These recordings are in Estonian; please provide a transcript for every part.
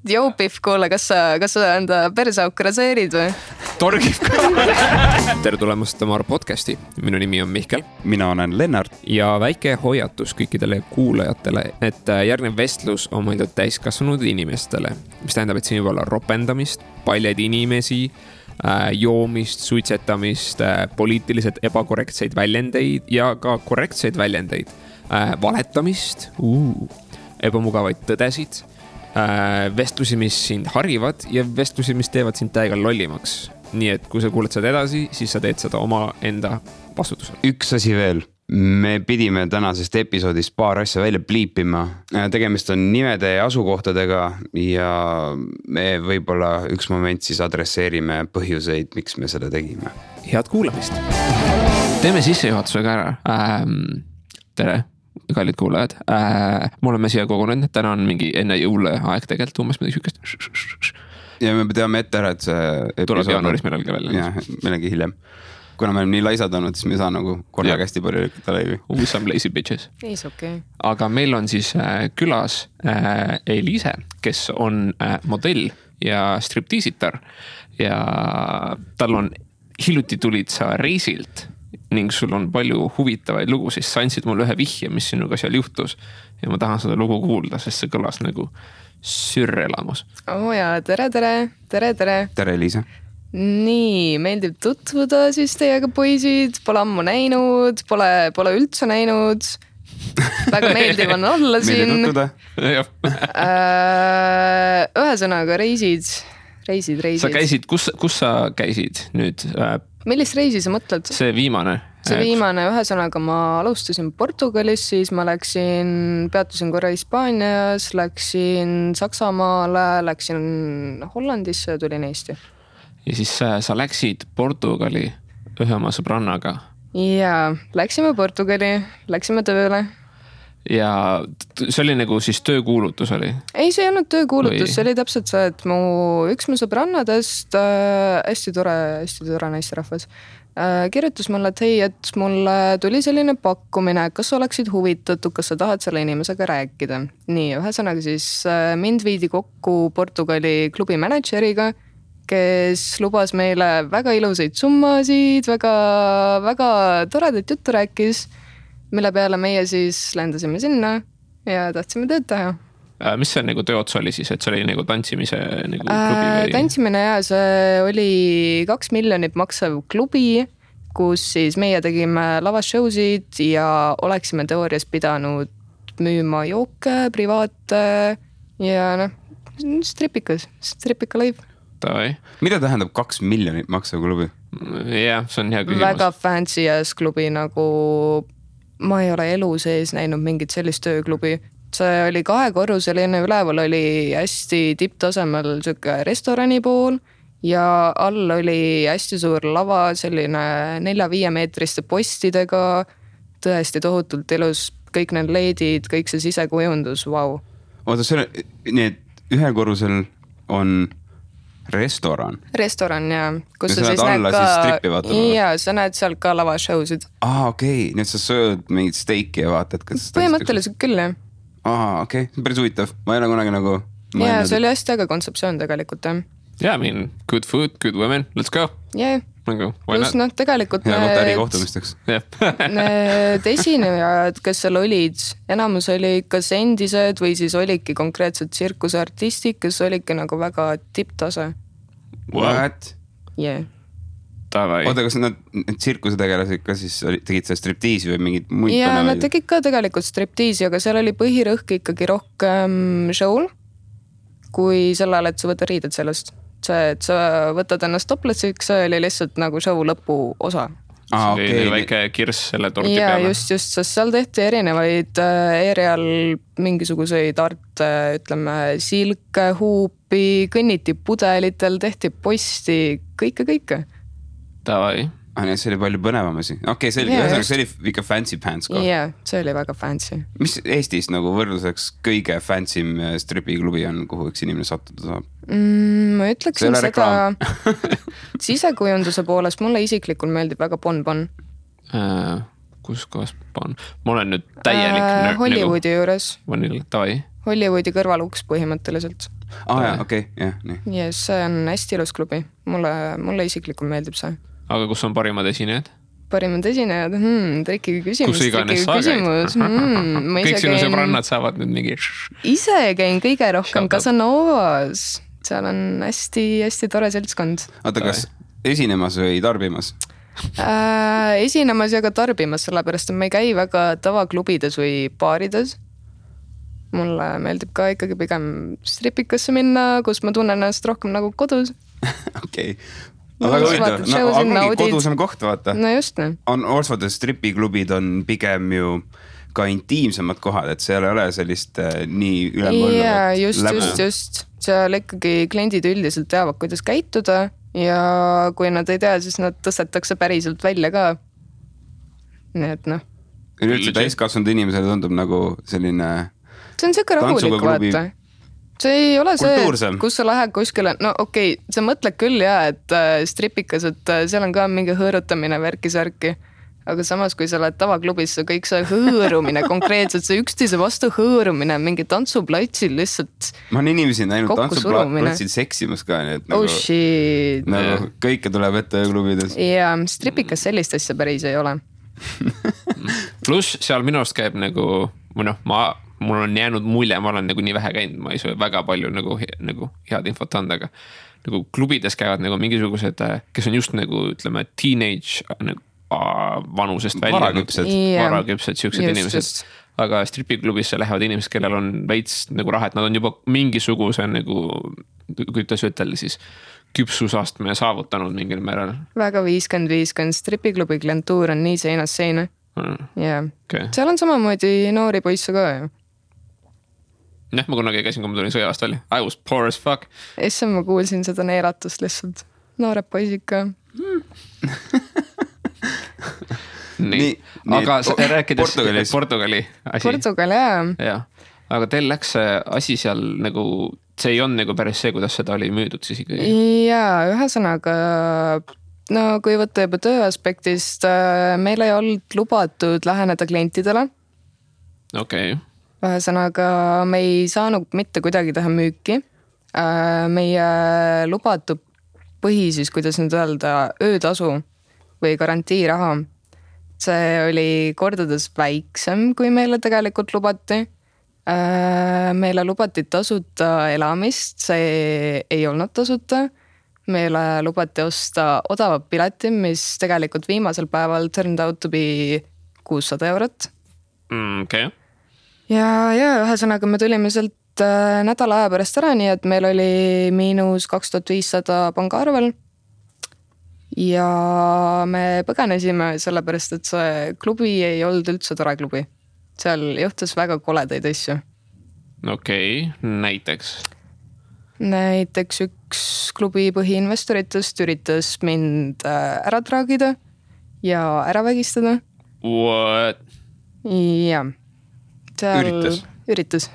Jou, Pihv, kuule, kas sa enda perseauku raseerid või? Torgib ka. Tere tulemast Tamar podcasti. Minu nimi on Mihkel. Mina olen Lennart. Ja väike hoiatus kõikidele kuulajatele, et järgnev vestlus on mõeldud täiskasvanud inimestele, mis tähendab, et siin võib olla ropendamist, paljad inimesi, joomist, suitsetamist, poliitiliselt ebakorrektseid väljendeid ja ka korrektseid väljendeid, valetamist, ebamugavaid tõdesid, vestlusi, mis sind harivad ja vestlusi, mis teevad sind täiega lollimaks. Nii et kui sa kuuled seda edasi, siis sa teed seda oma enda vastutusel. Üks asi veel. Me pidime tänasest episoodist paar asja välja pliipima. Tegemist on nimede ja asukohtadega ja me võib-olla üks moment siis adresseerime põhjuseid, miks me seda tegime. Head kuulamist. Teeme sissejuhatusega ära. Tere. Kallid kuulajad, me oleme siia kogunenud, täna on mingi enne jõule aeg tegelikult umbes midagi sükest. Ja me teame ette ära, et see tuleb jaanuaris millalgi välja. Jah, millalgi hiljem. Kuna me oleme nii laisad olnud, siis me ei saa nagu korraga hästi palju lükata laivi. Some lazy bitches. Okay. Aga meil on siis külas Eliise, kes on modell ja striptiisitar ja tal on hiljuti tulid sa reisilt ning sul on palju huvitavaid lugu, siis sa andsid mulle ühe vihje, mis sinuga seal juhtus ja ma tahan seda lugu kuulda, sest see kõlas nagu sürrelamus. Jaa, tere. Tere, Eliise. Nii, meeldib tutvuda siis teiega poisid, pole ammu näinud, pole üldse näinud. Väga meeldiv on olla siin. Meeldib tutvuda. Ühesõnaga reisid. Sa käisid, kus sa käisid nüüd? Millist reisi sa mõtled? See viimane. Ühesõnaga ma alustasin Portugalis, siis ma peatusin korra Hispaanias, läksin Saksamaale, läksin Hollandisse ja tulin Eesti. Ja siis sa läksid Portugali ühe oma sõbrannaga? Jaa, läksime Portugali, läksime tööle. Ja see oli nagu siis töökuulutus oli? Ei, see ei olnud töökuulutus, see oli täpselt see, et üks mu sõbrannadest, hästi tore naisterahvas, kirjutas mulle, et hei, et mulle tuli selline pakkumine, kas sa oleksid huvitatud, kas sa tahad selle inimesega rääkida. Nii, ühesõnaga siis mind viidi kokku Portugali klubi manažeriga, kes lubas meile väga ilusaid summasid, väga toredat juttu rääkis, mille peale meie siis lendasime sinna ja tahtsime tööd teha. Mis see nagu tööots oli siis, et see oli nagu tantsimise nagu klubi või? Tantsimine ja see oli 2 miljonit maksav klubi, kus siis meie tegime lavashowsid ja oleksime teoorias pidanud müüma jooke, privaate ja stripika live. Mida tähendab 2 miljonit maksav klubi? Jah, see on hea küsimus. Väga fancy ass klubi, nagu ma ei ole elu sees näinud mingit sellist tööklubi. See oli 2-korruseline, üleval oli hästi tipptasemel restorani pool ja all oli hästi suur lava, selline 4-5 meetriste postidega, tõesti tohutult ilus, kõik need leedid, kõik see sisekujundus, vau. Oota, need 1-korrusel on restoran, ja kus sa näed alla siis strippi vaatama? Ja sa näed seal ka lavashowsid. Okei, nüüd sa sööd mingit steiki ja vaatad, kas põhimõtteliselt küll, jah. Okei, päris huvitav. Ma ei ole kunagi nagu ja see oli hästi äge kontseptsioon tegelikult, jah. Yeah, I mean, good food, good women, let's go. Yeah. Plus tegelikult ärikohtumisteks. Need esinejad, kes seal olid, enamus oli kas endised või siis olidki konkreetselt tsirkuseartistid, kes olidki nagu väga tipptase. What? Yeah. Oota, kas nad tsirkusetegelasid ka siis tegid see striptiisi või mingid muid ja nad tegid ka tegelikult striptiisi, aga seal oli põhirõhk ikkagi rohkem show'l kui sellele, et sa võtad riided sellest. See, et sa võtad ennast toplessiks, see oli lihtsalt nagu show lõpu osa. See oli väike kirss selle torti peale. Ja just, sest seal tehti erinevaid aerial mingisuguseid arte, ütleme, silke, huupi, kõnniti pudelitel, tehti posti, kõike. Davai. See oli palju põnevamasi. Okei, see oli ikka fancy pants koht. Jah, see oli väga fancy. Mis Eestis nagu võrdluseks kõige fancy'm stripiklubi on, kuhu üks inimene sattuda saab? Ma ütleksin seda sisekujunduse poolest mulle isiklikult meeldib väga Bon. Kus kohas Bon? Ma olen nüüd täielik Hollywoodi juures. Davai. Hollywoodi kõrvaluks põhimõtteliselt. jaa, okei, jah, nii. Yes, see on hästi ilus klubi, mulle isiklikult meeldib see. Aga kus on parimad esinejad? Parimad esinejad, trikki küsimus. Kus iganes sa käid? Kõik sinu sõbrannad saavad nüüd mingi... Ise käin kõige rohkem Casanovas, seal on hästi tore seltskond. Oota, kas esinemas või tarbimas? Esinemas ja ka tarbimas, sellepärast et ma ei käi väga tavaklubides või baarides. Mulle meeldib ka ikkagi pigem stripikasse minna, kus ma tunnen ennast rohkem nagu kodus. Okei. Väga huvitav, ongi kodusem koht, vaata. No just, ne. Orsfordis stripiklubid on pigem ju ka intiimsemad kohad, et seal ei ole sellist nii ülemvolluvat läbu. Just. Seal ikkagi kliendid üldiselt teavad, kuidas käituda ja kui nad ei tea, siis nad tõstetakse päriselt välja ka. Nii et noh. Üleüldse täiskasvanud inimesele tundub nagu selline... See on siuke rahulik, vaata. See ei ole kultuursem. See, kus sa lähed kuskile, no okei, sa mõtled küll et stripikas, et seal on ka mingi hõõrutamine värki-särki. Aga samas, kui sa lähed tavaklubis, kõik see hõõrumine, konkreetselt see üksteise vastu hõõrumine, mingi tantsuplatsil lihtsalt. Ma olen inimesi näinud tantsuplatsil seksimas ka, nii et nagu, shit. Nagu kõike tuleb ette klubides. Ja stripikas sellist asja päris ei ole. Plus seal minu arust käib nagu, mul on jäänud mulje, ma olen nagu nii vähe käinud, ma ei saa väga palju nagu head infot anda, aga nagu klubides käivad nagu mingisugused, kes on just nagu, ütleme, teenage vanusest välja. Varaküpsed, siuksed inimesed. Aga stripiklubisse lähevad inimesed, kellel on veits nagu raha, et nad on juba mingisuguse nagu, kuidas ütelda siis, küpsusastme saavutanud mingil määral. Väga 50-50, stripiklubi klientuur on nii seinas seina. Okay. Seal on samamoodi noori poisse ka ju. Ma kunagi käisin, kui ma tulin sõjast välja. I was poor as fuck. Issa ma kuulsin seda neeratust lihtsalt. Noored poisid ka. Nii. Aga rääkides Portugali asi. Portugal, jah. Aga teil läks asi seal nagu, see ei on nagu päris see, kuidas seda oli müüdud siis ikkagi? Jaa, ühesõnaga, no kui võtta juba töö aspektist, meil ei olnud lubatud läheneda klientidele. Okei. Ühesõnaga, me ei saanud mitte kuidagi teha müüki. Meie lubatud siis, kuidas nüüd öelda, öötasu või garantiiraha. See oli kordades väiksem, kui meile tegelikult lubati. Meile lubati tasuta elamist, see ei olnud tasuta. Meile lubati osta odavat pileti, mis tegelikult viimasel päeval turned out to be 600 €. Okei. Ja ühesõnaga me tulime sealt nädala aja pärast ära, nii et meil oli -2500 pangaarvel. Ja me põgenesime sellepärast, et see klubi ei olnud üldse tore klubi. Seal juhtus väga koledaid asju. Okei, näiteks? Näiteks üks klubi põhiinvestoritest üritas mind ära traagida ja ära vägistada. What? Ja. Üritas.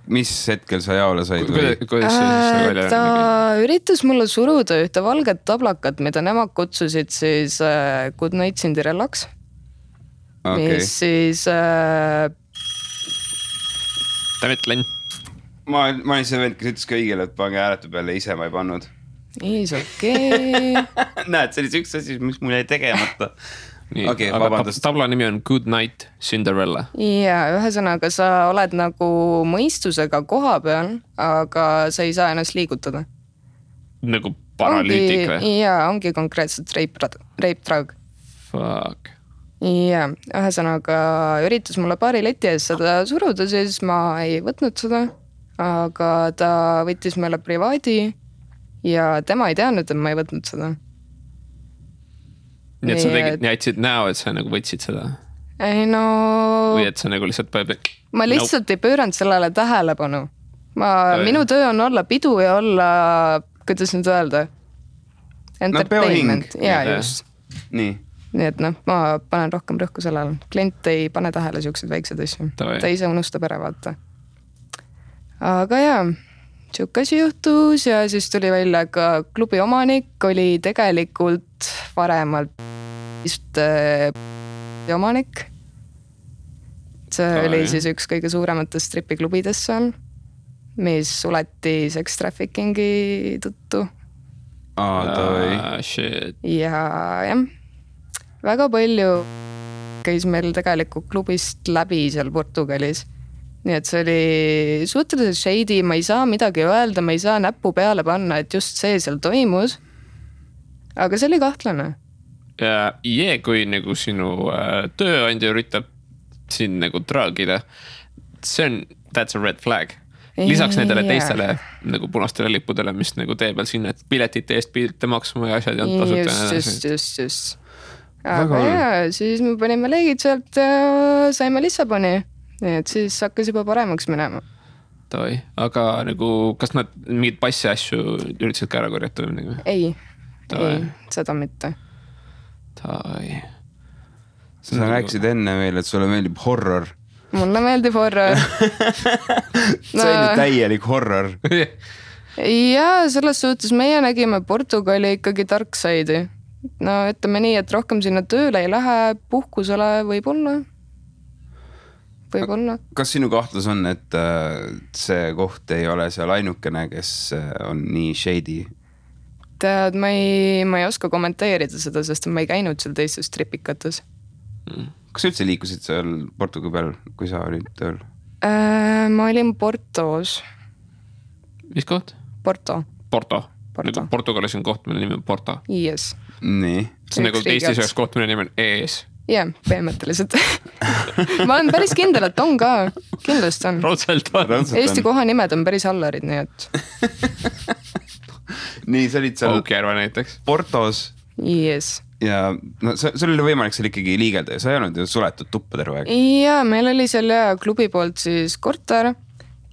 Mis hetkel sa jaole said? Ta üritas mulle suruda ühte valget tablakat, mida nemad kutsusid siis Good Night Cinderellaks. Okay. Mis siis... Tavetlen. Ma olin see vend, kes ütles kõigile, et pange hääletu peale, ise ma ei pannud. Is okei. Näed, see oli see üks asi, mis mul jäi tegemata. Okay, aga tabla nimi on Good Night Cinderella. Ja ühesõnaga sa oled nagu mõistusega koha peal, aga sa ei saa ennast liigutada. Nagu paralüütik või? Ja, ongi konkreetselt rape drug. Fuck. Ja, ühesõnaga üritas mulle paari leti ees seda suruda, siis ma ei võtnud seda, aga ta võttis meile privaadi ja tema ei teadnud, et ma ei võtnud seda. Nii et sa tegid, jätsid näo, et sa nagu võtsid seda? Ei no... Või et sa nagu lihtsalt... Ma lihtsalt ei pööranud sellele tähelepanu. Minu töö on olla pidu ja olla, kuidas nüüd öelda? Entertainment. Ja, just. Nii et ma panen rohkem rõhku sellele. Klient ei pane tähele siuksed väiksed asju. Ta ise unustab ära, vaata. Aga siuke asi juhtus ja siis tuli välja ka klubi omanik oli tegelikult varemalt omanik. See oli siis üks kõige suurematest stripiklubidest seal. mis suleti sex traffickingi tõttu. Shit. Ja jah, väga palju käis meil tegelikult klubist läbi seal Portugalis. Nii et see oli suhteliselt shady, ma ei saa midagi öelda, ma ei saa näppu peale panna, et just see seal toimus. Aga see oli kahtlane. Kui nagu sinu tööandja üritab siin nagu traagida, that's a red flag. Lisaks nendele teistele nagu punastele lippudele, mis nagu tee peal sinna, et piletite eest pidite maksma ja asjad ja tasuta. Just. Aga siis me panime leegid sealt ja saime Lissaboni. Nii et siis hakkas juba paremaks minema. Aga nagu, kas nad mingid passi asju üritasid ka ära korjata? Ei, seda mitte. Sa rääkisid enne veel, et sulle meeldib horror. Mulle meeldib horror. See oli täielik horror. Ja selles suhtes meie nägime Portugali ikkagi dark side'i. No ütleme nii, et rohkem sinna tööle ei lähe, puhkusele võib-olla. Kas sinu kahtlus on, et see koht ei ole seal ainukene, kes on nii shady? Tead, ma ei oska kommenteerida seda, sest ma ei käinud seal teistes tripikates. Kas sa üldse liikusid seal Portugali peal, kui sa olid tööl? Ma olin Portos. Mis koht? Porto. Nagu Portugalis on koht, mille nimi on Porto. Yes. Nii. See on nagu Eestis üheks koht, mille nimi on EES. Jah, põhimõtteliselt. Ma olen päris kindel, et on ka. Kindlust on. Raudselt on. Eesti kohanimed on päris hallarid, nii et. Nii, sa olid seal Aukjärve näiteks. Portos. Yes. Ja no, sul oli võimalik seal ikkagi liigelda ja sa ei olnud ju suletud tuppa terve aeg. Ja meil oli seal klubi poolt siis korter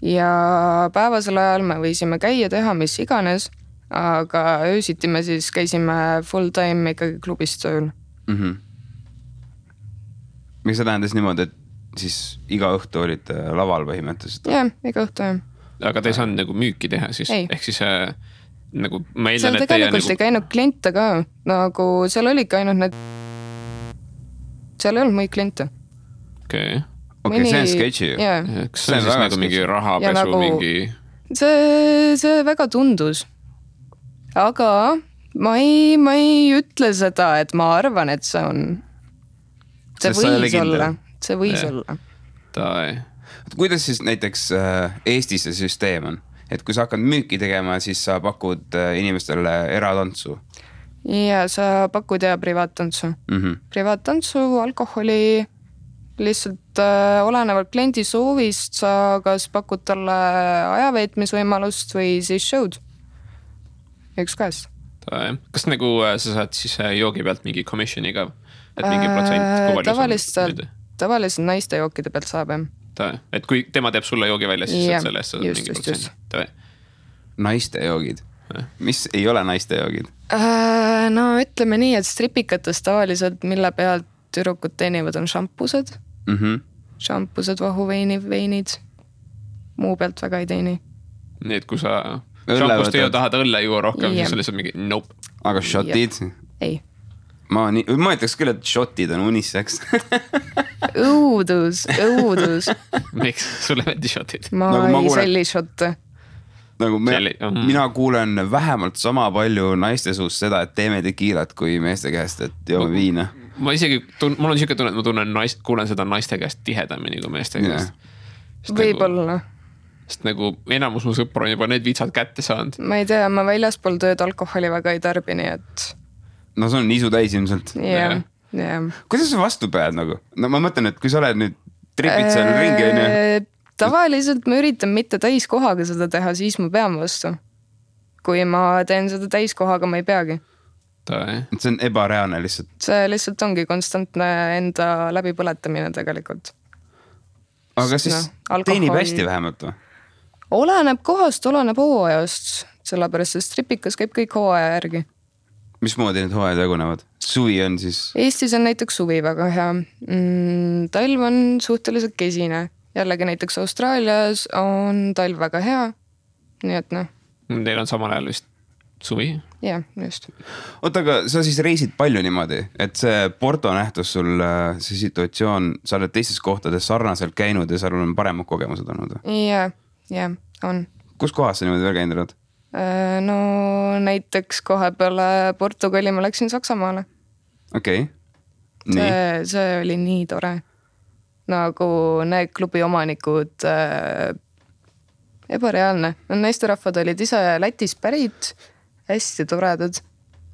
ja päevasel ajal me võisime käia teha mis iganes, aga öösiti me siis käisime full time ikkagi klubis tööl. Miks see tähendas niimoodi, et siis iga õhtu olid laval põhimõtteliselt? Jah, iga õhtu jah. Aga te ei saanud nagu müüki teha siis? Ei. Ehk siis nagu ma eeldan, seal et tegelikult ei käinud kliente ka. Nagu seal oligi ainult need... Seal ei olnud muid kliente. Okei, see on sketši ju. Kas see on siis nagu mingi rahapesu nagu... mingi... See väga tundus. Aga ma ei ütle seda, et ma arvan, et see on... See võis olla. Kuidas siis näiteks Eestis see süsteem on? Et kui sa hakkad müüki tegema, siis sa pakud inimestele eratantsu? Ja sa pakud privaattantsu. Privaattantsu, alkoholi, lihtsalt olenevalt kliendi soovist sa kas pakud talle ajaveetmisvõimalust või siis show'd. Üks käest. Kas nagu sa saad siis joogi pealt mingi commissioni ka? Et mingi protsent tavaliselt naiste jookide pealt saab et kui tema teeb sulle joogi välja, siis selle eest saad mingi protsent. Naiste joogid? Mis ei ole naiste joogid? No ütleme nii, et stripikates tavaliselt mille pealt türukud teenivad on šampused. Šampused, vahuveinid. Muu pealt väga ei teeni. Nii, et kui sa šampust ei tahad õlle juua rohkem, siis lihtsalt mingi nope. Aga šotid? Ei. Ma ütleks küll, et šotid on uniseks. Õudus. Miks? Sulle meeldi šotid? Ma ei selli šotte. Mina kuulen vähemalt sama palju naiste suust seda, et teeme tekiilat kui meeste käest, et joome viina. Mul on siuke tunne, et ma kuulen seda naiste käest tihedamini kui meeste käest. Võib-olla. Sest nagu enamus mu sõpru on juba need vitsad kätte saanud. Ma ei tea, ma väljaspool tööd alkoholi väga ei tarbini, et... No see on isu täis ilmselt. Jah. Kuidas sa vastu pead nagu? No ma mõtlen, et kui sa oled nüüd tripid seal ringi... Tavaliselt ma üritan mitte täiskohaga seda teha, siis ma pean vastu. Kui ma teen seda täiskohaga, ma ei peagi. See on ebareaalne lihtsalt. See lihtsalt ongi konstantne enda läbipõletamine tegelikult. Aga siis teenib hästi vähemalt või? Oleneb kohast, oleneb hooajast. Sellepärast, et stripikas käib kõik hooaja järgi. Mismoodi need hooajad jagunevad? Suvi on siis? Eestis on näiteks suvi väga hea. Talv on suhteliselt kesine. Jällegi näiteks Austraalias on talv väga hea. Nii et noh. Teil on samal ajal vist suvi? Jah, just. Oota, aga sa siis reisid palju niimoodi, et see Porto nähtus sul, see situatsioon, sa oled teistes kohtades sarnaselt käinud ja seal on paremad kogemused olnud? Jah, on. kus kohas sa niimoodi veel käinud oled? No näiteks kohe peale Portugali ma läksin Saksamaale. Okei. See oli nii tore. Nagu need klubi omanikud, ebareaalne. Naisterahvad olid ise Lätis pärit, hästi toredad.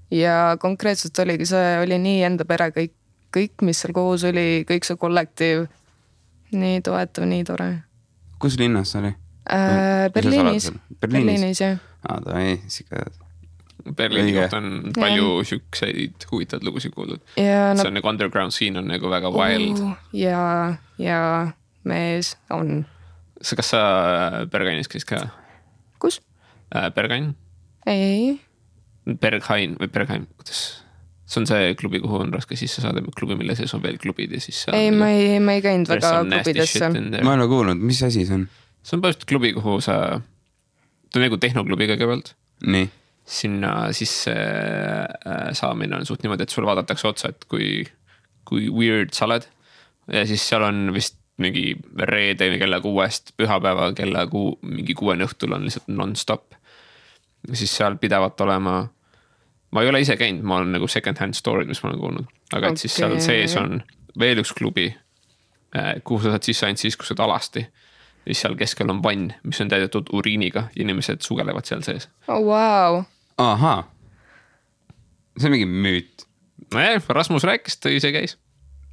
Ja konkreetselt oligi see, oli nii enda pere kõik, mis seal koos oli, kõik see kollektiiv. Nii toetav, nii tore. Kus linnas see oli? Berliinis, jah. Ta ei, siga... Berliini kohta on palju sükseid huvitavad lugusid kuuldud. See on nagu underground scene on nagu väga wild. Ja mees on. Kas sa Bergainis käis ka? Kus? Bergain? Ei. Berghain või Berghain, kuidas? See on see klubi, kuhu on raske sisse saada, klubi, mille sees on veel klubid ja siis... Ei, ma ei käinud väga klubidesse. Ma ei ole kuulnud, mis asi see on? See on põhimõtteliselt klubi, kuhu sa... Ta on nagu tehnoklubi kõigepealt. Nii. Sinna sisse saamine on suht niimoodi, et sul vaadatakse otsa, et kui weird sa oled. Ja siis seal on vist mingi reede kella 6 pühapäeva kella mingi 6 õhtul on lihtsalt non-stop. Ja siis seal pidevalt olema... Ma ei ole ise käinud, ma olen nagu second hand story'd, mis ma olen kuulnud. Aga et siis seal sees on veel üks klubi, kuhu sa saad sisse ainult siis, kus saad alasti. Ja siis seal keskel on vann, mis on täidetud uriiniga ja inimesed sugelevad seal sees. Oh, wow. Ahaa. See on mingi müüt. Rasmus rääkis, ta ise käis.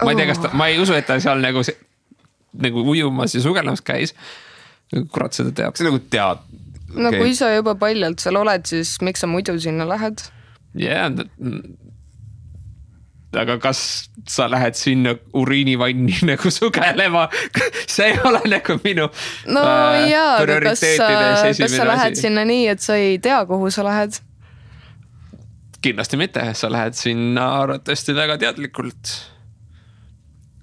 Ma ei tea, kas ma ei usu, et ta seal nagu ujumas ja sugelemas käis. Kurat seda teab. See nagu tead. No kui sa juba paljalt seal oled, siis miks sa muidu sinna lähed? Aga kas sa lähed sinna uriinivanni nagu sugelema? See ei ole nagu minu prioriteetide kas sa lähed sinna nii, et sa ei tea, kuhu sa lähed? Kindlasti mitte, sa lähed sinna arvatavasti väga teadlikult.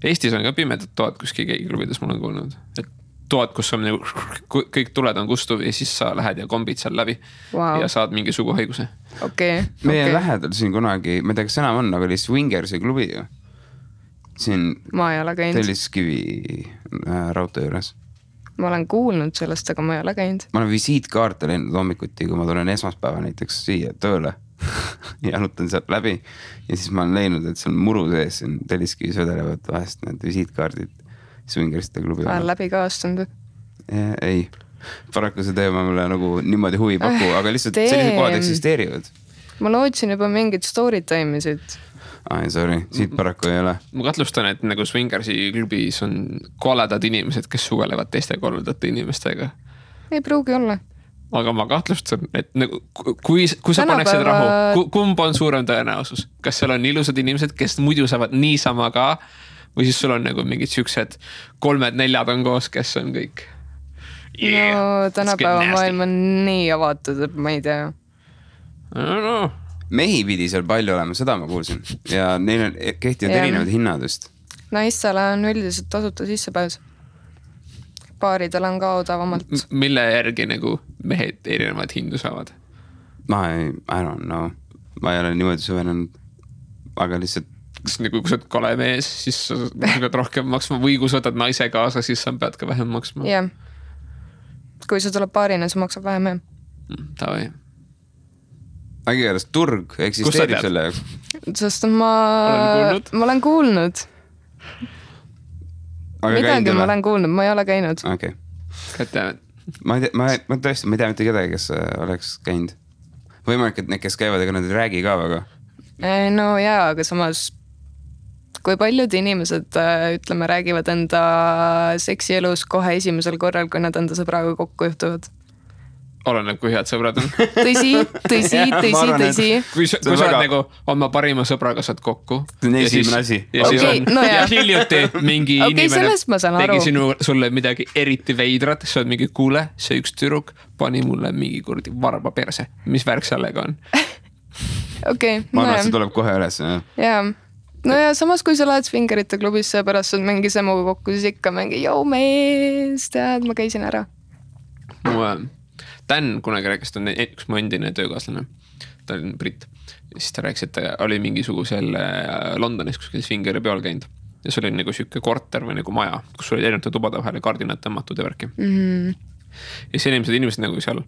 Eestis on ka pimedat toad kuskil keegiklubides, ma olen kuulnud. Et toad, kus on kõik tuled on kustuv ja siis sa lähed ja kombid seal läbi ja saad mingi suguhaiguse. Meie lähedal siin kunagi, ma ei tea, kas enam on, aga oli Swingersi klubi ju. Siin ma ei ole käinud. Telliskivi raudtee juures. Ma olen kuulnud sellest, aga ma ei ole käinud. Ma olen visiitkaarte läinud hommikuti, kui ma tulen esmaspäeva näiteks siia tööle ja jalutan sealt läbi ja siis ma olen leidnud, et seal muru sees siin Telliskivis vedelevad vahest need visiitkaardid Swingersite klubi. Olen läbi ka astunud. Ei, paraku see teema mulle nagu niimoodi huvi paku, aga lihtsalt sellised kohad eksisteerivad. Ma lootsin juba mingid story time'isid. Sorry, siit paraku ei ole. Ma katlustan, et nagu Swingersi klubis on koledad inimesed, kes sugelevad teiste koledate inimestega. Ei pruugi olla. Aga ma kahtlustan, et nagu, kui sa paneksid rahu, kumb on suurem tõenäosus? Kas seal on ilusad inimesed, kes muidu saavad niisama ka? Või siis sul on nagu mingid siuksed 3-4 on koos, kes on kõik. No tänapäeva maailm on nii avatud, et ma ei tea. No. Mehi pidi seal palju olema, seda ma kuulsin. Ja neil on kehtivad erinevad hinnadest. Naistele on üldiselt tasuta sissepääs. Baaridel on ka odavamalt. Mille järgi nagu mehed erinevad hindu saavad? I don't know. Ma ei ole niimoodi süvenenud. Aga lihtsalt kas nagu kui sa oled kole mees, siis sa pead rohkem maksma või kui sa võtad naise kaasa, siis sa pead ka vähem maksma. Jah. Kui sa tuleb paarina, sa maksab vähem. Tavai. Ägi järjest turg eksisteerib selle jaoks. Sest ma olen kuulnud. Midagi ma olen kuulnud, ma ei ole käinud. Okay. Ma tõesti, ma ei tea mitte kedagi, kes oleks käinud. Võimalik, et need, kes käivad, ega nad ei räägi ka väga. No jaa, aga samas kui paljud inimesed, ütleme, räägivad enda seksielus kohe esimesel korral, kui nad enda sõbraga kokku juhtuvad. Oleneb, kui head sõbrad on. Tõsi. Kui sa oled nagu oma parima sõbraga saad kokku. Esimene asi. Ja hiljuti mingi inimene tegi sulle midagi eriti veidrat, sa oled mingi kuule, see üks tüdruk pani mulle mingi kurdi varba perse. Mis värk sellega on? Ma arvan, et see tuleb kohe üles. Jaa. No ja samas, kui sa lähed Swingerite klubisse ja pärast saad mingi semuga kokku, siis ikka mingi, joo mees, tead, ma käisin ära. Dan kunagi rääkis, ta on üks mu endine töökaaslane, ta oli britt. Siis ta rääkis, et ta oli mingisugusel Londonis kuskil Swingeri peal käinud. Ja see oli nagu siuke korter või nagu maja, kus oli erinevate tubade vahele kardinad tõmmatud ja värki. ja siis inimesed nagu seal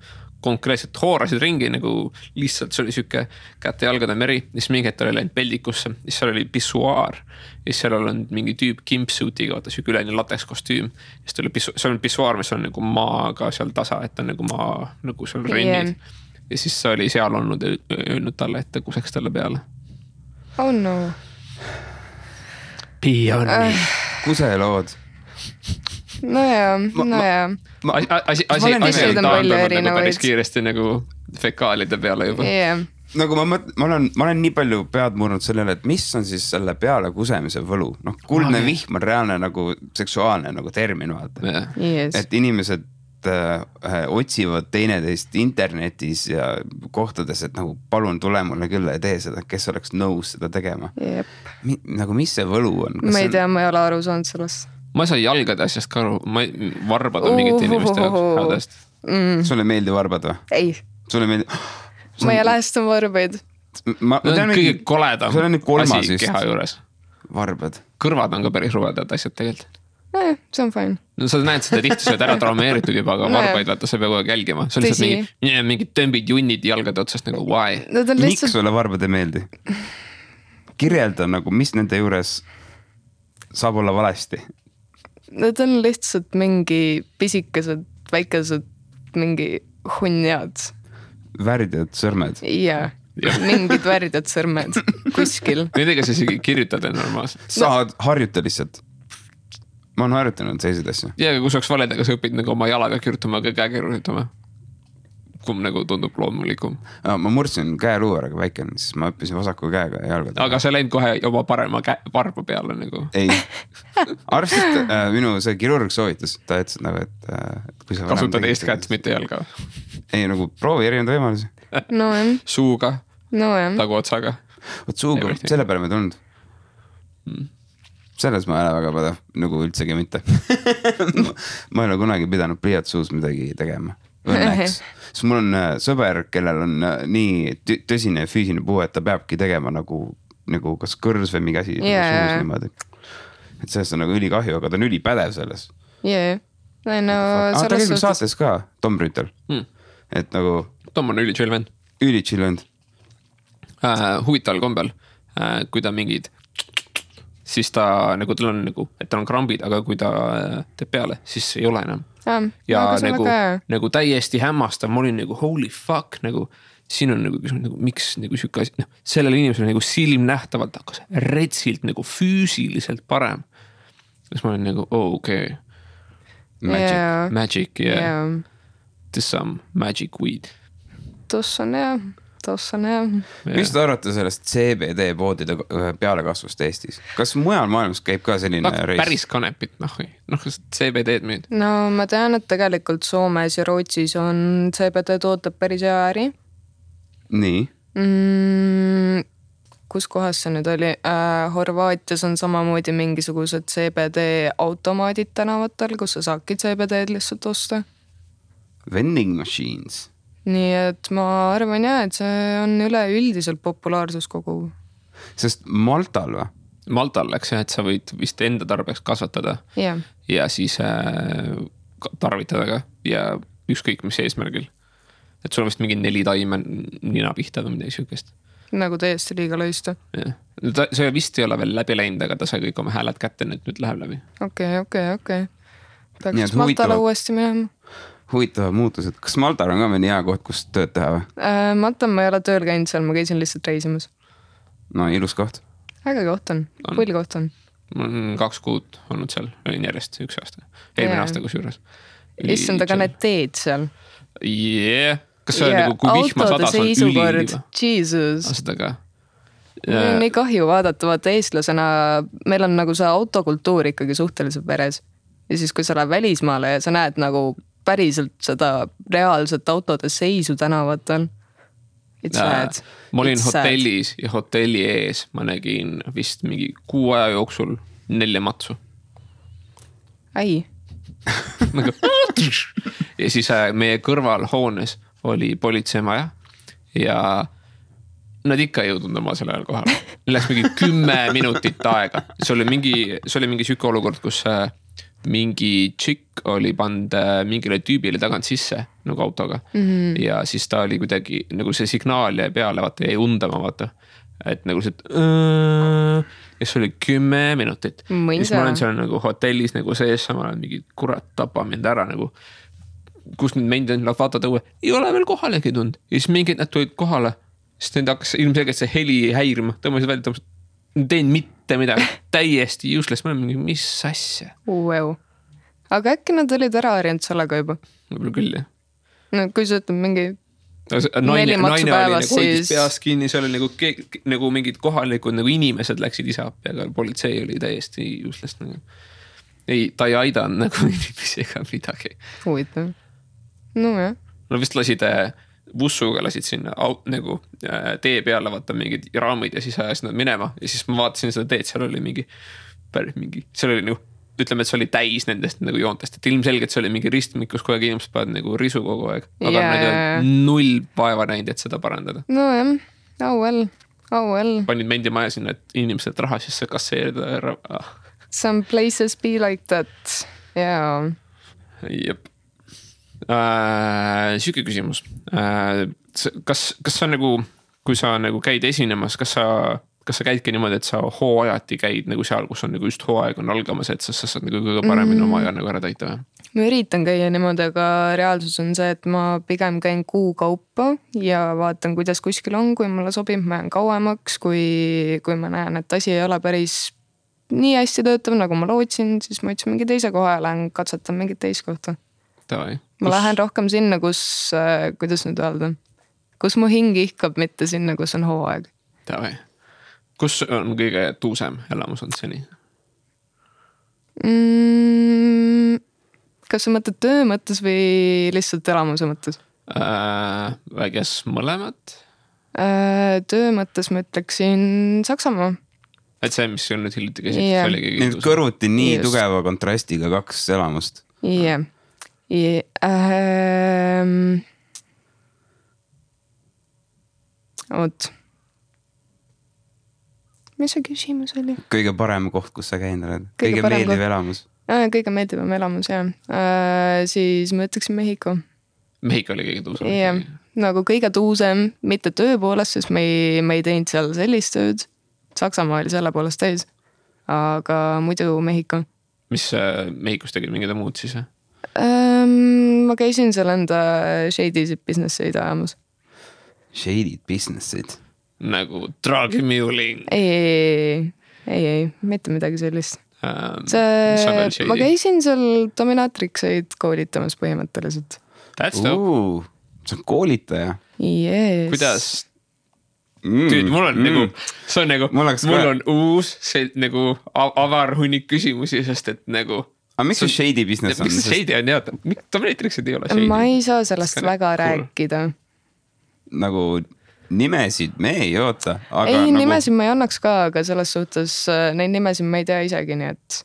konkreetselt hoorasid ringi nagu lihtsalt, see oli siuke käte jalgade meri, siis mingi hetk oli läinud peldikusse, siis seal oli pissuaar ja siis seal oli mingi tüüp kimpsuitiga, vaata siuke üleni lateks kostüüm. Siis tuli seal on pissuaar, mis on nagu maaga seal tasa, et on nagu maa, nagu seal rennid. Ja siis oli seal olnud öelnud talle, et kuseks talle peale. Oh no. Pee on me. Kuselood. Nojah. Asi taandanud päris kiiresti nagu fekaalide peale juba. Nagu ma olen nii palju pead murnud sellele, et mis on siis selle peale kusemise võlu. Noh, kuldne vihm on reaalne nagu seksuaalne nagu termin, vaata. Et inimesed otsivad teineteist internetis ja kohtades, et nagu palun tule mulle küll ja tee seda, kes oleks nõus seda tegema. Nagu mis see võlu on? Ma ei tea, ma ei ole aru saanud sellest. Ma ei saa jalgade asjast ka aru, varbad on mingit inimeste hädast. Sulle meeldi varbad või? Ei. Sulle meeldi? Ma ei lähestan varbaid. Kõige koledam asi keha juures. Varbad. Kõrvad on ka päris ruvedad asjad tegelikult. See on fine. No sa näed seda tihti, sa oled ära traumeeritud juba, aga varbaid vaata, sa peab kogu aeg jälgima. See on lihtsalt mingid tõmbid junnid jalgade otsast nagu why? Miks sulle varbad ei meeldi? Kirjelda nagu, mis nende juures saab olla valesti? Need on lihtsalt mingi pisikesed, väikesed, mingi hunniad. Väridad sõrmed. Jaa, mingid väridad sõrmed kuskil. Nendega sa isegi kirjutad normaalselt. Sa harjuta lihtsalt. Ma olen harjutanud selliseid asju. Ja kui saaks valedega, sa õpid nagu oma jalaga kirjutama, aga käe kirjutama. Kumb nagu tundub loomulikum. Ma murdsin käeluu ära, aga väike on, siis ma õppisin vasaku käega ja jalgada. Aga sa läinud kohe oma parema varba peale nagu? Ei. Arvestid, minu see kirurg soovitas, ta ütles nagu, et kui sa kasutad eest kätt, mitte jalga. Ei, nagu proovi erinevaid võimalusi. No jah. Suuga. No jah. Tagu otsaga. Võt suuga, selle peale me tulnud. Selles ma ei ole väga pädev, nagu üldsegi mitte. Ma ei ole kunagi pidanud pliiatsuus midagi tegema. Õnneks. Sest mul on sõber, kellel on nii tõsine füüsiline puue, et ta peabki tegema nagu kas kõrs või mingi asi suus niimoodi. Et sellest on nagu ülikahju, aga ta on ülipädev selles. Jee. Ta käib saates ka, Tom Rüütel. Et nagu... Tom on üli chill vend. Üli chill vend. Huvitaval kombel, kui ta mingid... siis ta nagu, tal on nagu, et tal on krambid, aga kui ta teeb peale, siis ei ole enam. Ja nagu täiesti hämmastav, ma olin nagu holy fuck, nagu siin on nagu, miks nagu siuke asi, sellele inimesele nagu silmnähtavalt hakkas retsilt nagu füüsiliselt parem. Siis ma olin nagu, okei. Magic, yeah. This some magic weed. Tossa on jah. Mis te arvate sellest CBD poodide pealekasvust Eestis? Kas mujal maailmas käib ka selline reis? Päris kanepit, CBD-d müüd. No ma tean, et tegelikult Soomes ja Rootsis on CBD tootab päris hea äri. Nii? Kus kohas see nüüd oli? Horvaatias on samamoodi mingisugused CBD automaadid tänavatel, kus sa saadki CBD-d lihtsalt osta. Vending machines. Nii et ma arvan jah, et see on üleüldiselt populaarsus kogu. Sest Maltal või? Maltal läks jah, et sa võid vist enda tarbeks kasvatada ja siis tarvitada ka ja ükskõik mis eesmärgil. Et sul on vist mingi 4 taime nina pihta või midagi siukest. Nagu täiesti liiga lõista. See vist ei ole veel läbi läinud, aga ta sai kõik oma hääled kätte, nüüd läheb läbi. Okei. Tahaks Maltale uuesti minema. Huvitavad muutused. Kas Maltal on ka mõni hea koht, kus tööd teha või? Maltal ma ei ole tööl käinud seal, ma käisin lihtsalt reisimas. No ilus koht. Äge koht on, pull koht on. Ma olen 2 kuud olnud seal, olin järjest 1 aasta. Eelmine aasta kus juures. Issand, aga need teed seal. Yeah. Kas see on nagu, kui vihma sadas on üliiliva? Jesus. Seda ka. Mul on nii kahju vaadata, vaata eestlasena, meil on nagu see autokultuur ikkagi suhteliselt veres. Ja siis, kui sa lähed välismaale ja sa näed nagu päriselt seda reaalset autode seisu tänavatel. Ma olin hotellis ja hotelli ees ma nägin vist mingi 6 aja jooksul 4 matsu. Ai. Ja siis meie kõrval hoones oli politseimaja ja nad ikka ei jõudnud oma selle ajal kohale. Läks mingi 10 minutit aega. See oli mingi siuke olukord, kus mingi tšikk oli pannud mingile tüübile tagant sisse nagu autoga ja siis ta oli kuidagi nagu see signaal jäi peale, vaata jäi undama, vaata. Et nagu see, ja see oli 10 minutit. Siis ma olen seal nagu hotellis nagu sees, samal ajal mingi kurat tapa mind ära nagu. Kus nüüd meid on, vaatad õue, ei ole veel kohalegi tund. Ja siis mingid nad tulid kohale, sest need hakkas ilmselgelt see heli häirima, tõmbasid välja, teen mitte midagi, täiesti useless, ma olen mingi, mis asja. Wow. Aga äkki nad olid ära harjanud sellega juba? Võib-olla küll, jah. No kui sa ütled mingi naine oli päevas, nagu hoidis peast kinni, see oli nagu mingid kohalikud nagu inimesed läksid ise appi, aga politsei oli täiesti useless nagu. Ei, ta ei aidanud nagu inimesi ega midagi. Huvitav. No jah. No vist lasid bussuga lasid sinna nagu tee peale vaata mingid raamid ja siis ajasid nad minema ja siis ma vaatasin seda teed, seal oli mingi seal oli nagu, ütleme, et see oli täis nendest nagu joontest, et ilmselgelt see oli mingi ristmik, kus kogu aeg inimesed peavad nagu risu kogu aeg, aga nad ei null vaeva näinud, et seda parandada. No jah, oh well. Panid mendimaja sinna, et inimesed raha sisse kasseerida. Some places be like that, yeah. Jep. Süüke küsimus. Kas sa nagu, kui sa nagu käid esinemas, kas sa käidki niimoodi, et sa hooajati käid nagu seal, kus on nagu just hooaeg on algamas, et sa saad nagu kõige paremini oma aja nagu ära täita või? Ma üritan käia niimoodi, aga reaalsus on see, et ma pigem käin kuu kaupa ja vaatan, kuidas kuskil on, kui mulle sobib, ma jään kauemaks, kui ma näen, et asi ei ole päris nii hästi töötav, nagu ma lootsin, siis ma ütlesin mingi teise koha ja lähen katsetan mingit teist kohta. Ma lähen rohkem sinna, kus, kuidas nüüd öelda, kus mu hing ihkab, mitte sinna, kus on hooaeg. Kus on kõige tuusem elamus on seni? Kas sa mõtled töö mõttes või lihtsalt elamuse mõttes? Väges mõlemad? Töö mõttes ma ütleksin Saksamaa. Et see, mis on nüüd hiljuti käsid? Nüüd kõrvuti nii just tugeva kontrastiga 2 elamust. Jah. Oot. Mis see küsimus oli? Kõige parem koht, kus sa käinud oled? Kõige meeldiv elamus? Kõige meeldivam elamus, jah. Siis ma ütleksin Mehhiko. Mehhiko oli kõige tuusem? Jah, nagu kõige tuusem, mitte töö poolest, sest me ei teinud seal sellist tööd. Saksamaa oli selle poolest täis. Aga muidu Mehhiko. Mis Mehhikos tegid mingid muud siis? Ma käisin seal enda shady businesseid ajamas. Shady businesseid? Nagu drugmuling? Ei, mitte midagi sellist. Ma käisin seal dominatrikseid koolitamas põhimõtteliselt. That's dope. See on koolitaja? Yes. Kuidas? Tüüd, mul on nagu, see on nagu, mul on uus see nagu avar hunnik küsimusi, sest et nagu aga miks see shady business on? Miks see shady on, jah? Dominatriksid ei ole shady? Ma ei saa sellest väga rääkida. Nagu nimesid me ei oota. Ei, nimesid ma ei annaks ka, aga selles suhtes neid nimesid ma ei tea isegi, nii et...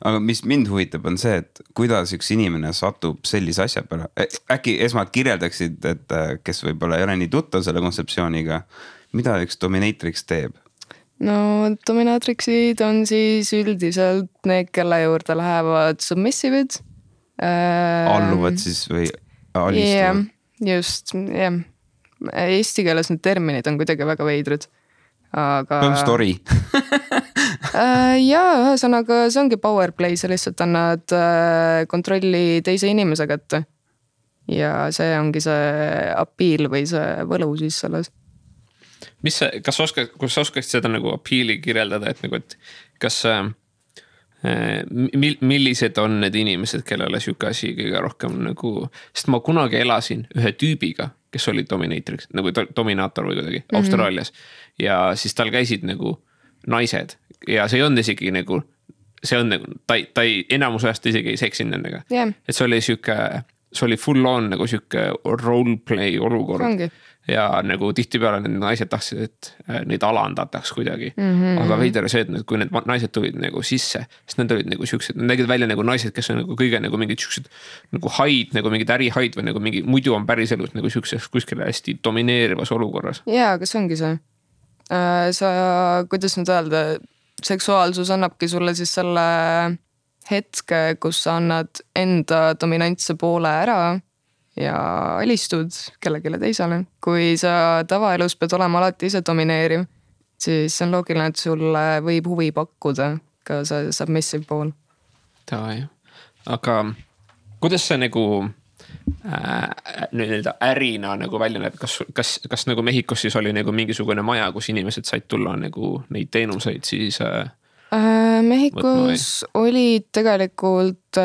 Aga mis mind huvitab on see, et kuidas üks inimene satub sellise asja peale. Äkki esmalt kirjeldaksid, et kes võib-olla ei ole nii tuttav selle kontseptsiooniga, mida üks dominatrix teeb? No dominatrixid on siis üldiselt need, kelle juurde lähevad submissivid. Alluvad siis või alistuvad? Just, jah. Eesti keeles need terminid on kuidagi väga veidrud. Aga... story. Jaa, ühesõnaga see ongi power play, sa lihtsalt annad kontrolli teise inimese kätte. Ja see ongi see appeal või see võlu siis selles. Kas sa oskaksid seda nagu appeali kirjeldada, et nagu, et kas millised on need inimesed, kellele siuke asi kõige rohkem nagu, sest ma kunagi elasin ühe tüübiga, kes oli dominatrix, nagu dominaator või kuidagi Austraalias ja siis tal käisid nagu naised ja see ei olnud isegi nagu, see on nagu, ta ei enamus ajast isegi ei seksinud nendega. Et see oli full on nagu siuke roleplay olukord. Ongi. Ja nagu tihtipeale need naised tahtsid, et neid alandataks kuidagi. Aga veider see, et kui need naised tulid nagu sisse, sest need olid nagu siuksed, need nägid välja nagu naised, kes on nagu kõige nagu mingid siuksed nagu haid, nagu mingid ärihaid või nagu mingi, muidu on päris elus nagu siukses kuskil hästi domineerivas olukorras. Jaa, aga see ongi see. Sa, kuidas nüüd öelda, seksuaalsus annabki sulle siis selle hetke, kus sa annad enda dominantse poole ära ja alistud kellelegi teisele. Kui sa tavaelus pead olema alati ise domineeriv, siis on loogiline, et sulle võib huvi pakkuda ka see submissive pool. Aga kuidas see nagu nii-öelda ärina nagu välja näeb, kas nagu Mehhikos siis oli nagu mingisugune maja, kus inimesed said tulla nagu neid teenuseid siis Mehhikos olid tegelikult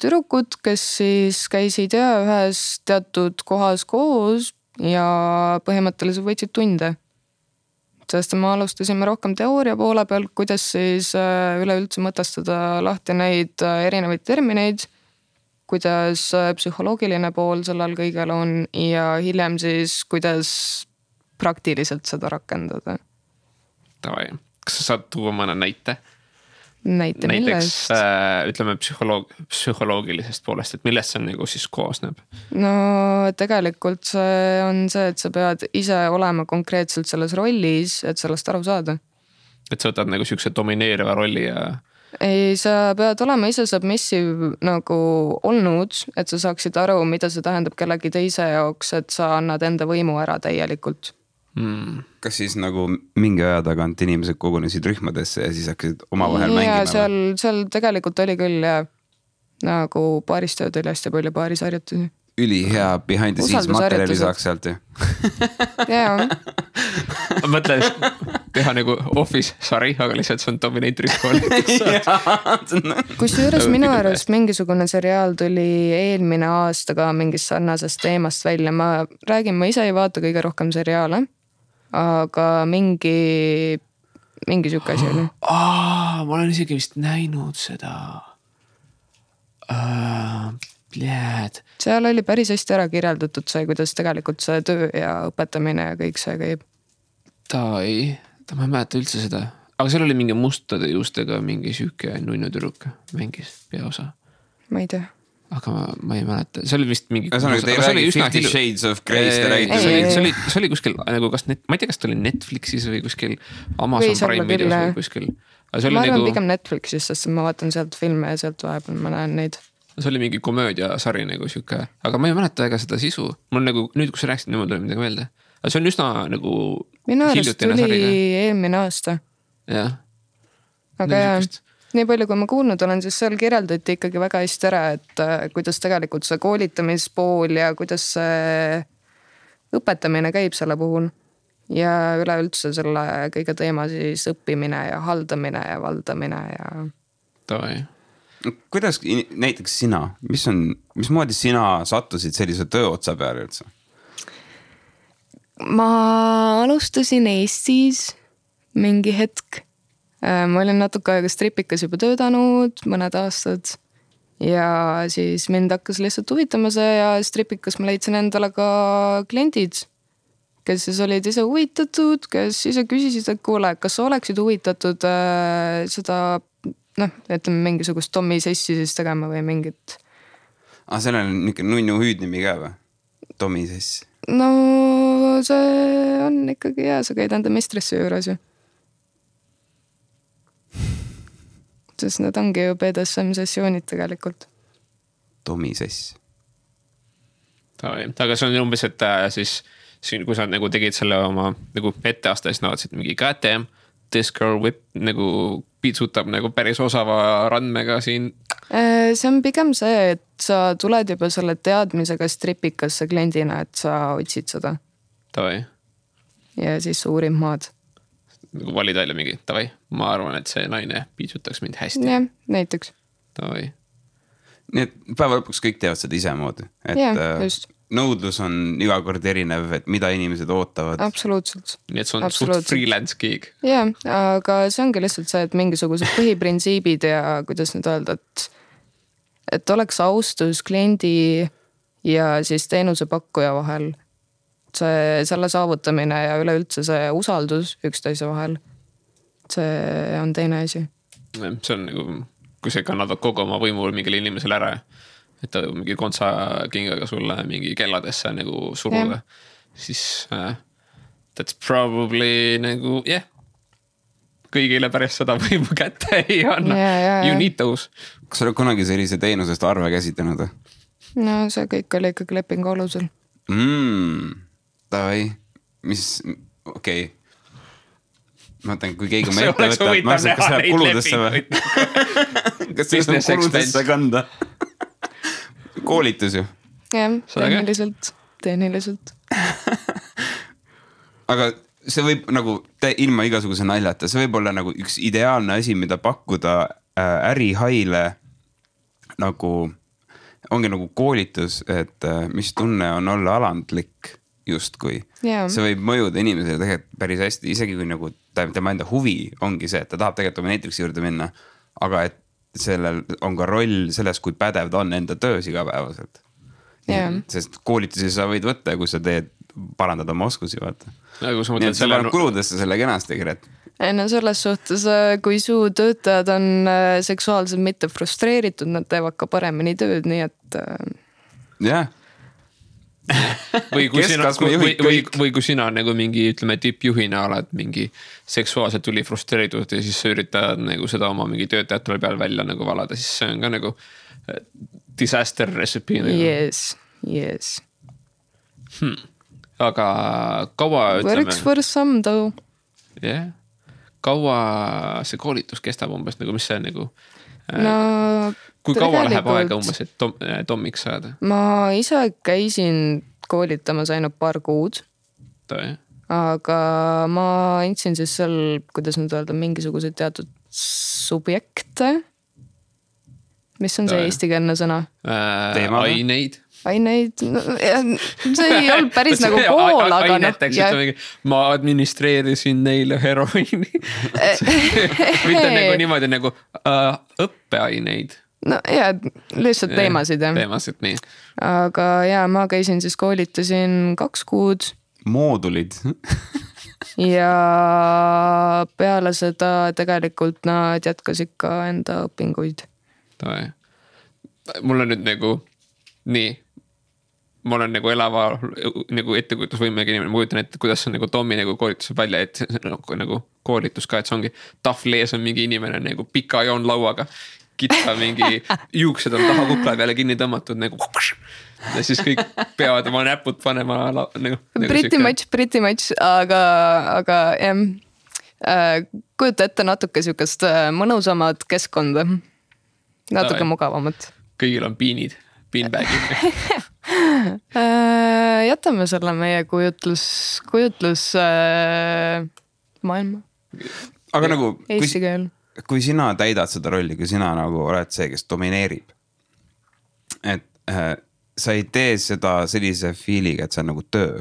tüdrukud, kes siis käisid ühes teatud kohas koos ja põhimõtteliselt võtsid tunde. Sest me alustasime rohkem teooria poole peal, kuidas siis üleüldse mõtestada lahti neid erinevaid termineid, kuidas psühholoogiline pool sellel kõigel on ja hiljem siis, kuidas praktiliselt seda rakendada. Kas sa saad tuua mõne näite? Näiteks ütleme psühholoogilisest poolest, et millest see nagu siis koosneb? No tegelikult see on see, et sa pead ise olema konkreetselt selles rollis, et sellest aru saada. Et sa võtad nagu siukse domineeriva rolli ja... Ei, sa pead olema ise submissive nagu olnud, et sa saaksid aru, mida see tähendab kellegi teise jaoks, et sa annad enda võimu ära täielikult. Kas siis nagu mingi aja tagant inimesed kogunesid rühmadesse ja siis hakkasid omavahel mängima? Ja seal tegelikult oli küll ja nagu paaristööd oli hästi palju paarisharjutusi. Ülihea behind the scenes materjali saaks sealt ju. Jaa. Ma mõtlen teha nagu Office sari, aga lihtsalt see on dominator'is kool. Kusjuures minu arust mingisugune seriaal tuli eelmine aasta ka mingist sarnasest teemast välja. Ma ise ei vaata kõige rohkem seriaale, aga mingi siuke asi oli. Ma olen isegi vist näinud seda. Seal oli päris hästi ära kirjeldatud see, kuidas tegelikult see töö ja õpetamine ja kõik see käib. Ma ei mäleta üldse seda. Aga seal oli mingi mustade juustega mingi süüke nunnu tüdruk mängis peaosa. Ma ei tea. Aga ma ei mäleta. See oli vist mingi... Te räägi 50 Shades of Grey's, te räägite. See oli kuskil, nagu ma ei tea, kas ta oli Netflixis või kuskil Amazon Prime videos või kuskil. Ma arvan pigem Netflixis, sest ma vaatan sealt filme ja sealt vahepeal ma näen neid. See oli mingi komöödiasari nagu siuke, aga ma ei mäleta ega seda sisu. Mul nagu, nüüd kui sa rääksid, nüüd tuli midagi meelde. Aga see on üsna nagu... Minu arust tuli eelmine aasta. Jah. Aga nii palju, kui ma kuulnud olen, siis seal kirjeldati ikkagi väga hästi ära, et kuidas tegelikult see koolitamispool ja kuidas see õpetamine käib selle puhul. Ja üleüldse selle kõige teema siis õppimine ja haldamine ja valdamine ja... Toi. Kuidas näiteks sina, mismoodi sina sattusid sellise töö otsa peale üldse? Ma alustasin Eestis mingi hetk. Ma olin natuke aega stripikas juba töötanud, mõned aastad. Ja siis mind hakkas lihtsalt huvitama see ja stripikas ma leidsin endale ka kliendid, kes siis olid ise huvitatud, kes ise küsisid, et kuule, kas sa oleksid huvitatud seda... ütleme mingisugust Tommy sessi siis tegema või mingit. Seal on niisugune nunnu hüüdnimi ka või? Tommy sess. No see on ikkagi hea, sa käid enda mistressi juures ju. Sest need ongi ju BDSM sessioonid tegelikult. Tommy sess. Aga see on umbes, et siis kui sa nagu tegid selle oma nagu etteaasta, siis naadsid mingi goddamn, this girl whip nagu piitsutab nagu päris osava randmega siin. See on pigem see, et sa tuled juba selle teadmisega stripikasse kliendina, et sa otsid seda. Tavai. Ja siis uurid maad. Nagu valid välja mingi, tavai, ma arvan, et see naine piitsutaks mind hästi. Jah, näiteks. Tavai. Nii et päeva lõpuks kõik teevad seda ise moodi. Jah, just. Nõudlus on iga kord erinev, et mida inimesed ootavad. Absoluutselt. Nii et see on suht freelance gig. Jah, aga see ongi lihtsalt see, et mingisugused põhiprintsiibid ja kuidas nüüd öelda, et oleks austus kliendi ja siis teenusepakkuja vahel. Selle saavutamine ja üleüldse see usaldus üksteise vahel. See on teine asi. See on nagu, kui sa kannad kogu oma võimul mingile inimesele ära, et ta mingi kontsa kingaga sulle mingi kelladesse nagu suruda, siis that's probably nagu, kõigile pärast seda võimu kätte ei anna. You need those. Kas sa oled kunagi sellise teenusest arve käsitlenud? No see kõik oli ikkagi lepingu alusel. Davai, mis, okei. Ma mõtlen, kui keegi ma ette võtta, ma arvan, kas läheb kuludesse või? Kas see on kuludesse kanda? Koolitus ju. Jah, tehniliselt. Aga see võib nagu ilma igasuguse naljata, see võib olla nagu üks ideaalne asi, mida pakkuda ärihaile nagu, ongi nagu koolitus, et mis tunne on olla alandlik justkui. See võib mõjuda inimesele tegelikult päris hästi, isegi kui nagu tema enda huvi ongi see, et ta tahab tegelikult dominatriksi juurde minna, aga et sellel on ka roll selles, kui pädev ta on enda töös igapäevaselt. Sest koolitusi sa võid võtta, kui sa teed parandada oma oskusi, vaata. Nii et sa paned kuludesse selle kenasti, Gret. No selles suhtes, kui su töötajad on seksuaalselt mitte frustreeritud, nad teevad ka paremini tööd, nii et... Jah. Või kui sina nagu mingi, ütleme, tippjuhina oled mingi seksuaalselt tuli frustreeritud ja siis sa üritad nagu seda oma mingi töötajatele peal välja nagu valada, siis see on ka nagu disaster recipe. Yes. Aga kaua ütleme... Works for some though. Yeah. Kaua see koolitus kestab umbes, nagu mis see nagu... No, kui kaua läheb aega umbes, et Tomiks saada? Ma ise käisin koolitamas ainult paar kuud. Aga ma andsin siis seal, kuidas nüüd öelda, mingisugused teatud subjekte. Mis on see eestikeelne sõna? Aineid, no, see ei olnud päris nagu pool, aga ma administreerisin neile heroiini. Mitte nagu niimoodi nagu õppeaineid. No ja, lihtsalt teemasid. Teemasid, nii. Aga ja, ma käisin siis koolitasin 2 kuud. Moodulid. Ja peale seda tegelikult nad jätkas ikka enda õpinguid. Mul on nüüd nagu nii, ma olen nagu elava nagu ettekujutusvõimega inimene, ma kujutan ette, kuidas on nagu Tommi nagu koolitus välja, et nagu koolitus ka, et see ongi tahvlees on mingi inimene nagu pika joon lauaga, kitsa mingi juuksed on taha kukla peale kinni tõmmatud nagu ja siis kõik peavad oma näpud panema nagu pretty much, aga kujuta ette natuke sükast mõnusamad keskkonda, natuke mugavamat. Kõigil on piinid. Beanbagid. Jätame selle meie kujutlus maailma. Aga nagu, kui sina täidad seda rolli, kui sina nagu oled see, kes domineerib, et sa ei tee seda sellise feeliga, et see on nagu töö.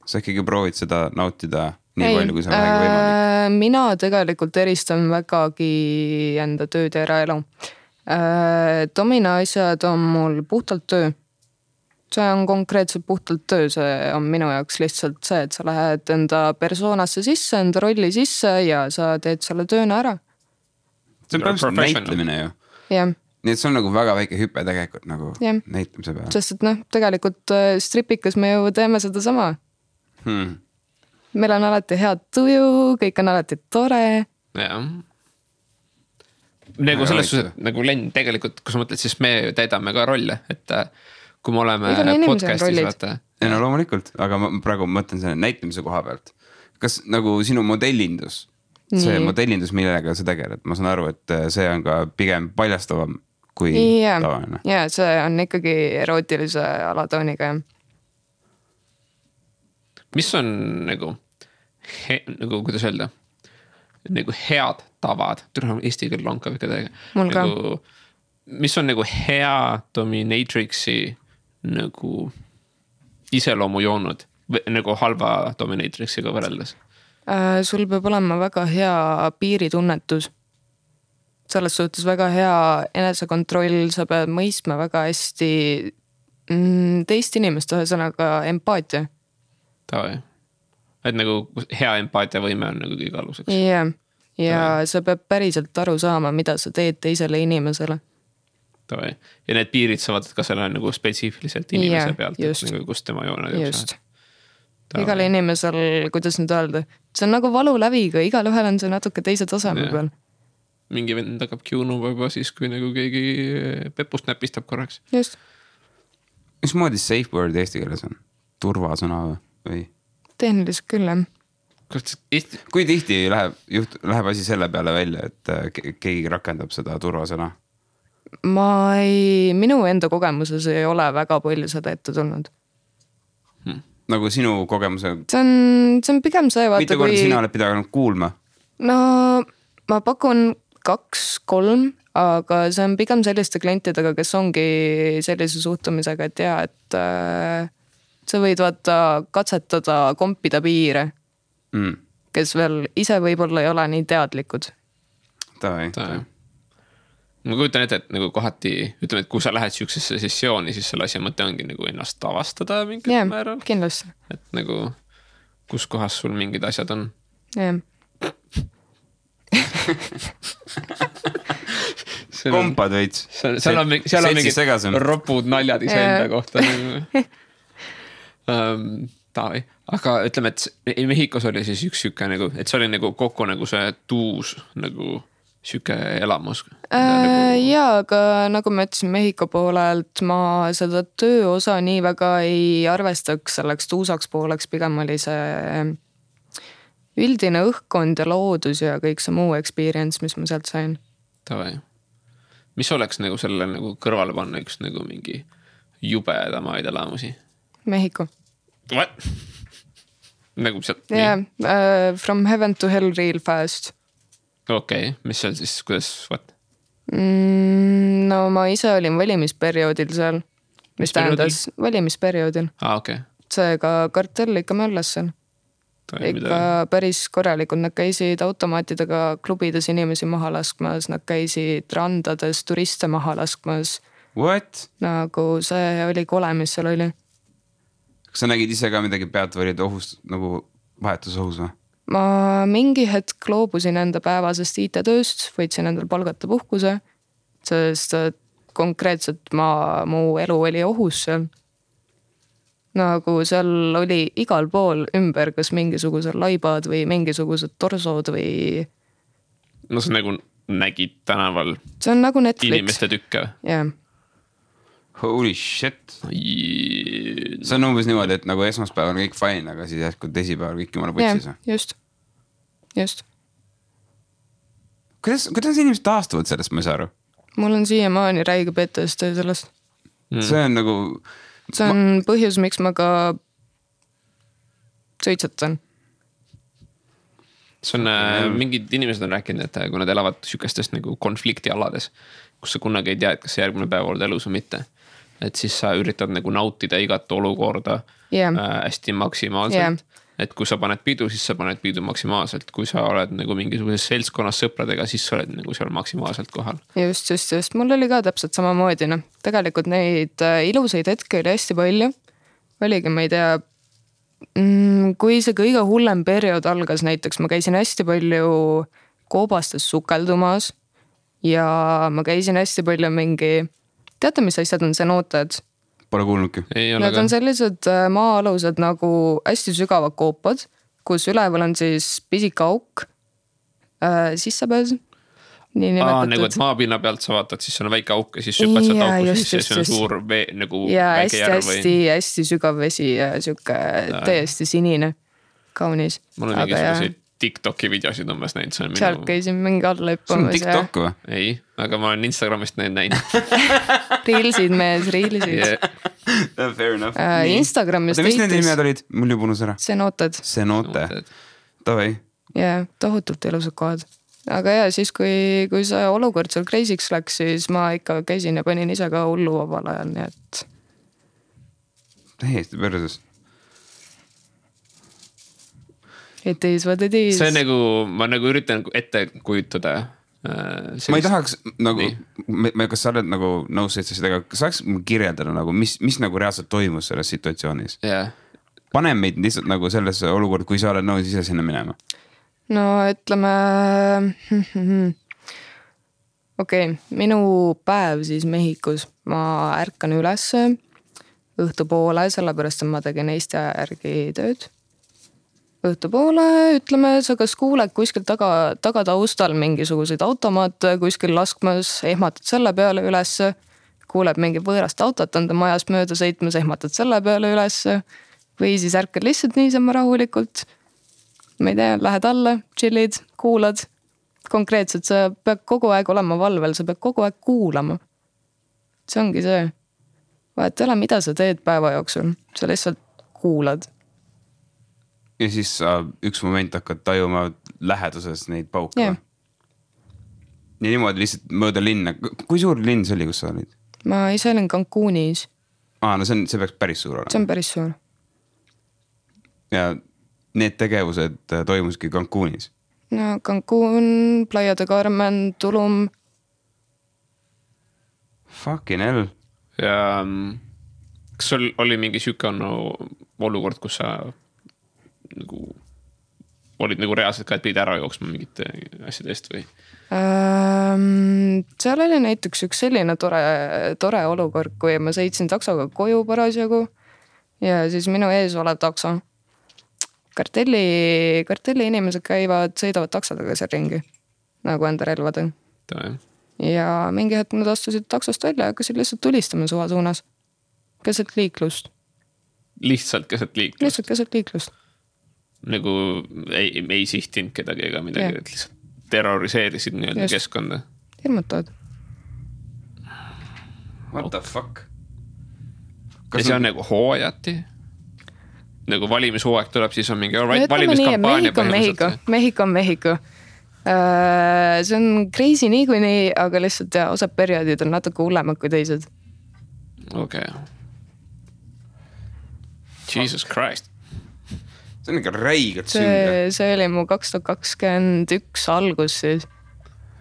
Sa ikkagi proovid seda nautida nii palju, kui see on väga võimalik. Mina tegelikult eristan vägagi enda tööd ja eraelu. Domina asjad on mul puhtalt töö. See on konkreetselt puhtalt töö, see on minu jaoks lihtsalt see, et sa lähed enda persoonasse sisse, enda rolli sisse ja sa teed selle tööna ära. See on praegu näitlemine ju. Jah. Nii et see on nagu väga väike hüpe tegelikult nagu näitlemise peale. Sest et tegelikult stripikas me ju teeme seda sama. Meil on alati head tuju, kõik on alati tore. Jah. Nagu selles suhtes, nagu Len, tegelikult, kui sa mõtled, siis me täidame ka rolle, et kui me oleme podcastis, vaata. Ja no loomulikult, aga ma praegu mõtlen selle näitlemise koha pealt. Kas nagu sinu modellindus, see modellindus, millega sa tegeled, ma saan aru, et see on ka pigem paljastavam kui tavaline. Ja see on ikkagi erootilise alatooniga. Mis on nagu kuidas öelda, nagu head tavad, eesti keel on ka ikka täiega. Mul ka. Mis on nagu hea dominatrixi nagu iseloomu joonud, nagu halva dominatrixiga võrreldes? Sul peab olema väga hea piiritunnetus. Selles suhtes väga hea enesekontroll, sa pead mõistma väga hästi teist inimest, ühesõnaga empaatia. Et nagu hea empaatia võime on nagu kõige aluseks. Jah. Ja sa peab päriselt aru saama, mida sa teed teisele inimesele. Ja need piirid saavad ka selle nagu spetsiifiliselt inimese pealt, et nagu kus tema jooned just. igal inimesel, kuidas nüüd öelda, see on nagu valuläviga, igal ühel on see natuke teise taseme peal. Mingi vend hakkab kiunuma juba siis, kui nagu keegi pepust näpistab korraks. Just. Mismoodi safe word eesti keeles on? Turvasõna või? Tehniliselt küll, jah. Kui tihti läheb asi selle peale välja, et keegi rakendab seda turvasõna? Minu enda kogemuses ei ole väga palju seda ette tulnud. Nagu sinu kogemuse? See on pigem see, vaata mitu korda sina oled pidanud kuulma? No ma pakun 2-3, aga see on pigem selliste klientidega, kes ongi sellise suhtumisega, et jaa, et sa võid vaata katsetada kompida piire, kes veel ise võib-olla ei ole nii teadlikud. Tavai. Ma kujutan ette, et nagu kohati, ütleme, et kui sa lähed siuksesse sessiooni, siis selle asja mõte ongi nagu ennast avastada mingil määral. Kindlasti. Et nagu, kus kohas sul mingid asjad on. Jah. Kompad veits. Seal on mingid ropud naljad iseenda kohta. Taavi. Aga ütleme, et Mehhikos oli siis üks süke nagu, et see oli nagu kokku nagu see tuus nagu süke elamus. Jaa, aga nagu ma ütlesin Mehhiko poolelt, ma seda tööosa nii väga ei arvestaks selleks tuusaks pooleks, pigem oli see üldine õhkkond ja loodus ja kõik see muu experience, mis ma sealt sain. Tavai. Mis oleks nagu selle nagu kõrvale panna üks nagu mingi jubedamaid elamusi? Mehhiko. What? Nagu sealt? Yeah, from heaven to hell real fast. Okei, mis seal siis, kuidas, what? No ma ise olin valimisperioodil seal. Mis tähendas? Valimisperioodil. Okay. Seega kartell ikka möllas seal. Ikka päris korralikult, nad käisid automaatidega klubides inimesi maha laskmas, nad käisid randades turiste maha laskmas. What? Nagu see oli kole, mis seal oli. Kas sa nägid ise ka midagi pealtvalide ohust, nagu vahetusohus või? Ma mingi hetk loobusin enda päevasest IT-tööst, võitsin endal palgata puhkuse, sest konkreetselt mu elu oli ohus seal. Nagu seal oli igal pool ümber, kas mingisugused laibad või mingisugused torsod või... No sa nagu nägid tänaval see on nagu Netflix. Inimeste tükke. Yeah. Holy shit. See on umbes niimoodi, et nagu esmaspäev on kõik fine, aga siis jätkub teisipäeval kõik jumala putsis. Just. Kuidas inimesed taastuvad sellest, ma ei saa aru? Mul on siiamaani räige PTSD sellest. See on nagu... See on põhjus, miks ma ka suitsetan. See on, mingid inimesed on rääkinud, et kui nad elavad sükestest nagu konfliktialades, kus sa kunagi ei tea, et kas see järgmine päev oled elus või mitte. Et siis sa üritad nagu nautida igat olukorda hästi maksimaalselt. Et kui sa paned pidu, siis sa paned pidu maksimaalselt. Kui sa oled nagu mingisuguses seltskonnas sõpradega, siis sa oled nagu seal maksimaalselt kohal. Just. Mul oli ka täpselt samamoodi. No. Tegelikult neid ilusaid hetke oli hästi palju. Oligi, ma ei tea, kui see kõige hullem periood algas, näiteks ma käisin hästi palju koobastes sukeldumas ja ma käisin hästi palju mingi, teate, mis asjad on cenootad? Pole kuulnudki. Need on sellised maa-alused nagu hästi sügavad koopad, kus üleval on siis pisik auk, sissepääs. Nagu et maapinna pealt sa vaatad, siis on väike auk ja siis süppad sealt auku, siis see on suur vee, nagu väike järv või? Hästi sügav vesi ja siuke täiesti sinine, kaunis. Mul on mingisugused TikToki videosid umbes näinud. Sealt käisin mingi alla hüppamas. See on TikTok või? Ei, aga ma olen Instagramist näinud. Reelsid mees, reelsid. Yeah. Fair enough. Instagramis mis need nimed olid? Mul juba unus ära. Cenootad. Tavai. Jaa, tohutult ilusad kohad. Aga jaa, siis kui see olukord seal kreisiks läks, siis ma ikka käisin ja panin ise ka hullu vabal ajal, nii et... Täiesti perses. It is what it is. See nagu, ma nagu üritan ette kujutada. Ma ei tahaks nagu, kas sa oled nagu nõus seda, kas saaks kirjeldada nagu, mis nagu reaalselt toimus selles situatsioonis? Yeah. Pane meid lihtsalt nagu sellesse olukord, kui sa oled nõus ise sinna minema. No ütleme, okei, minu päev siis Mehhikos, ma ärkan üles õhtupoole, sellepärast et ma tegin Eesti järgi tööd õhtupoole, ütleme, sa kas kuuled kuskil taga taustal mingisuguseid automaate kuskil laskmas, ehmatad selle peale ülesse, kuuled mingi võõrast autot enda majast mööda sõitmas, ehmatad selle peale ülesse või siis ärkad lihtsalt niisama rahulikult. Ma ei tea, lähed alla, chillid, kuulad. Konkreetselt sa pead kogu aeg olema valvel, sa pead kogu aeg kuulama. See ongi see. Vahet ei ole, mida sa teed päeva jooksul, sa lihtsalt kuulad. Ja siis sa üks moment hakkad tajuma läheduses neid pauke. Yeah. Ja niimoodi lihtsalt mööda linna. Kui suur linn see oli, kus sa olid? Ma ise olin Cancunis. No see peaks päris suur olema. See on päris suur. Ja need tegevused toimuski Cancunis? No Cancun, Playa de Carmen, Tulum. Fucking hell. Ja kas sul oli mingi süüke olukord, kus sa nagu olid nagu reaalselt ka, et pidid ära jooksma mingite asjadest või? Seal oli näiteks üks selline tore olukord, kui ma sõitsin taksoga koju parasjagu ja siis minu ees olev takso. Kartelli inimesed sõidavad taksodega seal ringi, nagu enda relvade. Ja mingi hetk nad astusid taksost välja ja hakkasid lihtsalt tulistama suva suunas. Keset liiklust. Lihtsalt keset liiklust? Nagu ei sihtinud kedagi ega midagi, et lihtsalt terroriseerisid nii-öelda keskkonda. Hirmutavad. What the fuck? Ja see on nagu hooajati? Nagu valimishooaeg tuleb, siis on mingi valimiskampaania põhimõtteliselt. Mehhiko. See on crazy niikuinii, aga lihtsalt osad perioodid on natuke hullemad kui teised. Okay. Jesus Christ. See on ikka räigelt sünge. See oli mu 2021 algus siis.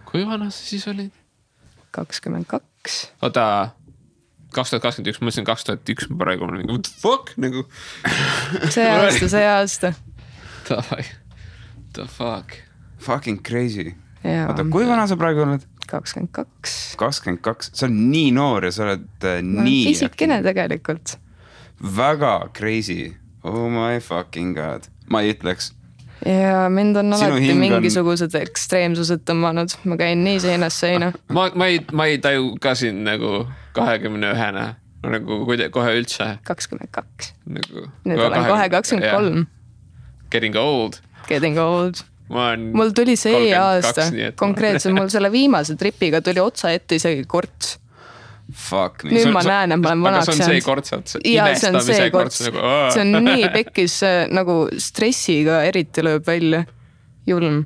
Kui vana sa siis olid? 22. Oota, 2021, ma mõtlesin 2001, ma praegu olen what the fuck? Nagu... See aasta. The fuck? Fucking crazy. Oota, kui vana sa praegu oled? 22. 22, sa oled nii noor ja sa oled nii... Fisikene tegelikult. Väga crazy. Oh my fucking god. Ma ei ütleks. Ja mind on alati mingisugused ekstreemsused tõmmanud. Ma käin nii seinast seina. Ma ei taju ka siin nagu 21-na. Nagu kohe üldse. 22. Nagu, nüüd olen kohe 23. Getting old. Mul tuli see aasta. Konkreetselt mul selle viimase tripiga tuli otsa ette isegi korts. Fuck me. Nüüd ma näen, et ma olen vanaks. Aga see on see kortsad? Ja see on see korts. See on nii pekkis nagu stressiga eriti lööb välja. Julm.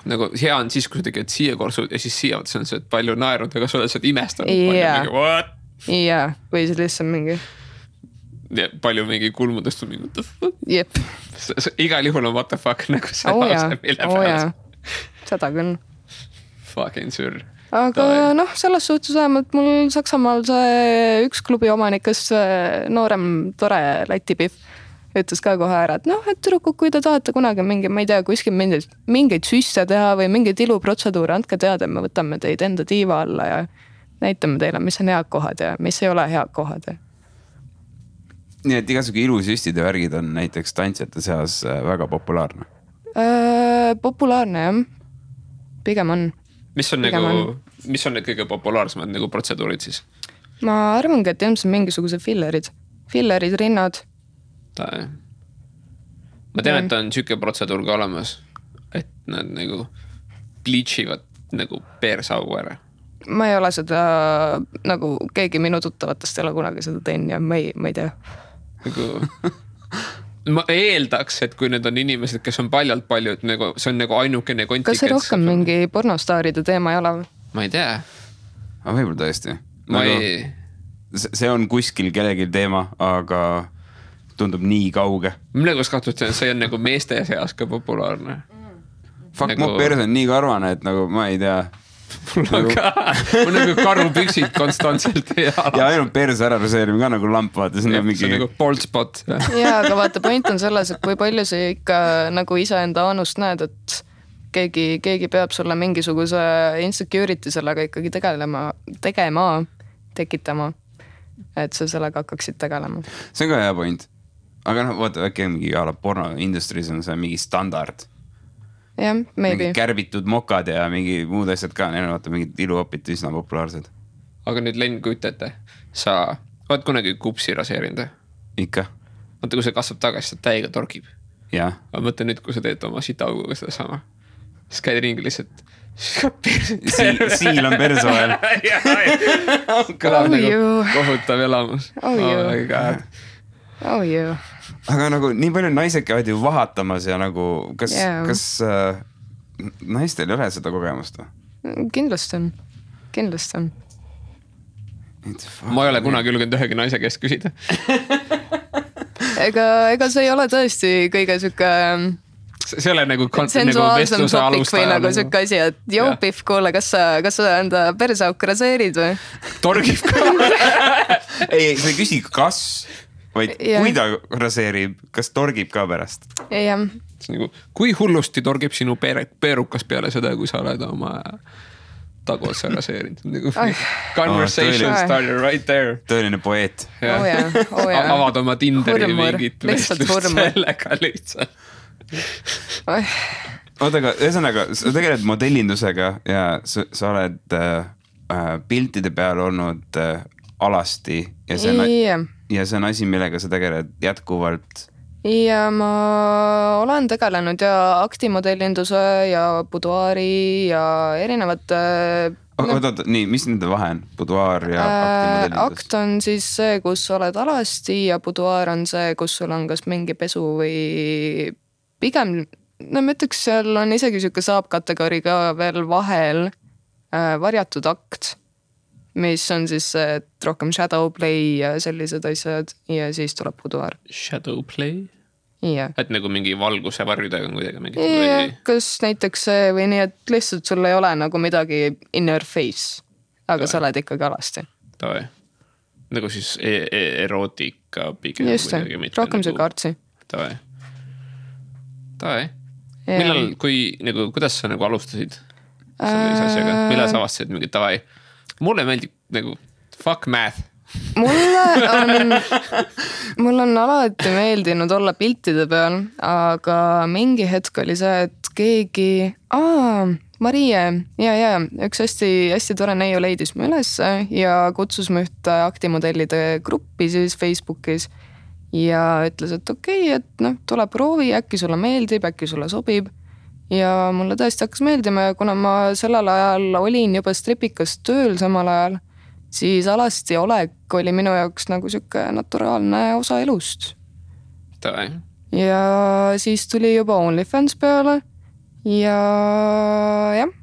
Nagu hea on siis, kui sa tegid siia korsud ja siis siia see on see, et palju naerunud, aga sa oled seda imestanud. Ja, või see lihtsalt mingi. Palju mingi kulmudest on mingi what the fuck. Jep. Igal juhul on what the fuck nagu see lause. Seda küll. Fucking sür. Aga selles suhtes vähemalt mul Saksamaal see üks klubi omanikes noorem tore Läti-Pihv ütles ka kohe ära, et et tüdrukuk, kui te tahate kunagi mingi, ma ei tea, kuskil mingeid süsse teha või mingeid iluprotseduure, andke teada, me võtame teid enda tiiva alla ja näitame teile, mis on head kohad ja mis ei ole head kohad. Nii et igasugu ilusüstide värgid on näiteks tantsijate seas väga populaarne? Populaarne, jah. Pigem on. Mis on need kõige populaarsemad nagu protseduurid siis? Ma arvangi, et ilmselt mingisugused fillerid, rinnad. Ma tean, et on süüke protseduur ka olemas, et nad nagu bleachivad nagu peersaugu ära. Ma ei ole seda, nagu keegi minu tuttavatest ei ole kunagi seda teinud ja ma ei tea. Ma eeldaks, et kui need on inimesed, kes on paljalt, nagu, see on nagu ainukene kontik. Kas see rohkem mingi pornostaaride teema ei ole? Ma ei tea. Aga võib-olla tõesti. See on kuskil kellegi teema, aga tundub nii kauge. Mille kus kahtlustan, see on nagu meeste seas ka populaarne. Fuck, mu pers on nii karvane, et nagu ma ei tea. Mul on nagu karupüksid konstantselt. Ja ainult perse ära reseerime ka nagu lamp, vaata. See on nagu bald spot. Ja, aga vaata, point on selles, et kui palju see ikka nagu iseenda anust näed, et keegi peab sulle mingisuguse insecurity sellega ikkagi tekitama, et sa sellega hakkaksid tegelema. See on ka hea point. aga noh, vaata äkki mingi porno industries on see mingi standard. jah, maybe. Mingi kärbitud mokad ja mingi muud asjad ka, neil on vaata mingid iluopid üsna populaarsed. Aga nüüd Len, kujutate, sa oled kunagi kupsi raseerinud? Ikka. Vaata, kui see kasvab tagasi, see täiega torgib. Jah. Aga mõtle nüüd, kui sa teed oma sitauguga seda sama. Siis käid ringi lihtsalt. Siil on perse vahel. Kõlab nagu kohutav elamus. my god. Aga nagu nii palju naised käivad ju vahatamas ja nagu kas naistel ei ole seda kogemust? Kindlasti on. Ma ei ole kunagi julgenud ühegi naise käest küsida. Ega see ei ole tõesti kõige sükke see ole nagu sensuaalsem topik või nagu sükke asi, et joo Pihv, kuule, kas sa enda perseauku raseerid või? Torgib ka. Ei, sa ei küsi kas, vaid kui ta raseerib, kas torgib ka pärast? Jah. Nagu, kui hullusti torgib sinu peerukas peale seda, kui sa oled oma taguotsa raseerinud? Nagu conversation starter right there. Tõeline poeet. Avad oma Tinderi mingit vestlust sellega lihtsalt. Oota, aga ühesõnaga, sa tegeled modellindusega ja sa oled piltide peal olnud alasti ja see on asi, millega sa tegeled jätkuvalt. Ja ma olen tegelenud ja aktimodellinduse ja buduaari ja erinevate... Oota, nii, mis nende vahe on? Buduaar ja aktimodellindus? Akt on siis see, kus oled alasti ja buduaar on see, kus sul on kas mingi pesu või pigem, no ma ütleks, seal on isegi siuke saab-kategooria ka veel vahel varjatud akt, mis on siis rohkem shadow play ja sellised asjad ja siis tuleb buduaar. Shadow play? Yeah. Et nagu mingi valguse varjudega kuidagi mingit või... Kas näiteks see või nii, et lihtsalt sul ei ole nagu midagi in your face, aga sa oled ikkagi alasti. Tavai. Nagu siis erootika pigem. Just see, rohkem see kaartsi. Tavai. Millal, nagu, kuidas sa nagu alustasid sellise asjaga? Millal sa avastasid mingi tavai? Mulle meeldib nagu fuck math. Mul on alati meeldinud olla piltide peal, aga mingi hetk oli see, et keegi, Marie, üks hästi tore neiu leidis mu üles ja kutsus mu ühte aktimodellide gruppi siis Facebookis ja ütles, et okei, et noh, tule proovi, äkki sulle meeldib, äkki sulle sobib ja mulle tõesti hakkas meeldima ja kuna ma sellel ajal olin juba stripikas tööl samal ajal, siis alasti olek oli minu jaoks nagu siuke naturaalne osa elust. Tavai. Ja siis tuli juba OnlyFans peale ja jah,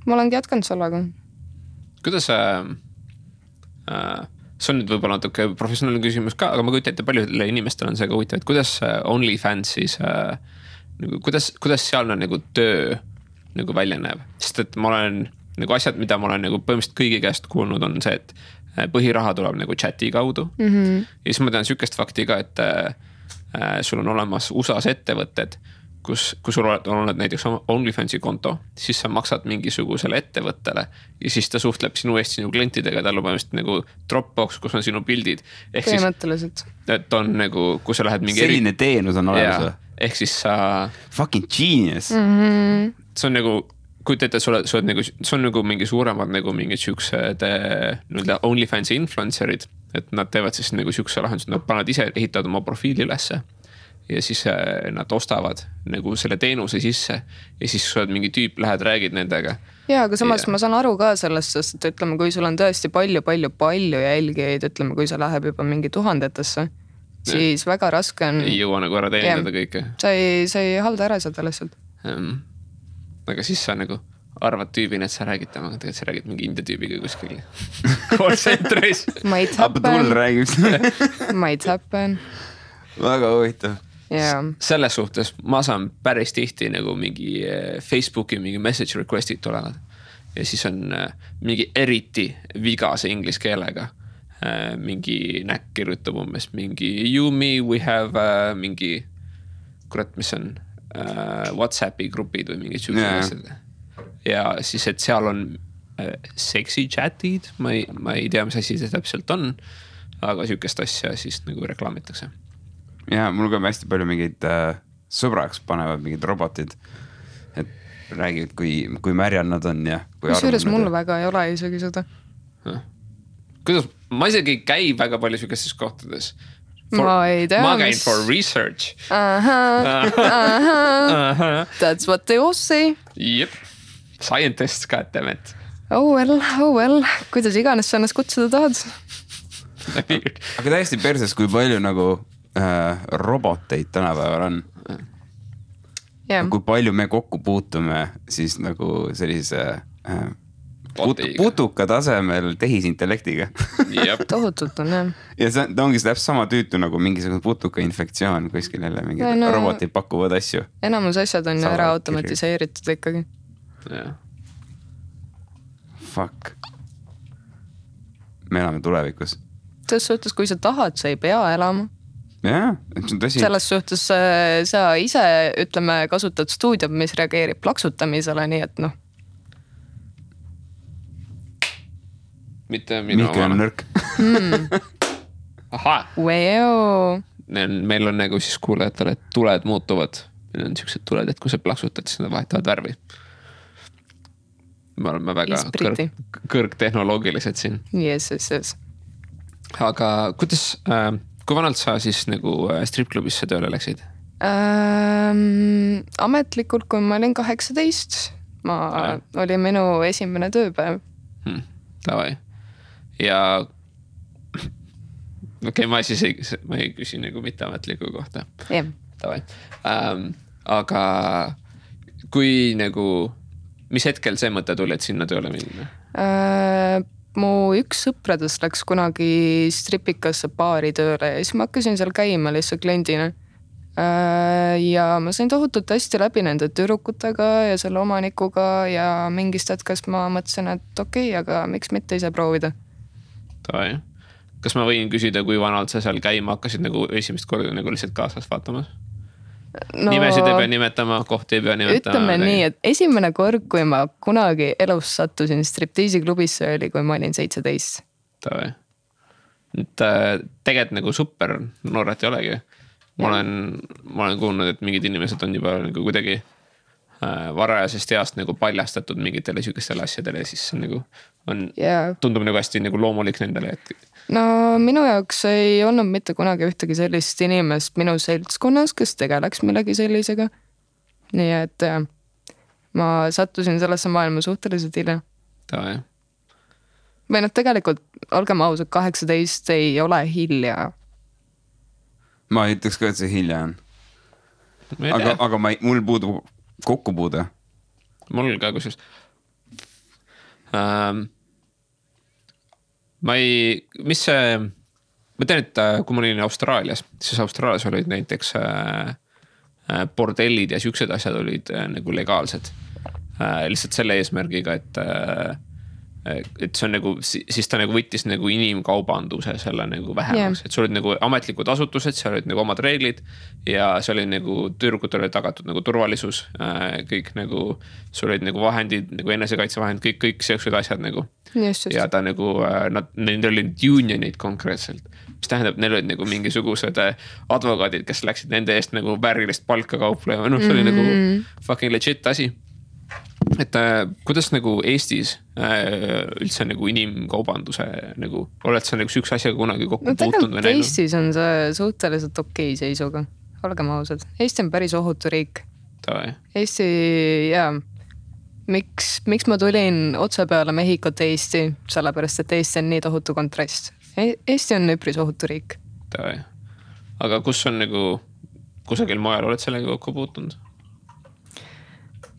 ma olengi jätkanud sellega. Kuidas see on nüüd võib-olla natuke professionaalne küsimus ka, aga ma kujutan ette paljudele inimestele on see ka huvitav, et kuidas OnlyFansis, kuidas seal on nagu töö nagu välja näeb, sest et ma olen nagu asjad, mida ma olen nagu põhimõtteliselt kõigi käest kuulnud, on see, et põhiraha tuleb nagu chati kaudu. Ja siis ma tean sükest fakti ka, et sul on olemas USAs ettevõtted, kus sul on näiteks OnlyFansi konto, siis sa maksad mingisugusele ettevõttele ja siis ta suhtleb sinu eest sinu klientidega, tal on põhimõtteliselt nagu Dropbox, kus on sinu pildid. Põhimõtteliselt. Et on nagu, kui sa lähed mingi... Selline teenus on olemas. Ehk siis sa... Fucking genius. See on nagu... Kuid ette, see on nagu mingi suuremad nagu mingid siuksed OnlyFansi influencerid, et nad teevad siis nagu siukse lahendus, nad pannad ise, ehitavad oma profiili ülesse ja siis nad ostavad nagu selle teenuse sisse ja siis sa oled mingi tüüp, lähed, räägid nendega. Ja, aga samas ma saan aru ka sellest, sest et ütleme, kui sul on tõesti palju jälgijaid, ütleme, kui sa läheb juba mingi tuhandetesse, siis väga raske on... Ei jõua nagu ära teenindada kõike. Sa ei halda ära seda lihtsalt. Aga siis sa nagu arvad tüübina, et sa räägid temaga, tegelikult sa räägid mingi India tüübiga kuskil call centeris. Might happen. Väga huvitav. Yeah. Selles suhtes ma saan päris tihti nagu mingi Facebooki mingi message request'id tulevad ja siis on mingi eriti vigase inglise keelega mingi näkk kirjutab umbes mingi you me we have mingi kurat, mis on WhatsAppi grupid või mingid asjad. Ja siis, et seal on sexy chatid, ma ei tea, mis asi see täpselt on, aga sükest asja siis nagu reklaamitakse. ja mul ka hästi palju mingeid sõbraks panevad mingid robotid. Et räägivad, kui märjad nad on ja kui kusjuures mul väga ei ole isegi seda. Kuidas? Ma isegi ei käi väga palju sükestes kohtades. Ma ei tea. Ma käin for research. That's what they all say. Jep. Scientists, goddammit. Oh well. Kuidas iganes sa ennast kutsuda tahad? Aga täiesti perses, kui palju nagu roboteid tänapäeval on. Yeah. Kui palju me kokku puutume siis nagu sellise putuka tasemel tehisintellektiga. Tohutult on, jah. Ja see ongi täpselt sama tüütu nagu mingisugune putuka infektsioon kuskil jälle mingi robotid pakuvad asju. Enamus asjad on ära automatiseeritud ikkagi. Yeah. Fuck. Me elame tulevikus. Selles suhtes, kui sa tahad, sa ei pea elama. Jaa, see on tõsi. Selles suhtes sa ise, ütleme, kasutad stuudiot, mis reageerib plaksutamisele, nii et noh. Mitte minu Mihkel on nõrk. Aha. Wow. Meil on nagu siis kuulajatele, et tuled muutuvad. Meil on niisugused tuled, et kui sa plaksutad, siis nad vahetavad värvi. Me oleme väga kõrgtehnoloogilised siin. Yes. Aga kuidas, kui vanalt sa siis nagu stripklubisse tööle läksid? Ametlikult, kui ma olin 18, oli minu esimene tööpäev. Tavai. Ja okei, ma ei küsi nagu mitteametliku kohta. Yeah. Tavai. Aga kui nagu, mis hetkel see mõte tuli, et sinna tööle minna? Mu üks sõpradest läks kunagi stripikasse baari tööle ja siis ma hakkasin seal käima lihtsalt kliendina. Ja ma sain tohutult hästi läbi nende tüdrukutega ja selle omanikuga ja mingist hetkest ma mõtlesin, et okei, aga miks mitte ise proovida? Tavai. Kas ma võin küsida, kui vanalt sa seal käima hakkasid nagu esimest korda nagu lihtsalt kaasas vaatamas? No, nimesid ei pea nimetama, kohti ei pea nimetama. Ütleme nii, et esimene kord, kui ma kunagi elus sattusin striptiisiklubisse, oli, kui ma olin 17. Tavai. Tegelikult nagu super nooret ei olegi. Ma olen kuulnud, et mingid inimesed on juba nagu kuidagi varajasest heast nagu paljastatud mingitele sükestele asjadele ja siis nagu tundub nagu hästi nagu loomulik nendele. No minu jaoks ei olnud mitte kunagi ühtegi sellist inimest minu seltskonnas, kes tegeleks millegi sellisega. Nii et ma sattusin sellesse maailma suhteliselt hilja. Tavai. Või noh, tegelikult olgem ausad, 18 ei ole hilja. Ma ei ütleks ka, et see hilja on. Aga mul puudub kokkupuude. Mul ka kusjuures. Ma tean, et kui ma olin Austraalias, siis Austraalias olid näiteks bordellid ja siuksed asjad olid nagu legaalsed. Lihtsalt selle eesmärgiga, et see on nagu, siis ta nagu võttis nagu inimkaubanduse selle nagu vähemaks, et sul olid nagu ametlikud asutused, seal olid nagu omad reeglid ja see oli nagu tüürgutel oli tagatud nagu turvalisus, kõik nagu, sul olid nagu vahendid, nagu enesekaitsevahend, kõik seoksed asjad nagu. Just. Ja ta nagu, neil olid unionid konkreetselt, mis tähendab, neil olid nagu mingisugused advokaadid, kes läksid nende eest nagu väärilist palka kauplema, see oli nagu fucking legit asi. Et kuidas nagu Eestis üldse nagu inimkaubanduse nagu, oled sa nagu üks asjaga kunagi kokku puutunud või näinud? Eestis on see suhteliselt okei seisuga, olgem ausad. Eesti on päris ohutu riik. Tavai. Eesti, jaa. Miks ma tulin otse peale Mehhikot Eesti, sellepärast, et Eesti on nii tohutu kontrast. Eesti on üpris ohutu riik. Tavai. Aga kus on nagu, kusagil mujal oled sellega kokku puutunud?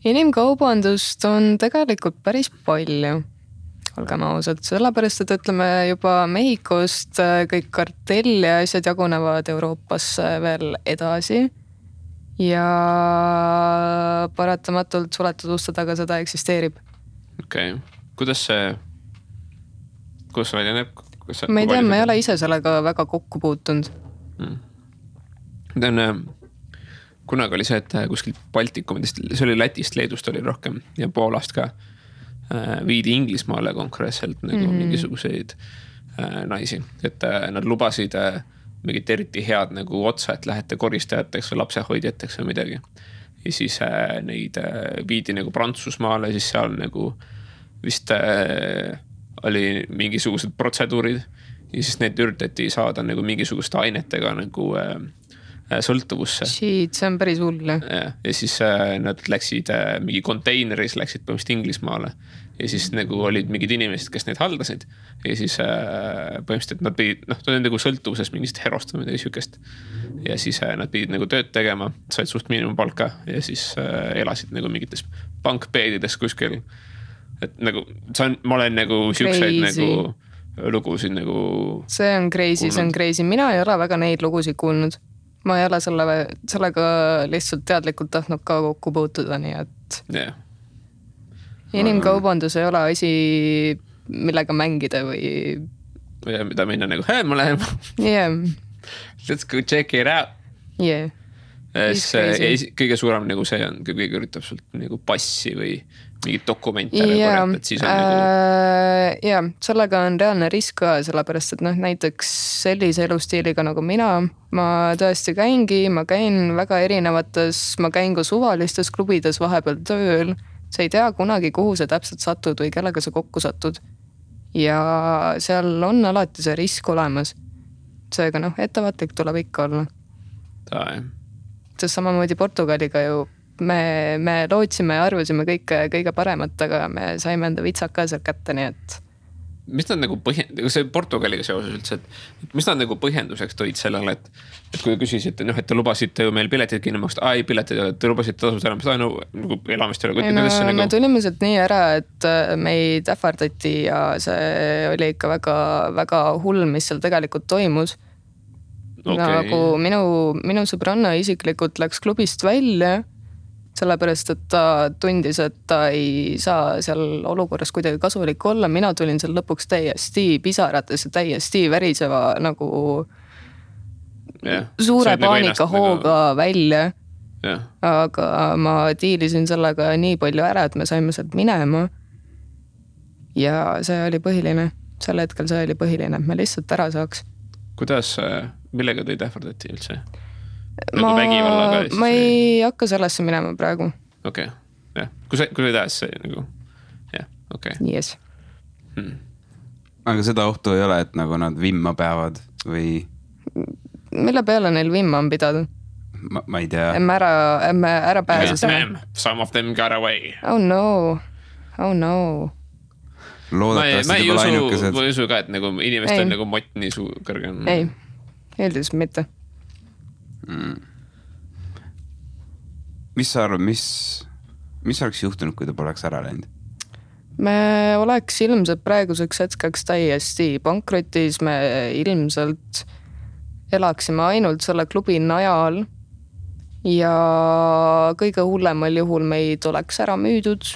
Inimkaubandust on tegelikult päris palju, olgem ausad, sellepärast, et ütleme juba Mehhikost kõik kartelli ja asjad jagunevad Euroopasse veel edasi ja paratamatult suletud uste taga seda eksisteerib. Okei. Kuidas see välja näeb? Ma ei tea, ma ei ole ise sellega väga kokku puutunud. Kunagi oli see, et kuskil Baltikumidest, see oli Lätist, Leedust oli rohkem ja Poolast ka viidi Inglismaale konkreetselt nagu mingisuguseid naisi, et nad lubasid mingit eriti head nagu otsa, et lähete koristajateks või lapsehoidjateks või midagi. Ja siis neid viidi nagu Prantsusmaale, siis seal nagu vist oli mingisugused protseduurid. Ja siis need üritati saada nagu mingisuguste ainetega nagu sõltuvusse. Shit, see on päris hull. Ja siis nad läksid mingi konteineris, läksid põhimõtteliselt Inglismaale. Ja siis nagu olid mingid inimesed, kes neid haldasid. Ja siis põhimõtteliselt nad pidid, ta oli nagu sõltuvuses mingist herost või midagi sükest. Ja siis nad pidid nagu tööd tegema, said suht miinimumpalka ja siis elasid nagu mingites bankbeedides kuskil. Et nagu, ma olen nagu sükseid nagu lugusid nagu... See on crazy, see on crazy. Mina ei ole väga neid lugusid kuulnud. Ma ei ole sellega lihtsalt teadlikult tahtnud ka kokku puutuda, nii et... Yeah. Inimkaubandus ei ole asi, millega mängida või... Ja mida minna nagu, ma lähen. Yeah. Let's go check it out. Yeah. Kõige suurem nagu see on, kui kõige üritab sult nagu passi või mingid dokumente korjata, et siis on nagu... Ja, sellega on reaalne risk ka, sellepärast, et näiteks sellise elustiiliga nagu mina, ma tõesti ma käin väga erinevates, ma käin ka suvalistes klubides vahepeal tööl, sa ei tea kunagi, kuhu sa täpselt satud või kellega sa kokku satud. Ja seal on alati see risk olemas. Seega ettevaatlik tuleb ikka olla. Sest samamoodi Portugaliga ju me lootsime ja arvasime kõige paremat, aga me saime enda vitsad ka seal kätte, nii et... Mis nad nagu see Portugaliga seoses üldse, et mis nad nagu põhjenduseks tõid sellele, et kui küsisite, et te lubasite ju meil piletid kinni maksta, piletid, te lubasite tasud ära, mis ta nagu elamist ei ole. Me tulime sealt nii ära, et meid ähvardati ja see oli ikka väga, väga hull, mis seal tegelikult toimus. Okay. Nagu minu sõbranna isiklikult läks klubist välja, sellepärast, et ta tundis, et ta ei saa seal olukorras kuidagi kasulik olla. Mina tulin seal lõpuks täiesti pisarates ja täiesti väriseva nagu suure paanika hooga välja. Aga ma diilisin sellega nii palju ära, et me saime sealt minema. Ja see oli põhiline. Sel hetkel see oli põhiline, et me lihtsalt ära saaks. Kuidas, millega teid ähvardati üldse? Ma ei hakka sellesse minema praegu. Okei, jah. Kui sa tahad see nagu, jah, okei. Yes. Aga seda ohtu ei ole, et nagu nad vimma peavad või... Mille peale neil vimma on pidada? Ma ei tea. Emme ära pääses. Some of them got away. Oh no. Loodetavasti te pole ainukesed. Ma ei usu ka, et nagu inimestel nagu mott nii kõrge on. Ei, eeldus mitte. Mis sa arvad, mis oleks juhtunud, kui ta poleks ära läinud? Me oleks ilmselt praeguseks hetkeks täiesti pankrotis, me ilmselt elaksime ainult selle klubi najal ja kõige hullemal juhul meid oleks ära müüdud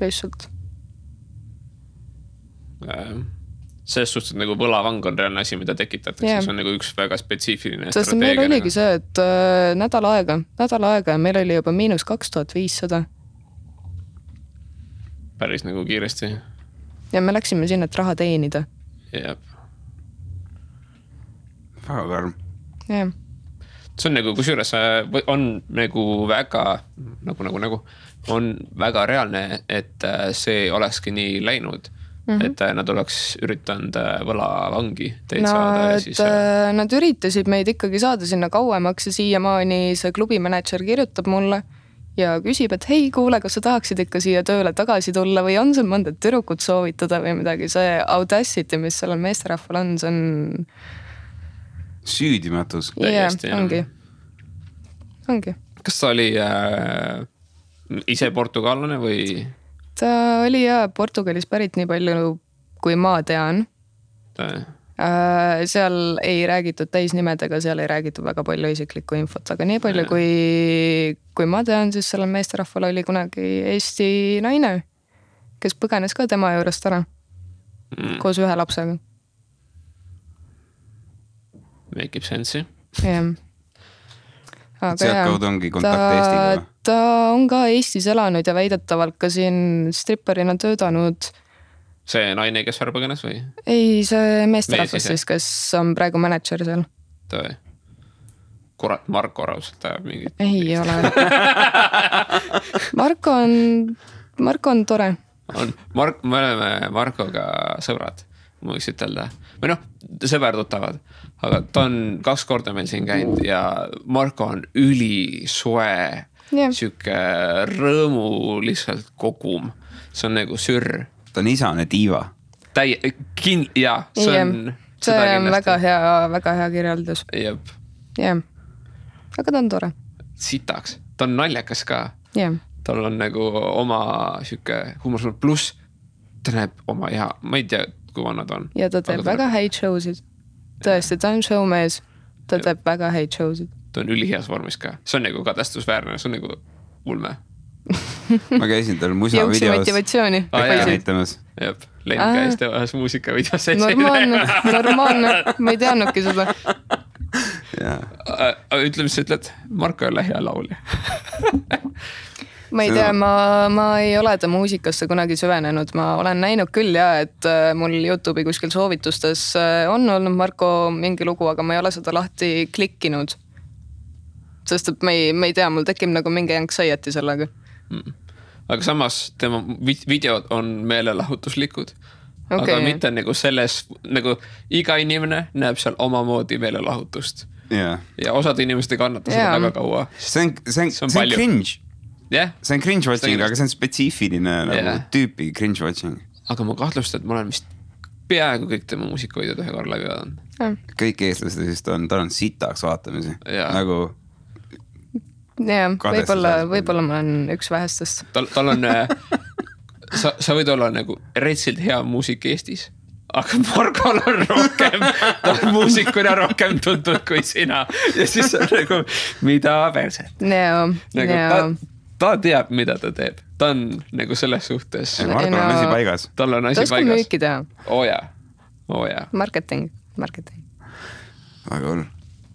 lihtsalt. Selles suhtes, et nagu võlavang on reaalne asi, mida tekitatakse, see on nagu üks väga spetsiifiline strateegia. Sest meil oligi see, et nädal aega ja meil oli juba -2500. Päris nagu kiiresti. Ja me läksime sinna, et raha teenida. Jep. Väga karm. Jah. See on nagu, kusjuures on nagu väga, on väga reaalne, et see olekski nii läinud. Et nad oleks üritanud võlavangi teid saada ja siis... Nad üritasid meid ikkagi saada sinna kauemaks ja siiamaani see klubimanager kirjutab mulle ja küsib, et hei, kuule, kas sa tahaksid ikka siia tööle tagasi tulla või on sul mõnda tüdrukut soovitada või midagi. See audacity, mis sellel meesterahval on, see on... Süüdimatus. Ongi. Kas ta oli ise portugallane või... Ta oli Portugalis pärit nii palju, kui ma tean. Seal ei räägitud täisnimedega, seal ei räägitud väga palju isiklikku infot, aga nii palju, kui ma tean, siis sellel meesterahval oli kunagi Eesti naine, kes põgenes ka tema juurest ära koos ühe lapsega. Make ib sensi. Jah. Sealtkaudu ongi kontakt Eestiga? Ta on ka Eestis elanud ja väidetavalt ka siin stripperina töötanud. See naine, kes ära põgenes või? Ei, see meesterahvas siis, kes on praegu manager seal. Tõi. Kurat, Marko raudselt ajab mingit. Ei ole. Marko on tore. Me oleme Markoga sõbrad, ma võiks ütelda. Või sõberdutavad, aga ta on 2 korda meil siin käinud ja Marko on ülisoe, siuke rõõmu lihtsalt kogum. See on nagu sürr. Ta on isane diiva. Jaa, see on väga hea kirjeldus. Jep. Jah. Aga ta on tore. Sitaks. Ta on naljakas ka. Yeah. Tal on nagu oma siuke huumor pluss ta näeb oma hea, ma ei tea, kui vanna ta on. Ja ta teeb väga häid showsid. Tõesti, ta on showmees. Ta teeb väga häid showsid. Ta on üliheas vormis ka. See on nagu kadestusväärne, see on nagu ulme. Ma käisin tal musa videos. Jõuksi motivatsiooni. Näitamas. Jep, Len käis teevahas muusika videos. Normaalne. Ma ei teadnudki seda. Ütle, mis sa ütled? Marko ei ole hea laulja. Ma ei tea, ma ei ole ta muusikasse kunagi süvenenud. Ma olen näinud küll et mul YouTube'i kuskil soovitustes on olnud Marko mingi lugu, aga ma ei ole seda lahti klikkinud. Sest et ma ei tea, mul tekib nagu mingi anxiety sellega. Aga samas tema videod on meelelahutuslikud. Aga mitte nagu selles, nagu iga inimene näeb seal omamoodi meelelahutust. Ja osad inimesed ei kannata seda väga kaua. See on cringe. See on cringe watching, aga see on spetsiifiline nagu tüüpi cringe watching. Aga ma kahtlustan, et ma olen vist peaaegu kõik tema muusikavideod ühe korra läbi vaadanud. Kõik eestlased vist on, tal on sitaks vaatamisi. Nagu võib-olla ma olen üks vähestest. Tal on, sa võid olla nagu retsilt hea muusik Eestis, aga Markol on rohkem, ta on muusikuna rohkem tuntud kui sina. Ja siis on nagu, mida perset. Ta teab, mida ta teeb. Ta on nagu selles suhtes. Markol on asi paigas. Tal on asi paigas. Ta oskab müüki teha. Jaa. Marketing. Väga hull.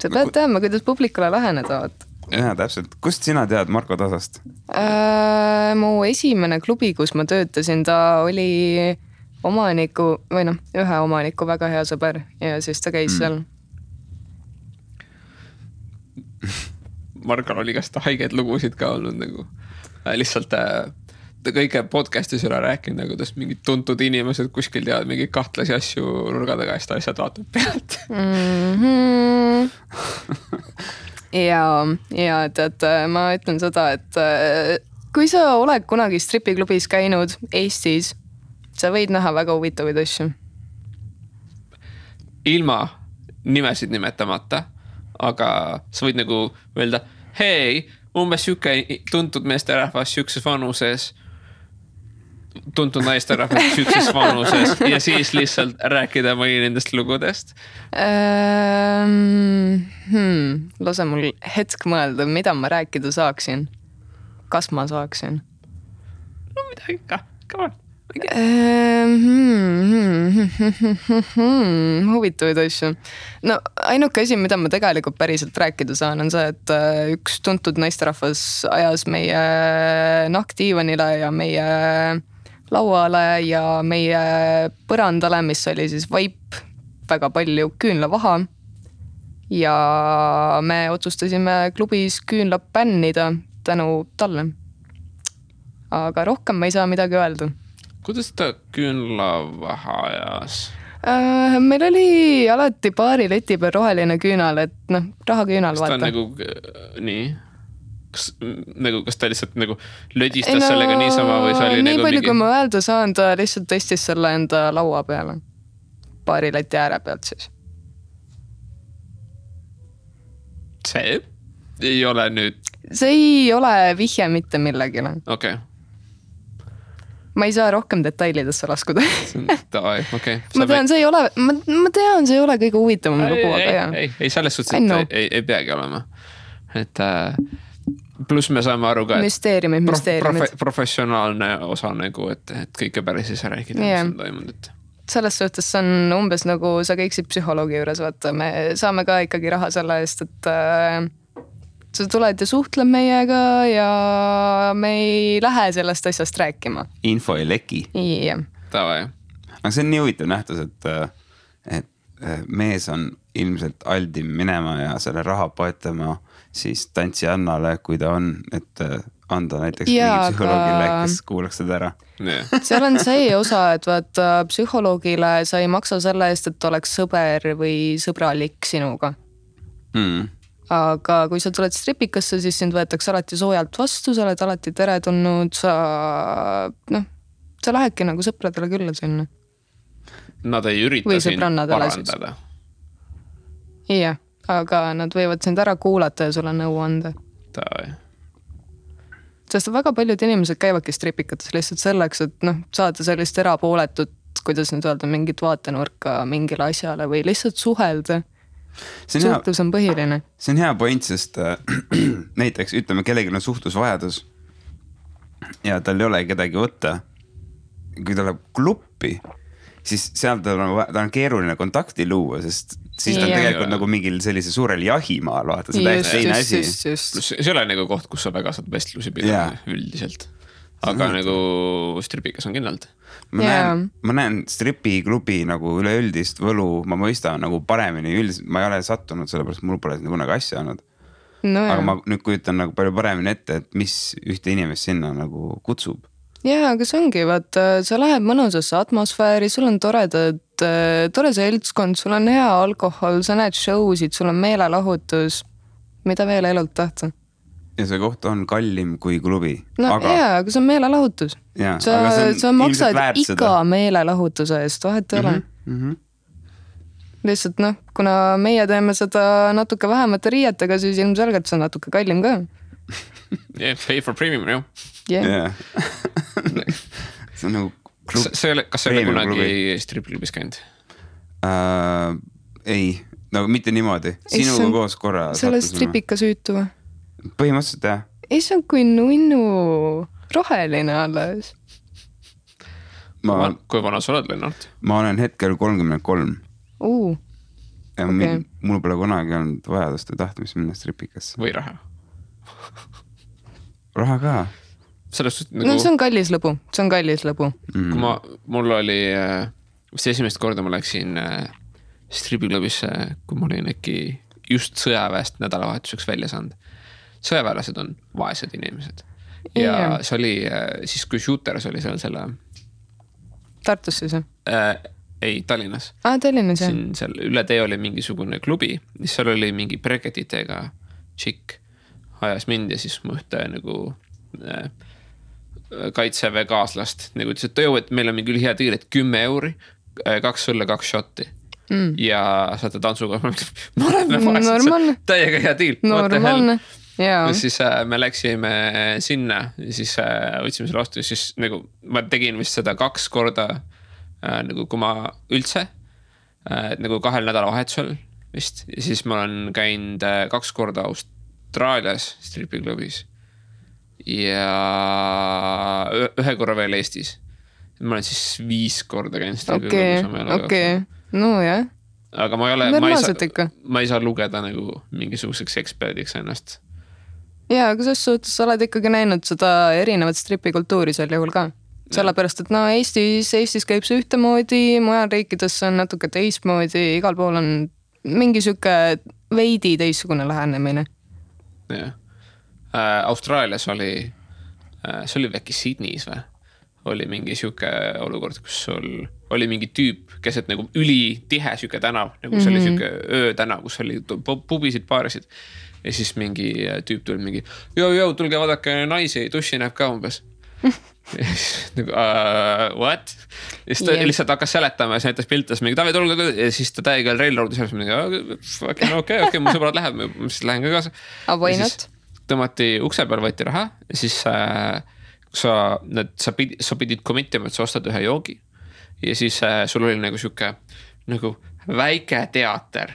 Sa pead teadma, kuidas publikule läheneda. Jaa, täpselt. Kust sina tead Marko Tasast? Mu esimene klubi, kus ma töötasin, ta oli omaniku, või ühe omaniku väga hea sõber ja siis ta käis seal. Markal oli kas ta haigeid lugusid ka olnud nagu. Lihtsalt ta kõige podcastis üle rääkinud, nagu tast mingid tuntud inimesed kuskil teavad mingi kahtlasi asju nurga taga ja seda asjad vaatab pealt. Ja tead, ma ütlen seda, et kui sa oled kunagi stripiklubis käinud Eestis, sa võid näha väga huvitavaid asju. Ilma nimesid nimetamata, aga sa võid nagu öelda, hei, umbes siuke tuntud meesterahvas siukses vanuses, tuntud naisterahvas siukses vanuses ja siis lihtsalt rääkida mõni nendest lugudest. Lase mul hetk mõelda, mida ma rääkida saaksin. Kas ma saaksin? No midagi ka, come on. Huvitavaid asju. No ainuke asi, mida ma tegelikult päriselt rääkida saan, on see, et üks tuntud naisterahvas ajas meie nahkdiivanile ja meie lauale ja meie põrandale, mis oli siis vaip, väga palju küünlavaha. Ja me otsustasime klubis küünla bännida tänu talle. Aga rohkem ma ei saa midagi öelda. Kuidas ta küünlavaha ajas? Meil oli alati paari leti peal roheline küünal, et rahaküünal vaata. Kas ta nagu nii? Kas ta lihtsalt nagu lödistas sellega niisama või see oli nii nagu palju, kui ma öelda saan, ta lihtsalt tõstis selle enda laua peale. Paari leti ääre pealt siis. See ei ole nüüd... See ei ole vihje mitte millegile. Okei. Ma ei saa rohkem detailidesse laskuda. Okay. Ma tean, see ei ole kõige huvitavam lugu, aga jah. Ei, selles suhtes, et ei peagi olema. Et pluss me saame aru ka, müsteeriumid. Professionaalne osa nagu, et kõike päris ei saa rääkida, mis on toimunud. Selles suhtes see on umbes nagu sa käiksid psühholoogi juures, vaata, me saame ka ikkagi raha selle eest, et sa tuled ja suhtled meiega ja me ei lähe sellest asjast rääkima. Info ei leki. Jah. Tavai. Aga see on nii huvitav nähtus, et mees on ilmselt aldim minema ja selle raha poetama siis tantsijannale, kui ta on, et anda näiteks mingi psühholoogile, kes kuulaks seda ära. Seal on see osa, et vaata psühholoogile sa ei maksa selle eest, et oleks sõber või sõbralik sinuga. Aga kui sa tuled stripikasse, siis sind võetakse alati soojalt vastu, sa oled alati teretulnud, sa lähedki nagu sõpradele külla sinna. Nad ei ürita sind parandada. Jah, aga nad võivad sind ära kuulata ja sulle nõu anda. Sest väga paljud inimesed käivadki stripikates lihtsalt selleks, et saada sellist erapooletut, kuidas nüüd öelda, mingit vaatenurka mingile asjale või lihtsalt suhelda. Suhtlus on põhiline. See on hea point, sest näiteks ütleme, kellelgi on suhtlusvajadus ja tal ei ole kedagi võtta. Kui ta läheb kluppi, siis seal ta on keeruline kontakti luua, sest siis ta on tegelikult nagu mingil sellise suurel jahimaal, vaata, see täiesti teine asi. See ei ole nagu koht, kus sa väga saad vestlusi pidada üldiselt. Aga nagu stripikas on kindlalt. Ma näen stripiklubi nagu üleüldist võlu, ma mõistan nagu paremini üldiselt, ma ei ole sattunud sellepärast, mul pole kunagi asja olnud. Aga ma nüüd kujutan nagu palju paremini ette, et mis ühte inimest sinna nagu kutsub. Jaa, aga see ongi, vaata, sa lähed mõnusasse atmosfääri, sul on tore seltskond, sul on hea alkohol, sa näed showsid, sul on meelelahutus, mida veel elult tahta. Ja see koht on kallim kui klubi. Aga see on meelelahutus. Sa maksad iga meelelahutuse eest, vahet ei ole. Lihtsalt kuna meie teeme seda natuke vähemate riietega, siis ilmselgelt see on natuke kallim ka. Pay for premium, jah. See on nagu klub. Kas see oli kunagi stripklubis käinud? Ei, nagu mitte niimoodi. Sinuga koos korra. Selle stripika süütu või? Põhimõtteliselt jah. Ei, see on kui nunnu roheline alles. Kui vana sa oled, Lennart? Ma olen hetkel 33. Ja okay. Mul pole kunagi olnud vajadust ja tahtmist minna stripikasse. Või raha? Raha ka. Nagu... see on kallis lõbu. Kui mul oli see esimest korda ma läksin stripiklubisse, kui ma olin äkki just sõjaväest nädalavahetuseks välja saanud. Sõjaväelased on vaesed inimesed. Ja see oli siis, kui Shooters oli selle... Tartus siis? Ei, Tallinnas. Tallinnas, jah. Seal üle tee oli mingisugune klubi, mis seal oli mingi breketitega tšikk ajas mind ja siis ma ühte nagu kaitseväe kaaslast nagu ütles, et meil on mingi hea tiir, et 10 euri, 2 sulle, 2 shotti. Ja saate tantsuga, me oleme vaesed, täiega hea tiir. Normaalne. Ja siis me läksime sinna ja siis võtsime selle vastu ja siis nagu ma tegin vist seda 2 korda nagu kui ma üldse nagu 2 nädalavahetusel vist ja siis ma olen käinud 2 korda Austraalias stripiklubis ja 1 korra veel Eestis. Ma olen siis 5 korda käinud stripiklubis. Okei, no jah. Aga ma ei saa lugeda nagu mingisuguseks eksperdiks ennast. Jaa, aga selles suhtes sa oled ikkagi näinud seda erinevat stripikultuuri sel juhul ka. Sellepärast, et Eestis käib see ühtemoodi, mujal riikides on natuke teistmoodi, igal pool on mingi süke veidi teistsugune lähenemine. Jah. Austraalias oli, see oli äkki Sydneys või? Oli mingi süke olukord, kus sul oli mingi tüüp, keset nagu üli tihe süke tänav, nagu see oli süke öötänav, kus oli pubisid, paarisid. Ja siis mingi tüüp tuli mingi, tulge vaadake naisi, duši näeb ka umbes. Ja siis nagu, what? Ja siis ta lihtsalt hakkas seletama ja siis näitas piltas mingi, tulge, ja siis ta täiega railroadis ja mingi, okei, mu sõbrad läheb, ma siis lähen ka kaasa. Why not? Tõmmati ukse peal, võeti raha ja siis sa pidid committima, et sa ostad ühe joogi. Ja siis sul oli nagu süke nagu väike teater.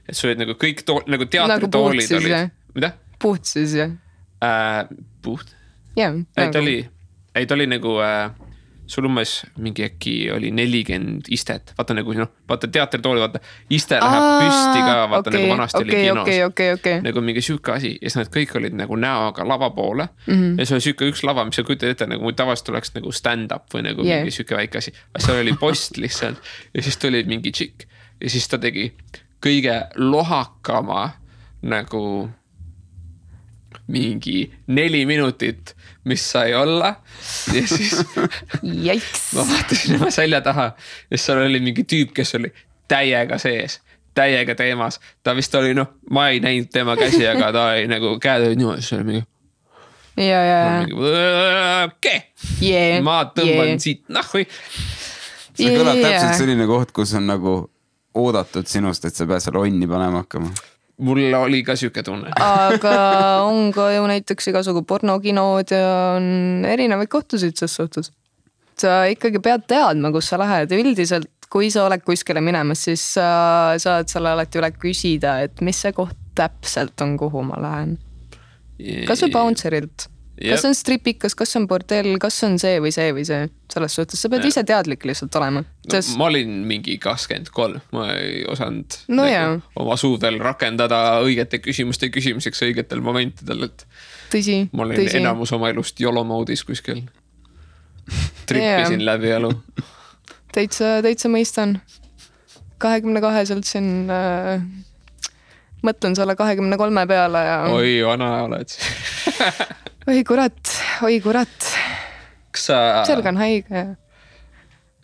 Et sul olid nagu kõik nagu teatritoolid nagu olid. Mida? Puht siis, jah? Puht? Jah. Ei, ta oli nagu, sul umbes mingi äkki oli 40 istet. Vaata nagu, vaata teatritooli, vaata iste läheb püsti ka, vaata nagu vanasti oli kinos. Nagu mingi süke asi. Ja siis nad kõik olid nagu näoga lava poole. Ja see oli süke üks lava, mis sa kujutad ette, nagu tavaliselt oleks nagu stand-up või nagu mingi süke väike asi. See oli post lihtsalt. Ja siis tuli mingi tšikk. Ja siis ta tegi kõige lohakama nagu mingi 4 minutit, mis sai olla ja siis ma vaatasin oma selja taha ja seal oli mingi tüüp, kes oli täiega sees, täiega teemas. Ta vist oli, ma ei näinud tema käsi, aga ta oli nagu käed olid niimoodi, see oli mingi okei, ma tõmban siit nahvi. See kõlab täpselt selline koht, kus on nagu oodatud sinust, et sa pead seal onni panema hakkama. Mul oli ka siuke tunne. Aga on ka ju näiteks igasugu pornokinod ja on erinevaid kohtusid selles suhtes. Sa ikkagi pead teadma, kus sa lähed. Üldiselt, kui sa oled kuskile minemas, siis saad selle alati üle küsida, et mis see koht täpselt on, kuhu ma lähen. Kas on bouncerilt? Kas on stripikas, kas on bordell, kas on see või see või see? Selles suhtes sa pead ise teadlik lihtsalt olema. Ma olin mingi 23, ma ei osanud oma suudel rakendada õigete küsimuste küsimiseks õigetel momentidel, et tõsi, ma olin enamus oma elust YOLO moodis kuskil. Trippisin läbi elu. Täitsa mõistan. 22-selt siin mõtlen selle 23 peale ja... Oi, vana oled. Oi kurat. Kas sa... Selg on haige.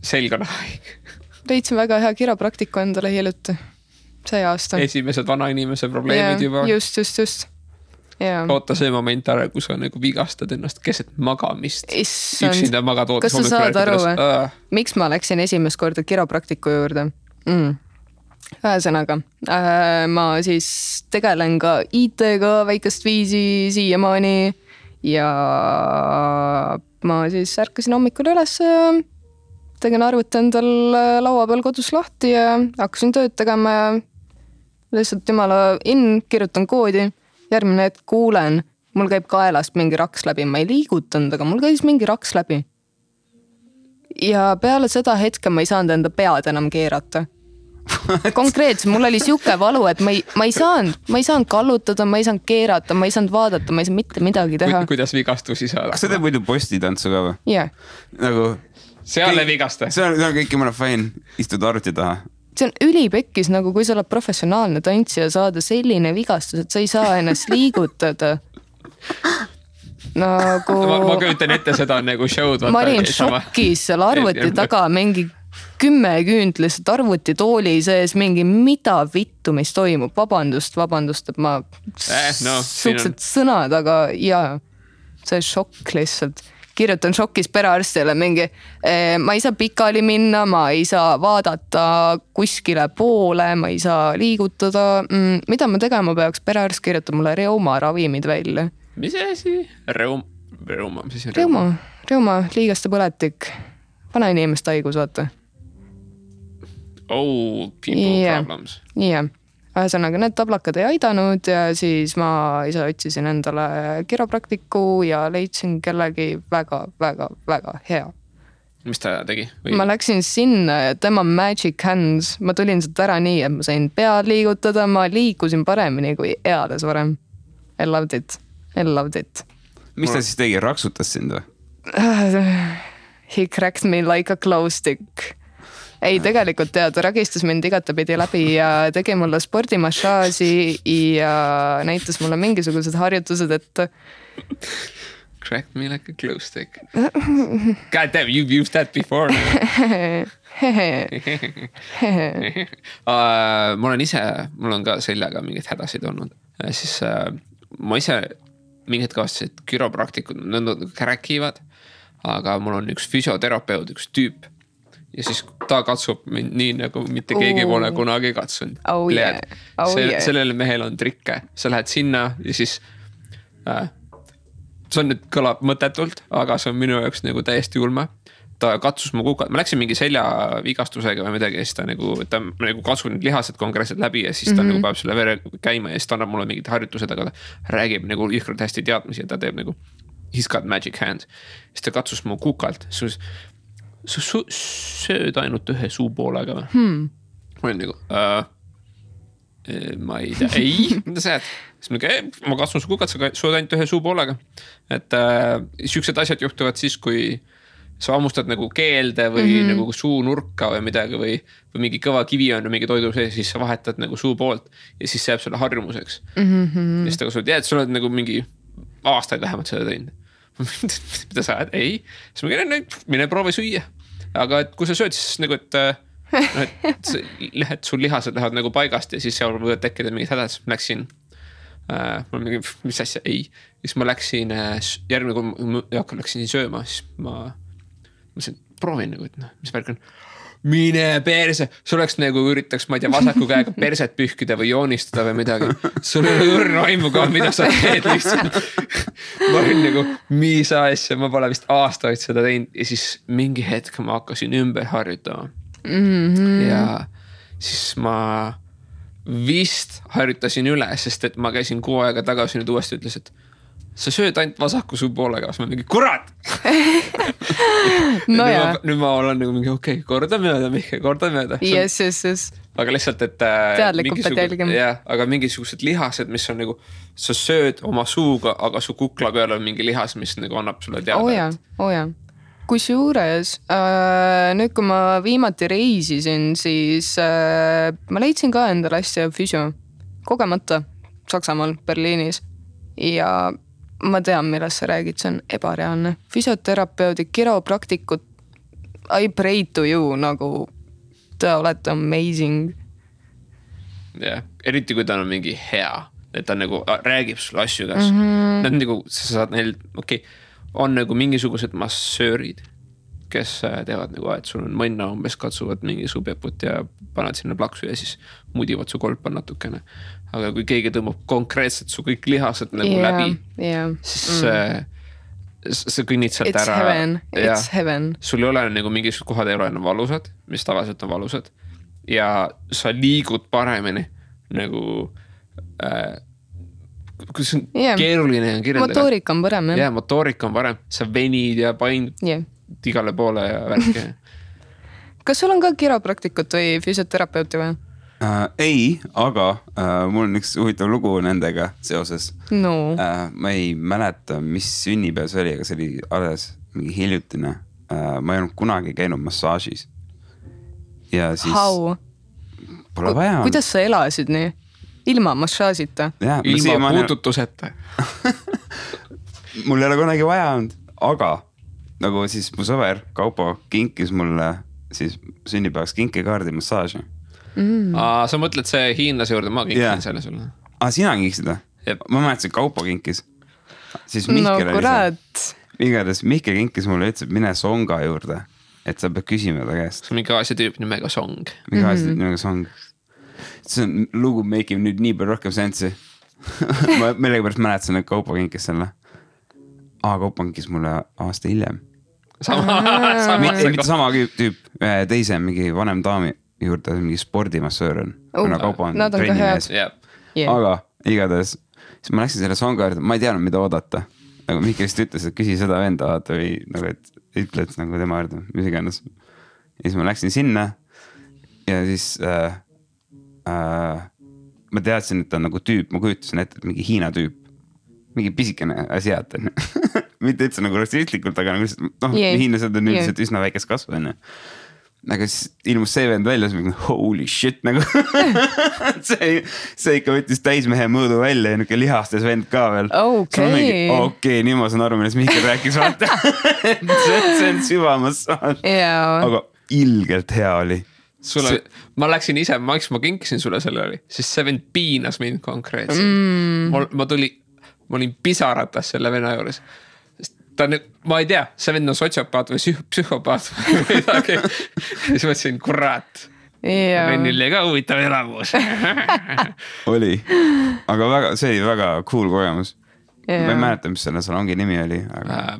Selg on haige. Leidsin väga hea kiropraktiku endale hiljuti. See aasta. Esimesed vanainimese probleemid juba. Just. Oota see moment ära, kui sa nagu vigastad ennast keset magamist. Üksinda magad ootas. Kas sa saad aru, miks ma läksin esimest korda kiropraktiku juurde? Ühesõnaga, ma siis tegelen ka IT-ga väikest viisi siiamaani ja ma siis ärkasin hommikul üles ja tegin arvuti endal laua peal kodus lahti ja hakkasin tööd tegema ja lihtsalt jumala kirjutan koodi. Järgmine hetk kuulen, mul käib kaelast mingi raks läbi, ma ei liigutanud, aga mul käis mingi raks läbi. Ja peale seda hetke ma ei saanud enda pead enam keerata. Konkreetselt, mul oli siuke valu, et ma ei saanud kallutada, ma ei saanud keerata, ma ei saanud vaadata, ma ei saanud mitte midagi teha. Kuidas vigastusi saada? Kas sa teed muidu postitantsu ka või? Jah. Nagu... Seal ei vigasta. See on kõik jumala fine, istud arvuti taha. See on ülipekkis, nagu kui sa oled professionaalne tantsija saada selline vigastus, et sa ei saa ennast liigutada. Nagu... Ma köütan ette seda nagu show'd. Ma olin šokis seal arvuti taga mingi 10 küünt lihtsalt arvuti tooli sees mingi mida vittu, mis toimub. Vabandust, et ma suhteliselt sõnad, aga jaa, see šokk lihtsalt. Kirjutan šokis perearstile mingi, ma ei saa pikali minna, ma ei saa vaadata kuskile poole, ma ei saa liigutada. Mida ma tegema peaks? Perearst kirjutab mulle reuma ravimid välja. Mis asi? Reuma, liigaste põletik. Vana inimest haigus, vaata. Oh, people problems. Jah. Ühesõnaga, need tablakad ei aidanud ja siis ma ise otsisin endale kiropraktiku ja leidsin kellegi väga hea. Mis ta tegi? Ma läksin sinna ja tema magic hands, ma tulin sealt ära nii, et ma sain pead liigutada, ma liikusin paremini kui eales varem. I loved it. Mis ta siis tegi? Raksutas sind või? He cracked me like a glow stick. Ei, tegelikult ta ragistas mind igatapidi läbi ja tegi mulle spordimassaaži ja näitas mulle mingisugused harjutused, et... Crack me like a glow stick. God damn, you've used that before. Mul on ka seljaga mingid hädasid olnud. Siis ma ise mingid kavastasid, et kiropraktikud rääkivad, aga mul on üks füsioterapeut, üks tüüp. Ja siis ta katsub mind nii, nagu mitte keegi pole kunagi katsunud. Sellele mehel on trikke. Sa lähed sinna ja siis see on nüüd kõlab mõtetult, aga see on minu jaoks nagu täiesti ulme. Ta katsus mu kukad. Ma läksin mingi seljavigastusega või midagi ja siis ta nagu katsub need lihased konkreetselt läbi ja siis ta nagu peab selle vere käima ja siis ta annab mulle mingid harjutused, aga ta räägib nagu jõhkralt hästi teadmisi ja ta teeb nagu he's got magic hand. Siis ta katsus mu kukalt. Sa sööd ainult ühe suupoolega või? Ma olin nagu, ma ei tea, mida sa jääd? Siis ma katsun su kukat, sa sööd ainult ühe suupoolega. Et siuksed asjad juhtuvad siis, kui sa hammustad nagu keelde või nagu suunurka või midagi või mingi kõva kivi on mingi toidu sees, siis sa vahetad nagu suu poolt ja siis see jääb sulle harjumuseks. Ja siis sa oled, sa oled nagu mingi aastaid vähemalt seda teinud. Mida sa ajad? Ei. Siis ma käin, mine proovi süüa. Aga et kui sa sööd, siis nagu, et sul lihased lähevad nagu paigast ja siis seal võivad tekkida mingid hädad. Siis ma läksin, mul mingi, mis asja? Ei. Siis ma läksin, järgmine kui läksin sööma, siis ma proovin nagu, et mis värk on. Mine perse, sul oleks nagu üritaks, ma ei tea, vasaku käega perset pühkida või joonistada või midagi. Sul ei ole õrna aimu ka, mida sa teed lihtsalt. Ma olin nagu, mis asja, ma pole vist aastaid seda teinud ja siis mingi hetk ma hakkasin ümber harjutama. Ja siis ma vist harjutasin üle, sest et ma käisin 6 aega tagasi nüüd uuesti ütles, et sa sööd ainult vasaku suu poolega, siis ma mingi, kurat! No nüüd ma olen nagu mingi, okei, korda mööda, Mihke, korda mööda. Yes. Aga lihtsalt, et teadlikult pead jälgima. Jah, aga mingisugused lihased, mis on nagu, sa sööd oma suuga, aga su kukla peal on mingi lihas, mis nagu annab sulle teada. Oja. Kusjuures, nüüd kui ma viimati reisisin, siis ma leidsin ka endale hästi füsio. Kogemata Saksamaal, Berliinis. Ja ma tean, millest sa räägid, see on ebareaalne. Füsioterapeudi, kiropraktikud, I pray to you, nagu te olete amazing. Jah, eriti kui ta on mingi hea, et ta nagu räägib sulle asju kas. Nad nagu, sa saad neil, on nagu mingisugused massöörid, kes teevad nagu, et sul on mõnna umbes katsuvad mingi subjaput ja paned sinna plaksu ja siis mudivad su kolpa natukene. Aga kui keegi tõmbab konkreetselt su kõik lihased nagu läbi, siis sa kõnnid sealt ära. It's heaven. Sul ei ole nagu mingisugused kohad ei ole enam valusad, mis tavaliselt on valusad. Ja sa liigud paremini nagu kus on keeruline kirjeldada. Motoorika on parem. Jah, motoorika on parem. Sa venid ja paindud igale poole ja värke. Kas sul on ka kiropraktikut või füsioterapeuti või? Ei, aga mul on üks huvitav lugu nendega seoses. No. Ma ei mäleta, mis sünnipäev see oli, aga see oli alles mingi hiljutine. Ma ei olnud kunagi käinud massaažis. Ja siis... How? Pole vaja. Kuidas sa elasid nii? Ilma massaažita? Ilma puututuseta. Mul ei ole kunagi vaja olnud, aga nagu siis mu sõber Kaupo kinkis mulle siis sünnipäevaks kinkekaardi massaaži. Sa mõtled see hiinlase juurde, ma kinkin selle sulle. Sina kinkisid või? Ma mäletasin, Kaupo kinkis. Siis Mihkel oli see. Igatahes Mihkel kinkis mulle ütles, et mine Songa juurde, et sa pead küsima ta käest. See on mingi Aasia tüüp nimega Song. Mingi Aasia tüüp nimega Song. See on lugu make nüüd nii palju rohkem sensi. Ma millegipärast mäletasin, et Kaupo kinkis selle. Kaupo kinkis mulle aasta hiljem. Mitte sama tüüp, teise mingi vanem daami juurde, mingi spordimassöör on. Kuna Kaupo on trennimees. Aga igatahes, siis ma läksin selle Songa juurde, ma ei teadnud, mida oodata. Nagu Mihkel vist ütles, et küsi seda venda vaata või nagu, et ütle, et nagu tema juurde, mis iganes. Ja siis ma läksin sinna ja siis ma teadsin, et ta on nagu tüüp, ma kujutasin ette, et mingi Hiina tüüp. Mingi pisikene asiat on. Mitte üldse nagu rassistlikult, aga nagu hiinlased on üldiselt üsna väikest kasvu enne. Aga siis ilmus see vend välja, siis mingi holy shit nagu. see ikka võttis täismehe mõõdu välja ja niuke lihastes vend ka veel. Okei, nii ma saan aru, millest Mihkel rääkis vaata. see on süvamassaaž. Aga ilgelt hea oli. Ma läksin ise, ma kinkisin sulle selle oli, siis see vend piinas mind konkreetselt. Ma olin pisaratas selle venna juures. Ta on, ma ei tea, see vend on sotsiopaat või psühhopaat või midagi. Siis mõtlesin, kurat. Vennil oli ka huvitav elamus. Oli. Aga see oli väga cool kogemus. Ma ei mäleta, mis selle salongi nimi oli.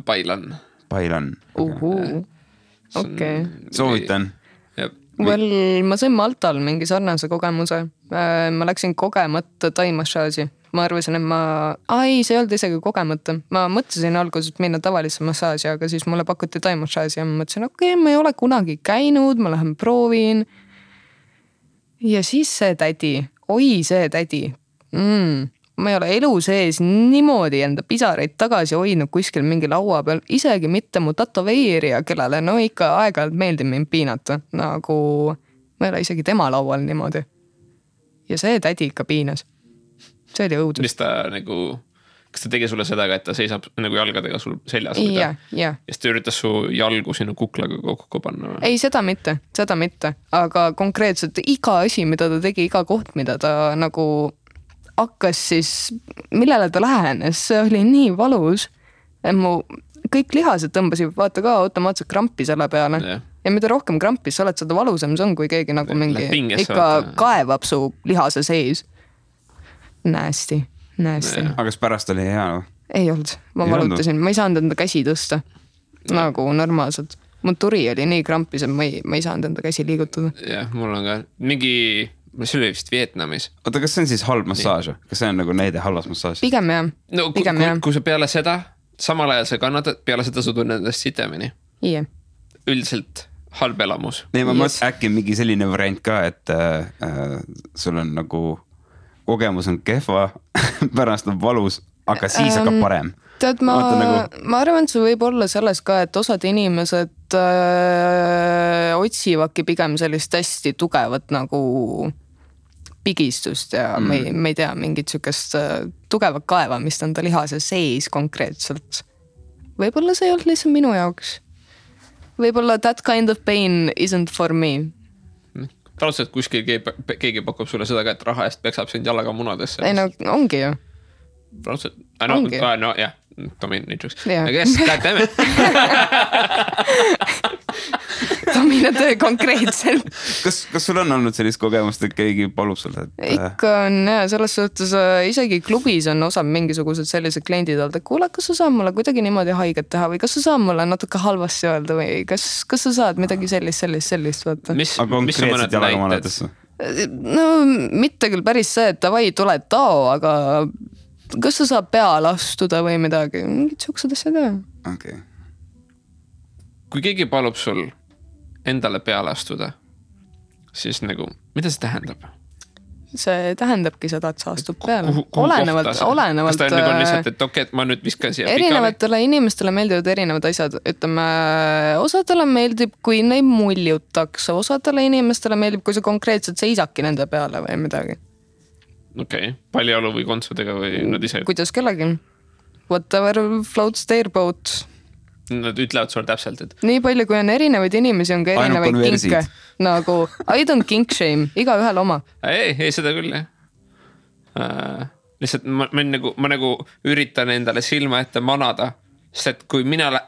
Bailan. Okei. Soovitan. Ma sain Maltal mingi sarnase kogemuse. Ma läksin kogemata taimassaaži. Ma arvasin, et see ei olnud isegi kogemata. Ma mõtlesin alguses minna tavalisse massaaži, aga siis mulle pakuti taimassaaži ja ma mõtlesin, ma ei ole kunagi käinud, ma lähen proovin. Ja siis see tädi, see tädi. ma ei ole elu sees niimoodi enda pisaraid tagasi hoidnud kuskil mingi laua peal, isegi mitte mu tatoveerija, kellele no ikka aeg-ajalt meeldib mind piinata, nagu ma ei ole isegi tema laual niimoodi. Ja see tädi ikka piinas. See oli õudus. Mis ta nagu... Kas ta tegi sulle seda, et ta seisab nagu jalgadega sul seljas? Ja. Ja siis ta üritas su jalgu sinu kuklaga kokku panna? Ei, seda mitte. Aga konkreetselt iga asi, mida ta tegi, iga koht, mida ta nagu hakkas siis, millele ta lähenes, see oli nii valus. Mu kõik lihased tõmbasid, vaata ka automaatselt krampi selle peale. Ja mida rohkem krampis sa oled, seda valusam see on, kui keegi nagu mingi ikka kaevab su lihase sees. Nasty. Aga kas pärast oli hea? Ei olnud, ma valutasin, ma ei saanud enda käsi tõsta nagu normaalselt. Mu turi oli nii krampis, et ma ei saanud enda käsi liigutada. Jah, mul on ka mingi, see oli vist Vietnamis. Oota, kas see on siis halb massaaž? Kas see on nagu näide halvas massaaž? Pigem jah. No, kui sa peale seda, samal ajal sa kannatad, peale seda sa tunned endast sitemini. Ie. Üldiselt halb elamus. Nee, ma mõtlen äkki mingi selline variant ka, et sul on nagu kogemus on kehva, pärast on valus, aga siis hakkab parem. Tead, ma arvan, et see võib olla selles ka, et osad inimesed otsivadki pigem sellist hästi tugevat nagu pigistust ja me ei tea mingit sükest tugevat kaevamist enda lihase sees konkreetselt. Võib-olla see ei olnud lihtsalt minu jaoks. Võib-olla that kind of pain isn't for me. Praadselt kuskil keegi pakub sulle seda, et raha eest peksab sind jalaga munadesse. Ei no, ongi ju. Praadselt, no jah, Dominitruks. Aga yes, God damn it. Domina konkreetselt. Kas sul on olnud sellist kogemust, et keegi palub sulle? Ikka on jah, selles suhtes isegi klubis on osa mingisugused sellised kliendid olnud, et kuule, kas sa saad mulle kuidagi niimoodi haiget teha või kas sa saad mulle natuke halvasti öelda või kas sa saad midagi sellist vaata. Aga konkreetselt jalaga manetesse? No mitte küll päris see, et davai, tule tao, aga kas sa saad peale astuda või midagi? Mingid siuksed asjad jah. Okay. Kui keegi palub sul endale peale astuda, siis nagu, mida see tähendab? See tähendabki seda, et sa astub peale. Olenevalt. Kas ta on lihtsalt, et okei, et ma nüüd viskan siia erinevatele inimestele meeldivad erinevad asjad. Ütleme, osadele meeldib, kui neid muljutakse. Osadele inimestele meeldib, kui sa konkreetselt seisaki nende peale või midagi. Okei, paljaolu või kontsudega või nad ise? Kuidas kellegi? Whatever floats their boat. Nad ütlevad sulle täpselt, et... Nii palju, kui on erinevaid inimesi, on ka erinevaid kinke. Nagu, I don't kink shame, iga ühel oma. Ei, seda küll, jah. Lihtsalt ma nagu üritan endale silma ette manada, sest et kui ma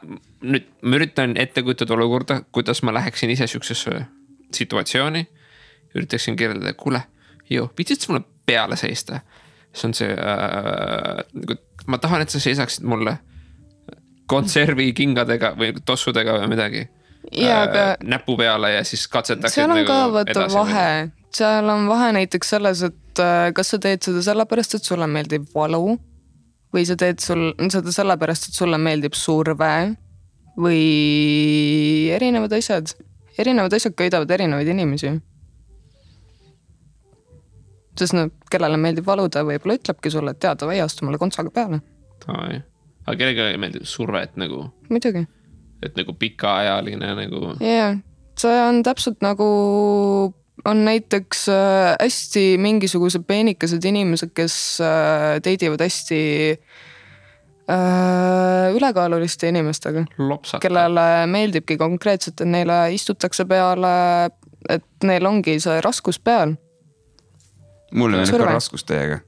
üritan ette kujutada olukorda, kuidas ma läheksin ise süksesse situatsiooni, üritaksin kirjeldada, kuule, pitsid mulle peale seista. See on see, ma tahan, et sa seisaksid mulle konservi kingadega või tossudega või midagi näpu peale ja siis katsetaksid seal on nagu ka võtta vahe. Seal on vahe näiteks selles, et kas sa teed seda sellepärast, et sulle meeldib valu või sa teed seda sellepärast, et sulle meeldib surve või erinevad asjad. Erinevad asjad köidavad erinevaid inimesi. Sest kellele meeldib valuda, võib-olla ütlebki sulle, et teada või astu mulle kontsaga peale. Aga kellega meeldib surve, et nagu... Midagi. Et nagu pikaajaline nagu... Jah, see on täpselt nagu... On näiteks hästi mingisugused peenikesed inimesed, kes teidivad hästi ülekaaluliste inimestega. Lopsata. Kellele meeldibki konkreetselt, et neile istutakse peale, et neil ongi see raskus peal. Mulle meeldib ka raskus teiega.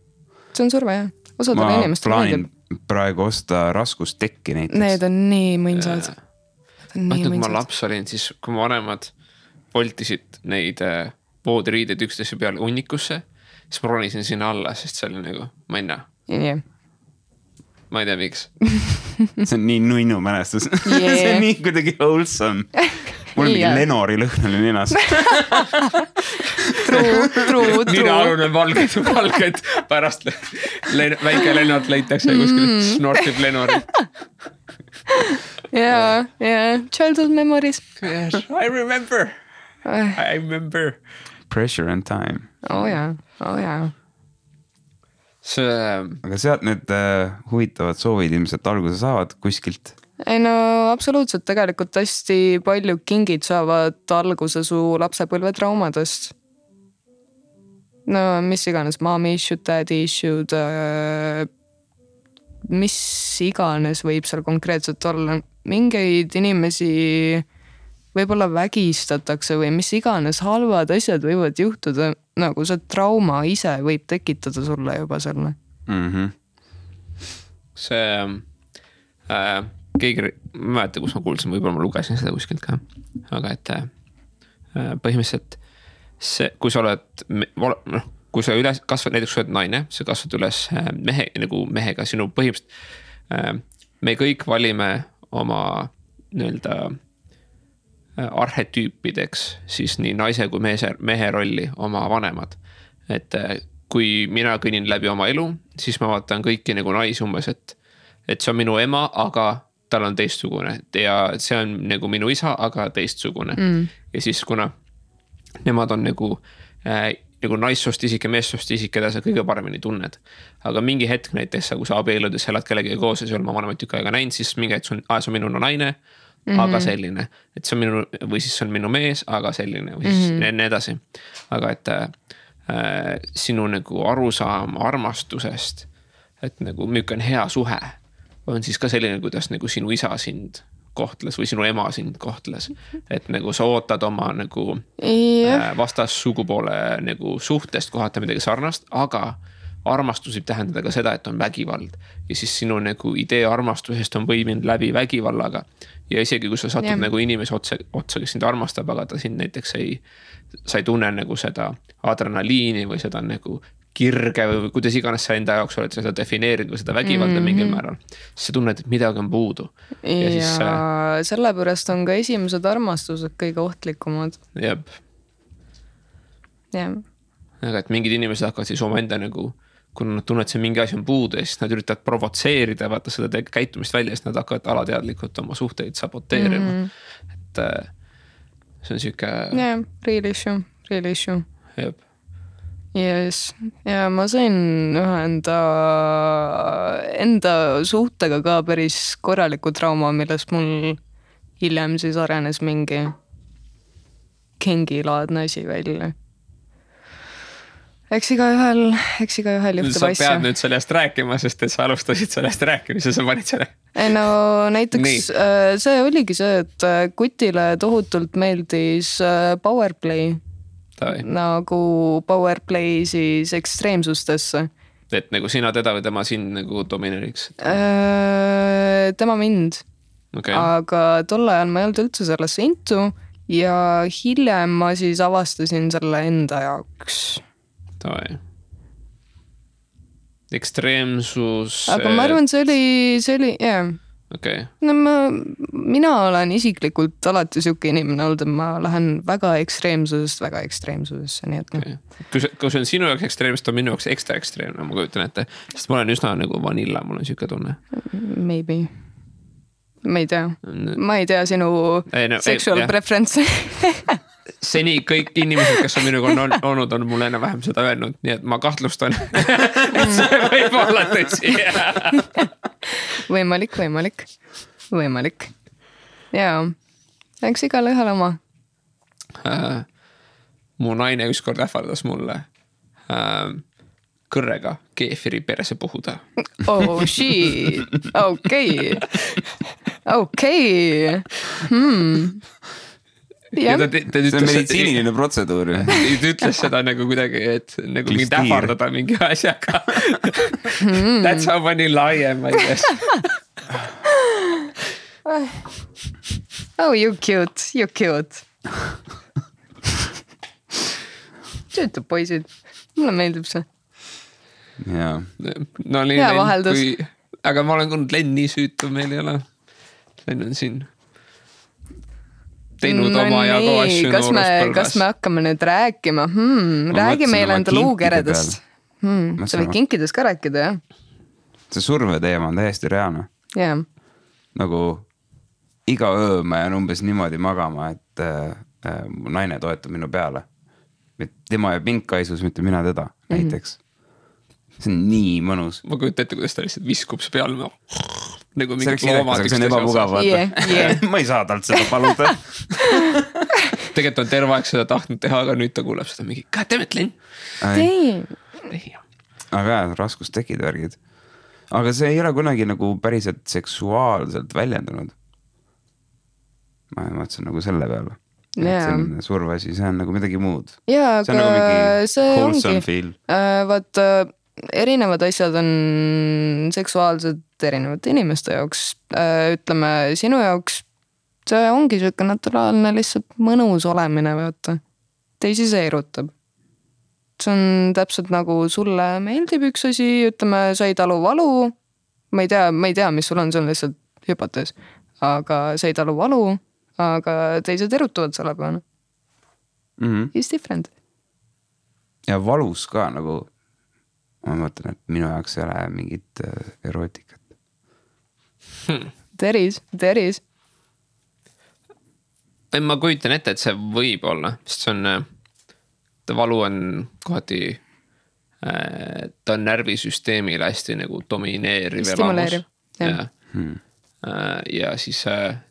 See on surve, jah. Osadele inimestele meeldib. Praegu osta raskustekki näiteks. Need on nii mõnsad. Kui ma laps olin, siis kui ma vanemad voltisid neid voodiriideid üksteise peale unnikusse, siis ma ronisin sinna alla, sest see oli nagu, ma ei näe. Yeah. Ma ei tea, miks. See on nii nunnu mälestus. Yeah. See on nii kuidagi wholesome. Mul mingi Lenori lõhn oli ninas. True. Nina-alune valged pärast väike Lenort leitakse kuskil snortib Lenori. Yeah. Childhood memories. Yes, I remember. Pressure and time. Oh yeah. aga sealt need huvitavad soovid ilmselt alguse saavad kuskilt. Ei no absoluutselt, tegelikult hästi palju kingid saavad alguse su lapsepõlve traumadest. No mis iganes, mommy issued, daddy issued, mis iganes võib seal konkreetselt olla. Mingeid inimesi võib-olla vägistatakse või mis iganes halvad asjad võivad juhtuda, nagu see trauma ise võib tekitada sulle juba selle. See keegi, ma mäleta, kus ma kuulsin, võib-olla ma lugesin seda kuskilt ka, aga et põhimõtteliselt see, kui sa oled, kui sa üles kasvad, näiteks sa oled naine, sa kasvad üles mehega, sinu põhimõtteliselt, me kõik valime oma nii-öelda arhetüüpideks siis nii naise kui mehe rolli oma vanemad. Et kui mina kõnnin läbi oma elu, siis ma vaatan kõiki nagu naisi umbes, et see on minu ema, aga tal on teistsugune ja see on nagu minu isa, aga teistsugune. Ja siis kuna nemad on nagu naissoost isik ja meessoost isik, keda sa kõige paremini tunned. Aga mingi hetk näiteks, kui sa abieludes elad kellegi koos ja sul ma vanemat tükk aega näinud, siis mingi hetk see on minu naine, aga selline, et see on minu, või siis see on minu mees, aga selline, või siis nii edasi. Aga et sinu nagu arusaam armastusest, et nagu milline on hea suhe, on siis ka selline, kuidas nagu sinu isa sind kohtles või sinu ema sind kohtles. Et nagu sa ootad oma nagu vastas sugupoole nagu suhtest kohata midagi sarnast, aga armastus võib tähendada ka seda, et on vägivald. Ja siis sinu nagu idee armastusest on võiminud läbi vägivallaga. Ja isegi kui sa satud nagu inimese otsa, kes sind armastab, aga ta sind näiteks sa ei tunne nagu seda adrenaliini või seda nagu kirge või kuidas iganes sa enda jaoks oled seda defineerinud või seda vägivalda mingil määral. Siis sa tunned, et midagi on puudu. Ja siis, sellepärast on ka esimesed armastused kõige ohtlikumad. Jep. Aga et mingid inimesed hakkavad siis oma enda nagu, kui nad tunnevad, see mingi asi on puudu ja siis nad üritavad provotseerida, vaata seda käitumist välja, siis nad hakkavad alateadlikult oma suhteid saboteerima. Et see on siuke... Real issue. Jep. Yes. Ja ma sain ühe enda suhtega ka päris korraliku trauma, millest mul hiljem siis arenes mingi kingilaadne asi välja. Eks iga ühel juhtub asja. Sa pead nüüd sellest rääkima, sest et sa alustasid sellest rääkimise, sa panid selle. Ei no näiteks see oligi see, et Kutile tohutult meeldis powerplay. Nagu powerplay siis ekstreemsustesse. Et nagu sina teda või tema sind nagu domineeriks? Tema mind. Okay. Aga tol ajal ma ei olnud üldse sellesse intu ja hiljem ma siis avastasin selle enda jaoks. Ekstreemsus. Aga ma arvan, see oli yeah. Okay. No mina olen isiklikult alati siuke inimene olnud, et ma lähen väga ekstreemsusesse, nii et okay. Kui see on sinu jaoks ekstreemist, on minu jaoks ekstra ekstreemne, ma kujutan ette, sest ma olen üsna nagu vanilla, mul on siuke tunne. Maybe. Ma ei tea sinu sexual preference. Seni kõik inimesed, kes on minuga olnud, on mulle enne vähem seda öelnud, nii et ma kahtlustan, et see võib olla tõsi. Võimalik. Jaa, eks igal ühel oma. Mu naine ükskord ähvardas mulle kõrrega keefiri perse puhuda. Oh shit, okei. See on meditsiiniline protseduur. Ta ütles seda nagu kuidagi, et nagu mind ähvardada mingi asjaga. That's how vanilla I am, I guess. Oh, you cute. Tüütud poisid. Mulle meeldib see. Jaa. No oli hea vaheldus. Aga ma olen kuulnud Len nii süütu, meil ei ole. Len on siin teinud oma ja ka asju nooruspõlves. Kas me hakkame nüüd rääkima? Räägi meile enda luukeredest. Sa võid kinkidest ka rääkida, jah? See surve teema on täiesti reaalne. Yeah. Nagu iga öö ma jään umbes niimoodi magama, et mu naine toetab minu peale. Tema ja pinkaisus, mitte mina teda näiteks. see on nii mõnus. Ma kujutan ette, kuidas ta lihtsalt viskub see peal nagu see oleks inekas, aga see on ebamugav ma ei saa talt seda paluda. Tegelikult on terve aeg seda tahtnud teha, aga nüüd ta kuuleb seda mingi goddammit, Len. Aga jah, raskus tekid värgid. Aga see ei ole kunagi nagu päriselt seksuaalselt väljendunud. Ma mõtlesin nagu selle peale. See on survasi, see on nagu midagi muud. Jaa, see on nagu mingi wholesome feel. Vaat erinevad asjad on seksuaalsed erinevate inimeste jaoks. Ütleme, sinu jaoks see ongi siuke naturaalne lihtsalt mõnus olemine, vaata. Teisi see erutab. See on täpselt nagu sulle meeldib üks asi, ütleme, sa ei talu valu. Ma ei tea, mis sul on, see on lihtsalt hüpotees. Aga sa ei talu valu, aga teised erutuvad selle peale. It's different. Ja valus ka nagu, ma mõtlen, et minu jaoks ei ole mingit erootikat. There is. Ma kujutan ette, et see võib olla, sest see on, valu on kohati, ta on närvisüsteemile hästi nagu domineeriv. Stimuleeriv. Ja siis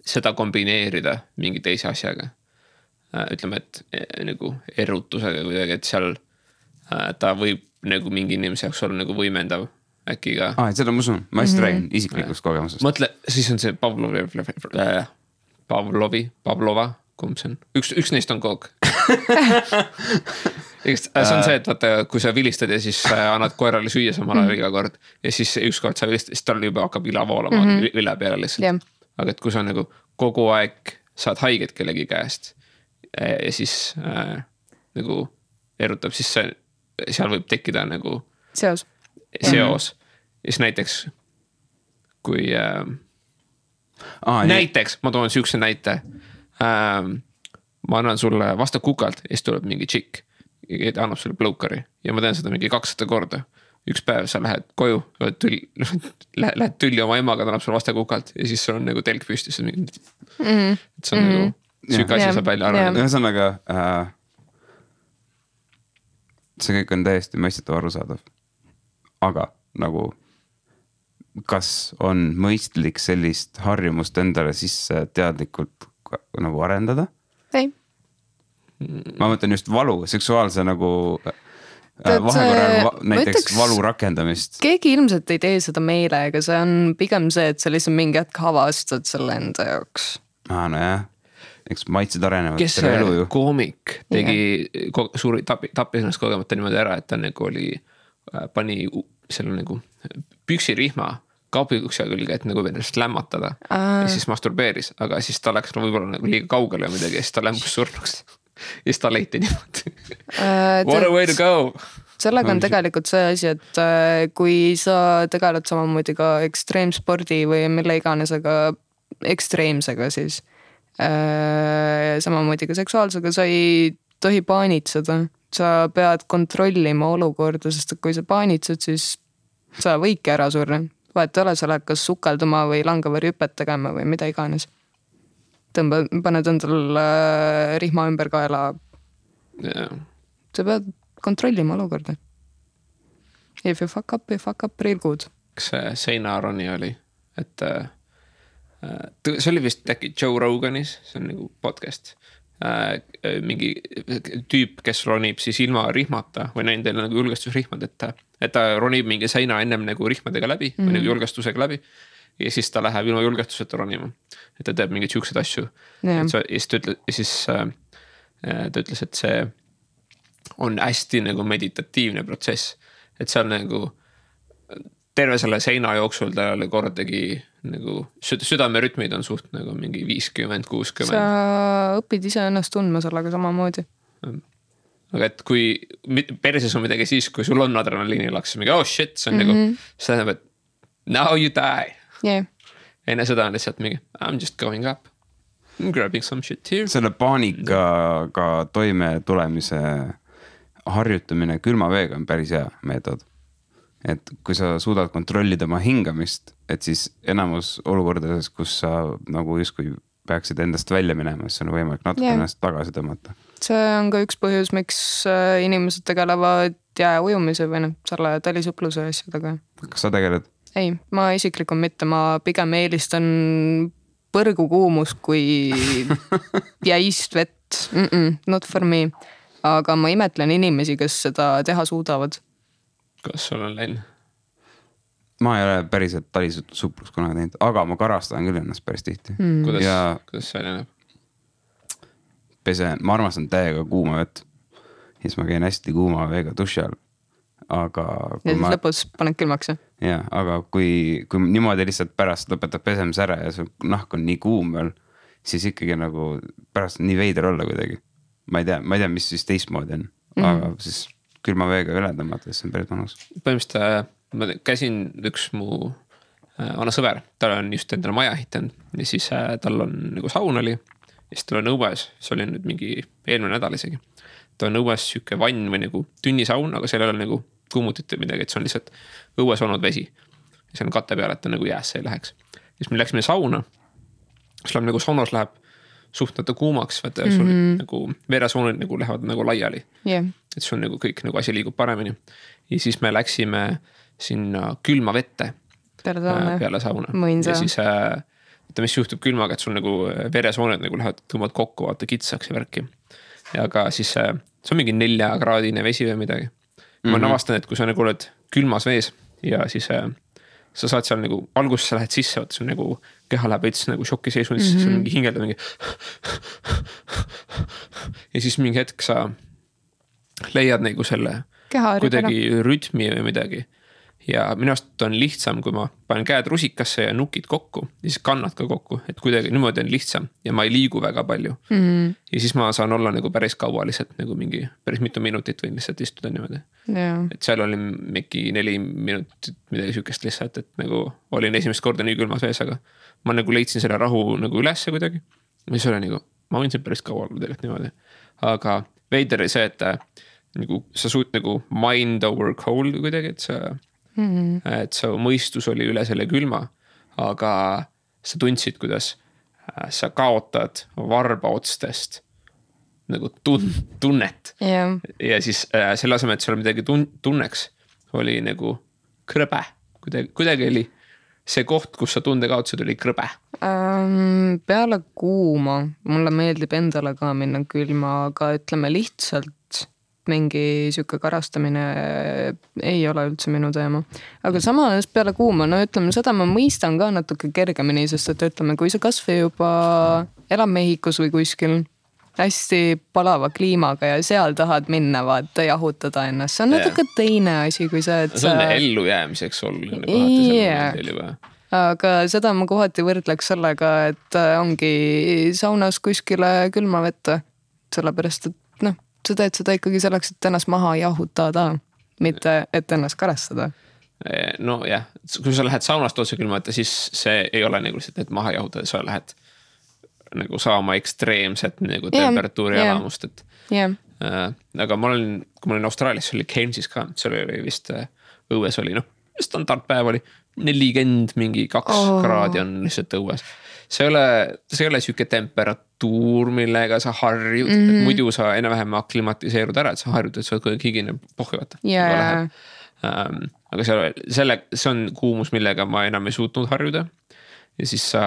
seda kombineerida mingi teise asjaga. Ütleme, et nagu erutusega kuidagi, et seal ta võib nagu mingi inimese jaoks olla nagu võimendav äkki ka. Seda ma usun, ma hästi räägin isiklikust kogemusest. Mõtle, siis on see Pavlova, kumb see on? Üks neist on kook. See on see, et vaata, kui sa vilistad ja siis annad koerale süüa samal ajal iga kord ja siis ükskord sa vilistad, siis tal juba hakkab ila voolama üle peale lihtsalt. Aga et kui sa nagu kogu aeg saad haiget kellegi käest ja siis nagu erutab, siis seal võib tekkida nagu seos. Ja siis näiteks kui näiteks, ma toon siukse näite, ma annan sulle vastu kukalt ja siis tuleb mingi tšikk ja ta annab sulle blowkari ja ma teen seda mingi 200 korda. Üks päev sa lähed koju, lähed tülli oma emaga, ta annab sulle vastu kukalt ja siis sul on nagu telk püstis. Et see on nagu süük asi saab välja arvada. Ühesõnaga see kõik on täiesti mõistetav arusaadav. Aga nagu kas on mõistlik sellist harjumust endale sisse teadlikult nagu arendada? Ei. Ma mõtlen just valu, seksuaalse nagu vahekorral näiteks valu rakendamist. Keegi ilmselt ei tee seda meelega, see on pigem see, et sa lihtsalt mingi hetk avastad selle enda jaoks. No jah, eks maitsed arenevad. Kes see koomik tegi suuri tappis ennast kogemata niimoodi ära, et ta nagu oli, pani selle nagu püksirihma kaupikukse külge, et nagu ennast lämmatada ja siis masturbeeris, aga siis ta läks võib-olla nagu liiga kaugele midagi ja siis ta lämbus surnuks ja siis ta leiti niimoodi. What a way to go! Sellega on tegelikult see asi, et kui sa tegeled samamoodi ka ekstreemspordi või mille iganesega ekstreemsega, siis samamoodi ka seksuaalsega, sa ei tohi paanitseda. Sa pead kontrollima olukorda, sest kui sa paanitsed, siis sa võidki ära surra. Vahet ole, sa lähed kas sukelduma või langava rüpet tegema või mida iganes. Paned endal rihma ümber kaela. Sa pead kontrollima olukorda. If you fuck up real good. Kas see Seinaroni oli? Et see oli vist äkki Joe Roganis, see on nagu podcast. Mingi tüüp, kes ronib siis ilma rihmata või näin teil nagu julgestusrihmad, et ta ronib mingi seina ennem nagu rihmadega läbi või nagu julgestusega läbi ja siis ta läheb ilma julgestuseta ronima, et ta teeb mingeid siukseid asju ja siis ta ütles, et see on hästi nagu meditatiivne protsess, et seal nagu terve selle seina jooksul ta oli kordagi nagu südamerütmid on suht nagu mingi 50-60. Sa õpid ise ennast tundma sellega samamoodi. Aga et kui perses on midagi siis, kui sul on adrenaliinilaks, mingi oh shit, see on nagu, see tähendab, et now you die. Enne seda on lihtsalt mingi I'm just going up, I'm grabbing some shit here. Selle paanikaga toime tulemise harjutamine külma veega on päris hea meetod. Et kui sa suudad kontrollida oma hingamist, et siis enamus olukordades, kus sa nagu justkui peaksid endast välja minema, siis on võimalik natuke ennast tagasi tõmmata. See on ka üks põhjus, miks inimesed tegelevad jääujumise või selle talisupluse asjadega. Kas sa tegeled? Ei, ma isiklikult mitte, ma pigem eelistan põrgukuumust kui jäist vett. Not for me. Aga ma imetlen inimesi, kes seda teha suudavad. Kas sul on läinud? Ma ei ole päriselt talisuplus kunagi teinud, aga ma karastan küll ennast päris tihti. Kuidas see näeb? Ma armastan täiega kuuma vett. Siis ma käin hästi kuuma veega duši all. Aga ja siis lõpus paned külmaks. Ja, aga kui niimoodi lihtsalt pärast lõpetab pesemise ära ja su nahk on nii kuum veel, siis ikkagi nagu pärast nii veider olla kuidagi. Ma ei tea, mis siis teistmoodi on. Aga siis külma veega üle tõmmata, siis on päris mõnus. Põhimõtteliselt ma käisin üks mu vana sõber, tal on just endale maja ehitanud ja siis tal on nagu saun oli. Ja siis tal on õues, see oli nüüd mingi eelmine nädal isegi. Ta on õues siuke vann või nagu tünnisaun, aga seal ei ole nagu kuumutit või midagi, et see on lihtsalt õues olnud vesi. Ja see on katte peal, et ta nagu jäässe ei läheks. Ja siis me läksime sauna, siis läheb nagu saunas läheb suhtnata kuumaks, vaata sul nagu veresoonid nagu lähevad nagu laiali. Yeah. Et sul nagu kõik nagu asi liigub paremini. Ja siis me läksime sinna külma vette peale sauna. Ja siis mis juhtub külmaga, et sul nagu veresooned nagu lähevad tõmbavad kokku, vaata kitsaks ja värki. Ja aga siis see on mingi 4-kraadine vesi või midagi. Ma navastan, et kui sa nagu oled külmas vees ja siis sa saad seal nagu alguses sa lähed sisse, vaata sul nagu keha läheb veits nagu šoki seisund, siis sa mingi hingelda mingi ja siis mingi hetk sa leiad nagu selle kuidagi rütmi või midagi. Ja minu arust on lihtsam, kui ma panen käed rusikasse ja nukid kokku ja siis kannad ka kokku, et kuidagi niimoodi on lihtsam ja ma ei liigu väga palju. Ja siis ma saan olla nagu päris kaua lihtsalt nagu mingi päris mitu minutit võin lihtsalt istuda niimoodi. Et seal oli mingi 4 minutit midagi sükest lihtsalt, et nagu olin esimest korda nii külmas vees, aga ma nagu leidsin selle rahu nagu ülesse kuidagi. Ja siis oli nagu, ma võin siin päris kaua olla tegelikult niimoodi. Aga veider oli see, et nagu, sa suud nagu mind over cold kuidagi, et su mõistus oli üle selle külma, aga sa tundsid, kuidas sa kaotad varbaotstest nagu tunnet. Ja siis selle asemel, et seal midagi tunneks, oli nagu krõbe. Kuidagi oli see koht, kus sa tunde kaotasid, oli krõbe. Peale kuuma, mulle meeldib endale ka minna külma, aga ütleme lihtsalt mingi siuke karastamine ei ole üldse minu teema. Aga samas peale kuuma, no ütleme seda ma mõistan ka natuke kergemini, sest et ütleme, kui sa kasvõi juba elab Mehhikos või kuskil hästi palava kliimaga ja seal tahad minna vaata jahutada ennast, see on natuke teine asi kui see, et see on ellu jäämiseks sul aga seda ma kohati võrdleks sellega, et ongi saunas kuskile külma vette, sellepärast et sa teed seda ikkagi selleks, et ennast maha jahutada, mitte et ennast karastada. No jah, kui sa lähed saunast otse külma, siis see ei ole nagu lihtsalt, et maha jahutada, sa lähed nagu saama ekstreemset nagu temperatuuri elamust. Aga kui ma olin Austraalias, see oli Cainesis ka, see oli vist õues oli, standardpäev oli 40 mingi 2 kraadi on lihtsalt õues. See ei ole siuke temperatuur, millega sa harjud, et muidu sa enam-vähem aklimatiseerud ära, et sa harjud, et sa oled kuidagi higine pohjuvata. Aga see on kuumus, millega ma enam ei suutnud harjuda. Ja siis sa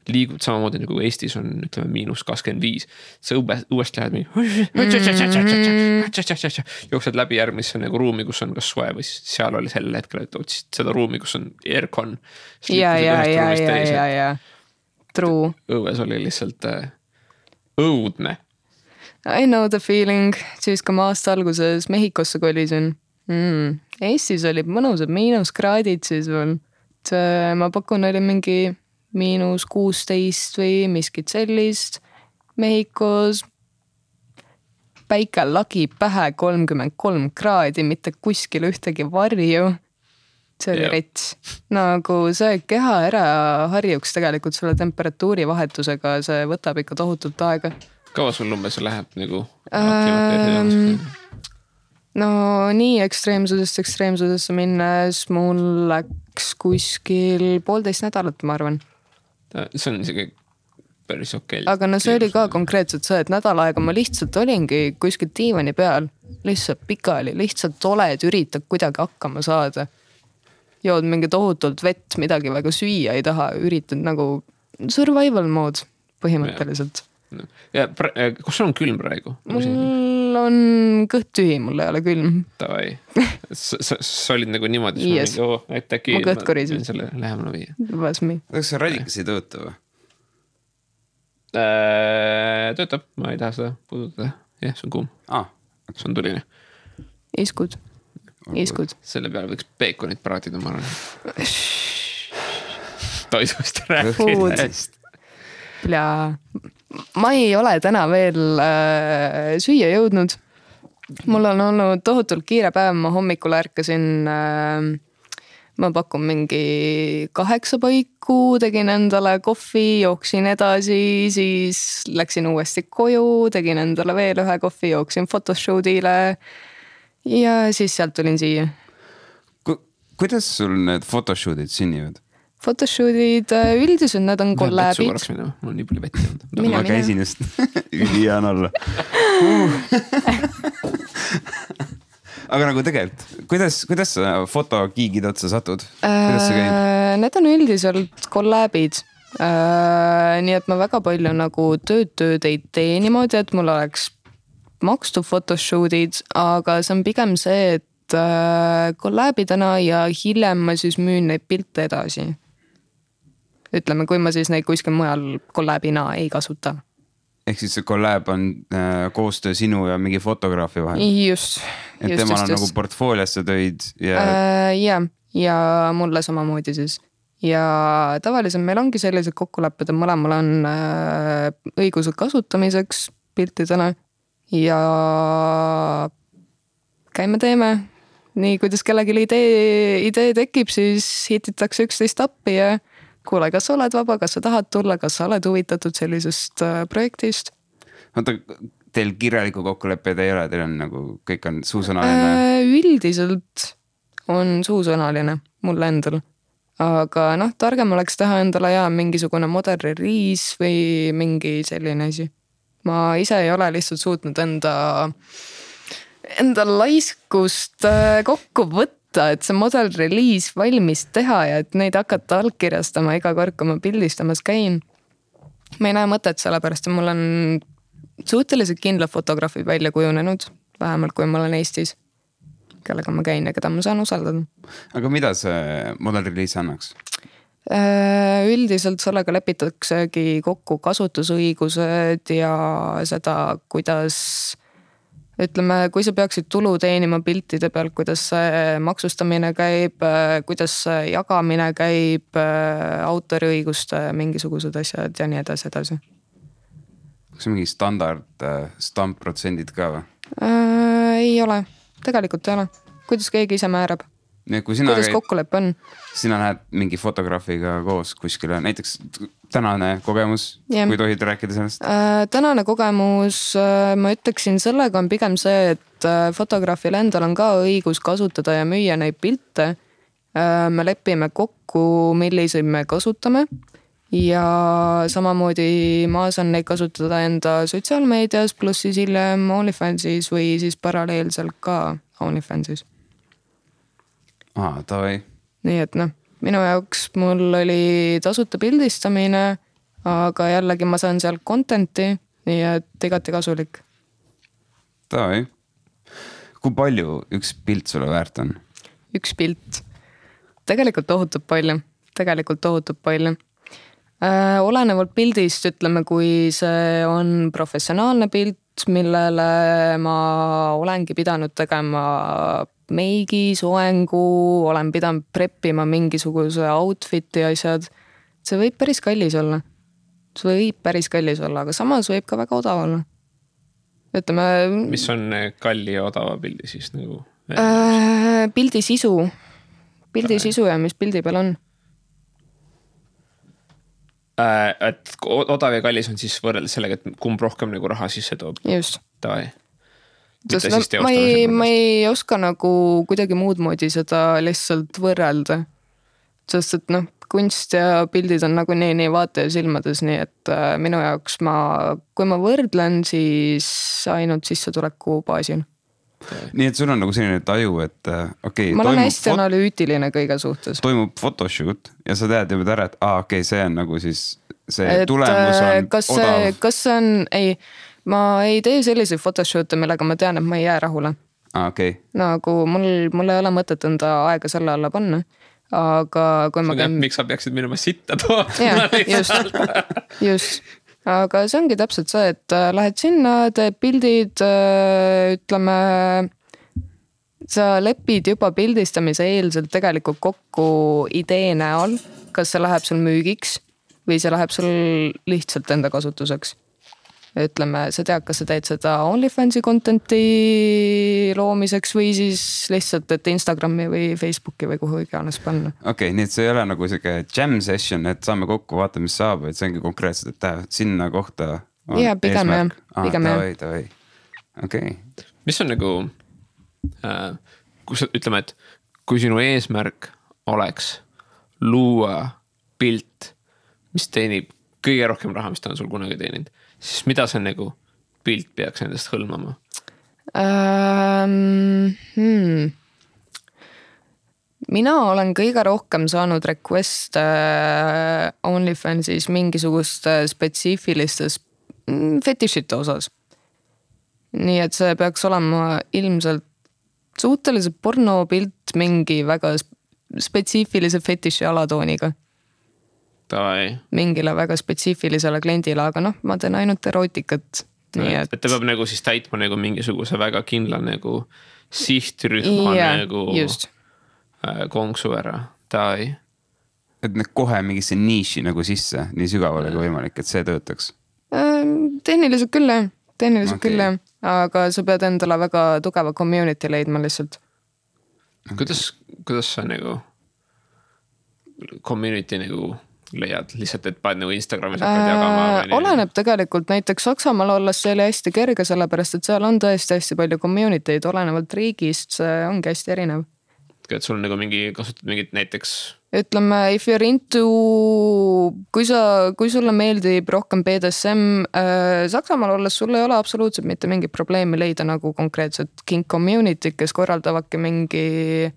liigud samamoodi nagu Eestis on, ütleme, -25. Sa uuesti lähed jooksed läbi järgmisse nagu ruumi, kus on kas soe või seal oli sel hetkel, et otsid seda ruumi, kus on aircon. Ja. True. Õues oli lihtsalt õudne. I know the feeling, siis kui ma aasta alguses Mehhikosse kolisin. Eestis oli mõnusad -kraadid siis veel. Ma pakun, oli mingi -16 või miskit sellist. Mehhikos päike lagi pähe 33 kraadi, mitte kuskil ühtegi varju. See oli rets. Nagu see keha ära harjuks tegelikult selle temperatuuri vahetusega, see võtab ikka tohutult aega. Kaua sul umbes läheb nagu? No nii ekstreemsusesse minnes mul läks kuskil 1,5 nädalat, ma arvan. See on isegi päris okei. aga no see oli ka konkreetselt see, et nädal aega ma lihtsalt olingi kuskil diivani peal, lihtsalt pikali, lihtsalt oled, üritad kuidagi hakkama saada. Jood mingi tohutult vett, midagi väga süüa ei taha, üritad nagu survival mode põhimõtteliselt. Ja kus on külm praegu? Mul on kõht tühi, mul ei ole külm. Tavai. Sa olid nagu niimoodi, yes. Äkki ma kõht korisin. Selle lähemale viia. Was me. Kas see radikas ei tööta või? Töötab, ma ei taha seda puudutada. Jah, see on kuum. See on tuline. Iskud. Selle peale võiks peekonit praatida, ma arvan. Toidust rääkidest. Ja ma ei ole täna veel süüa jõudnud. Mul on olnud tohutult kiire päev, ma hommikul ärkasin, ma pakun mingi 8 paiku, tegin endale kohvi, jooksin edasi, siis läksin uuesti koju, tegin endale veel 1 kohvi, jooksin photoshootile ja siis sealt tulin siia. Kuidas sul need photoshootid sünnivad? Photoshootid üldiselt need on kollabid. Mul on nii palju vetti olnud. Ma käisin just ülihea on olla. Aga nagu tegelikult, kuidas sa fotokiigid otsa satud? Kuidas see käib? Need on üldiselt kollabid. Nii et ma väga palju nagu tööd ei tee niimoodi, et mul oleks makstud photoshootid, aga see on pigem see, et kollabidena ja hiljem ma siis müün neid pilte edasi. Ütleme, kui ma siis neid kuskil mujal kollabina ei kasuta. Ehk siis see kollab on koostöö sinu ja mingi fotograafi vahel? Just. Et temal on nagu portfooliasse töid ja... ja mulle samamoodi siis. Ja tavaliselt meil ongi sellised kokkulepped, et mõlemal on õigused kasutamiseks piltidena ja käime teeme. Nii, kuidas kellegi idee tekib, siis hititakse 11 appi ja kuule, kas sa oled vaba, kas sa tahad tulla, kas sa oled huvitatud sellisest projektist? Oota, teil kirjaliku kokkuleppeid ei ole, teil on nagu, kõik on suusõnaline? Üldiselt on suusõnaline mulle endal. Aga targem oleks teha endale mingisugune model release või mingi selline asi. Ma ise ei ole lihtsalt suutnud enda laiskust kokku võtta, et see model release valmis teha ja et neid hakata allkirjastama iga kord, kui ma pildistamas käin. Ma ei näe mõtet sellepärast, et mul on suhteliselt kindlad fotograafid välja kujunenud, vähemalt kui ma olen Eestis, kellega ma käin ja keda ma saan usaldada. Aga mida see model release annaks? Üldiselt sellega lepitaksegi kokku kasutusõigused ja seda, kuidas... Ütleme, kui sa peaksid tulu teenima piltide pealt, kuidas see maksustamine käib, kuidas see jagamine käib, autoriõiguste mingisugused asjad ja nii edasi. Kas mingi standard stampprotsendid ka või? Ei ole, tegelikult ei ole. Kuidas keegi ise määrab? Kuidas kokkulepp on? Sina lähed mingi fotograafiga koos kuskile, näiteks tänane kogemus, kui tohid rääkida sellest? Tänane kogemus, ma ütleksin, sellega on pigem see, et fotograafil endal on ka õigus kasutada ja müüa neid pilte. Me lepime kokku, milliseid me kasutame ja samamoodi ma saan neid kasutada enda sotsiaalmeedias, pluss siis hiljem OnlyFansis või siis paralleelselt ka OnlyFansis. Tavai. Nii et minu jaoks mul oli tasuta pildistamine, aga jällegi ma saan seal contenti, nii et igati kasulik. Tavai. Kui palju üks pilt sulle väärt on? Üks pilt. Tegelikult tohutub palju. Olenevalt pildist, ütleme, kui see on professionaalne pilt, millele ma olengi pidanud tegema meigi, soengu, olen pidanud preppima mingisuguse outfiti asjad. See võib päris kallis olla. Aga samas võib ka väga odav olla. Ütleme... Mis on kalli ja odava pildi siis nagu? Pildi sisu. Pildi sisu ja mis pildi peal on. Et odav ja kallis on siis võrreldes sellega, et kumb rohkem nagu raha sisse toob. Just. Tavai. Ma ei oska nagu kuidagi muud moodi seda lihtsalt võrrelda. Sest et kunst ja pildid on nagunii nii vaataja silmades, nii et minu jaoks kui ma võrdlen, siis ainult sissetuleku baasil. Nii et sul on nagu selline taju, et ma olen hästi analüütiline kõige suhtes. Toimub photoshoot ja sa tead juba ära, et see on nagu siis see tulemus on odav. Kas see on, ma ei tee selliseid photoshoot'e, millega ma tean, et ma ei jää rahule. Okay. Nagu mul ei ole mõtet enda aega selle alla panna, aga kui ma käin... Miks sa peaksid minema sitta tooma? Just. Aga see ongi täpselt see, et lähed sinna, teed pildid, ütleme, sa lepid juba pildistamise eelselt tegelikult kokku idee näol, kas see läheb sul müügiks või see läheb sul lihtsalt enda kasutuseks. Ütleme, sa tead, kas sa teed seda OnlyFansi contenti loomiseks või siis lihtsalt, et Instagrami või Facebooki või kuhu iganes panna. Okei, nii et see ei ole nagu siuke jam session, et saame kokku, vaata, mis saab, et see ongi konkreetselt, et sinna kohta on ja, pigem eesmärk. Okei. Mis on nagu, ütleme, et kui sinu eesmärk oleks luua pilt, mis teenib kõige rohkem raha, mis ta on sul kunagi teeninud, siis mida see nagu pilt peaks endast hõlmama? Mina olen kõige rohkem saanud request OnlyFansis mingisuguste spetsiifilistes fetišite osas. Nii et see peaks olema ilmselt suhteliselt pornopilt mingi väga spetsiifilise fetiši alatooniga. Mingile väga spetsiifilisele kliendile, aga ma teen ainult erootikat. Et ta peab nagu siis täitma nagu mingisuguse väga kindla nagu sihtrühma nagu just. Konksu ära. Et kohe mingisse niiši nagu sisse, nii sügavale kui võimalik, et see töötaks? Tehniliselt küll, aga sa pead endale väga tugeva community leidma lihtsalt. Kuidas sa nagu community nagu leiad lihtsalt, et paned nagu Instagramis hakkad jagama? Oleneb tegelikult, näiteks Saksamaal olles see oli hästi kerge, sellepärast et seal on tõesti hästi palju community'd, olenevalt riigist, see ongi hästi erinev. Et sul nagu kasutad mingit näiteks? Ütleme, if you're into, kui sulle meeldib rohkem BDSM, Saksamaal olles sul ei ole absoluutselt mitte mingi probleemi leida nagu konkreetselt kink community, kes korraldavadki mingi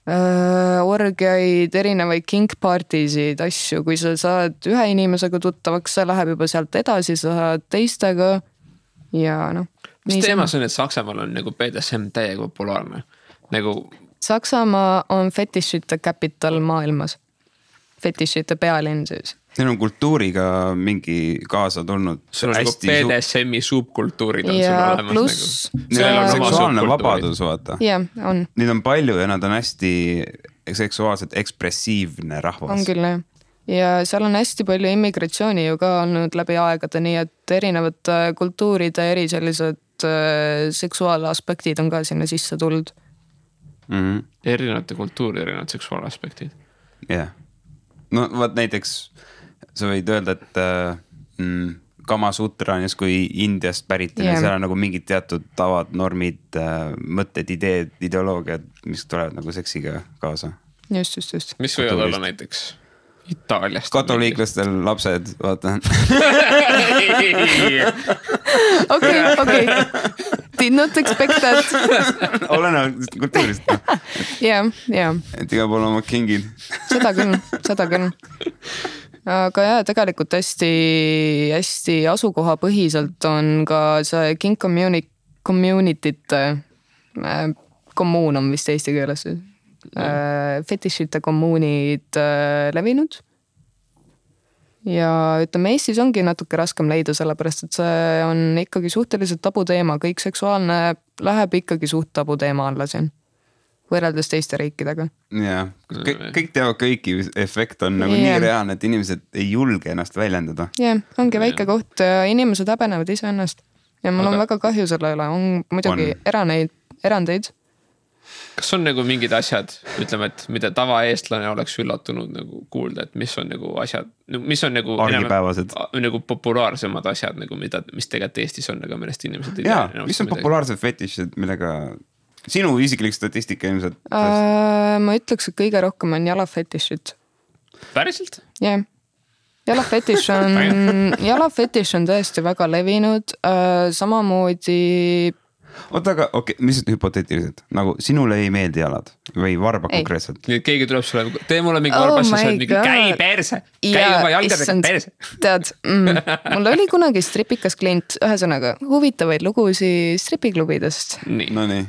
orgiaid, erinevaid kink partisid, asju, kui sa saad ühe inimesega tuttavaks, see läheb juba sealt edasi, sa saad teistega ja Mis teema see on, et Saksamaal on nagu BDSM täiega populaarne? Nagu Saksamaa on fetišite capital maailmas. Fetišite pealinn siis. Neil on kultuuriga mingi kaasa tulnud. Sul on nagu BDSM-i subkultuurid on ja sul olemas plus, nagu. Neil on seksuaalne vabadus, vaata. Jah, on. Neid on palju ja nad on hästi seksuaalselt ekspressiivne rahvas. On küll, jah. Ja seal on hästi palju immigratsiooni ju ka olnud läbi aegade, nii et erinevad kultuuride eri sellised seksuaalaspektid on ka sinna sisse tulnud. Erinevate kultuuri, erinevad seksuaalaspektid. Jah. No vaat näiteks sa võid öelda, et Kama Sutra on kui Indiast pärit ja seal on nagu mingid teatud tavad, normid, mõtted, ideed, ideoloogiad, mis tulevad nagu seksiga kaasa. Just. Mis võivad olla näiteks Itaaliast? Katoliiklastel lapsed, vaata. Okei. Did not expect that. Olenevalt kultuurist. Jah. Et iga pool oma kingid. Seda küll. Aga jah, tegelikult hästi asukohapõhiselt on ka see king community'te kommuun on vist eesti keeles. Fetišite kommuunid levinud. Ja ütleme, Eestis ongi natuke raskem leida, sellepärast et see on ikkagi suhteliselt tabu teema. Kõik seksuaalne läheb ikkagi suht tabu teema alla siin, võrreldes teiste riikidega. Jah, kõik teavad kõiki, efekt on nagu nii reaalne, et inimesed ei julge ennast väljendada. Jah, ongi väike koht ja inimesed häbenevad ise ennast. Ja mul on väga kahju selle üle, on muidugi erandeid. Kas on nagu mingid asjad, ütleme, et mida tavaeestlane oleks üllatunud nagu kuulda, et mis on nagu asjad, mis on nagu argipäevased, nagu populaarsemad asjad, nagu mis tegelikult Eestis on, aga millest inimesed ei tea. Mis on populaarsed fetišid, millega sinu isiklik statistika ilmselt? Ma ütleks, et kõige rohkem on jalafetišid. Päriselt? jah yeah. jalafetiš on tõesti väga levinud, samamoodi. Oota, aga okei, mis hüpoteetiliselt, nagu sinule ei meeldi jalad või varba konkreetselt? Keegi tuleb sulle, tee mulle mingi varbassi, sa oled mingi käi perse, käi oma jalgadega perse. Tead, mul oli kunagi stripikas klient, ühesõnaga huvitavaid lugusid stripiklubidest. No nii.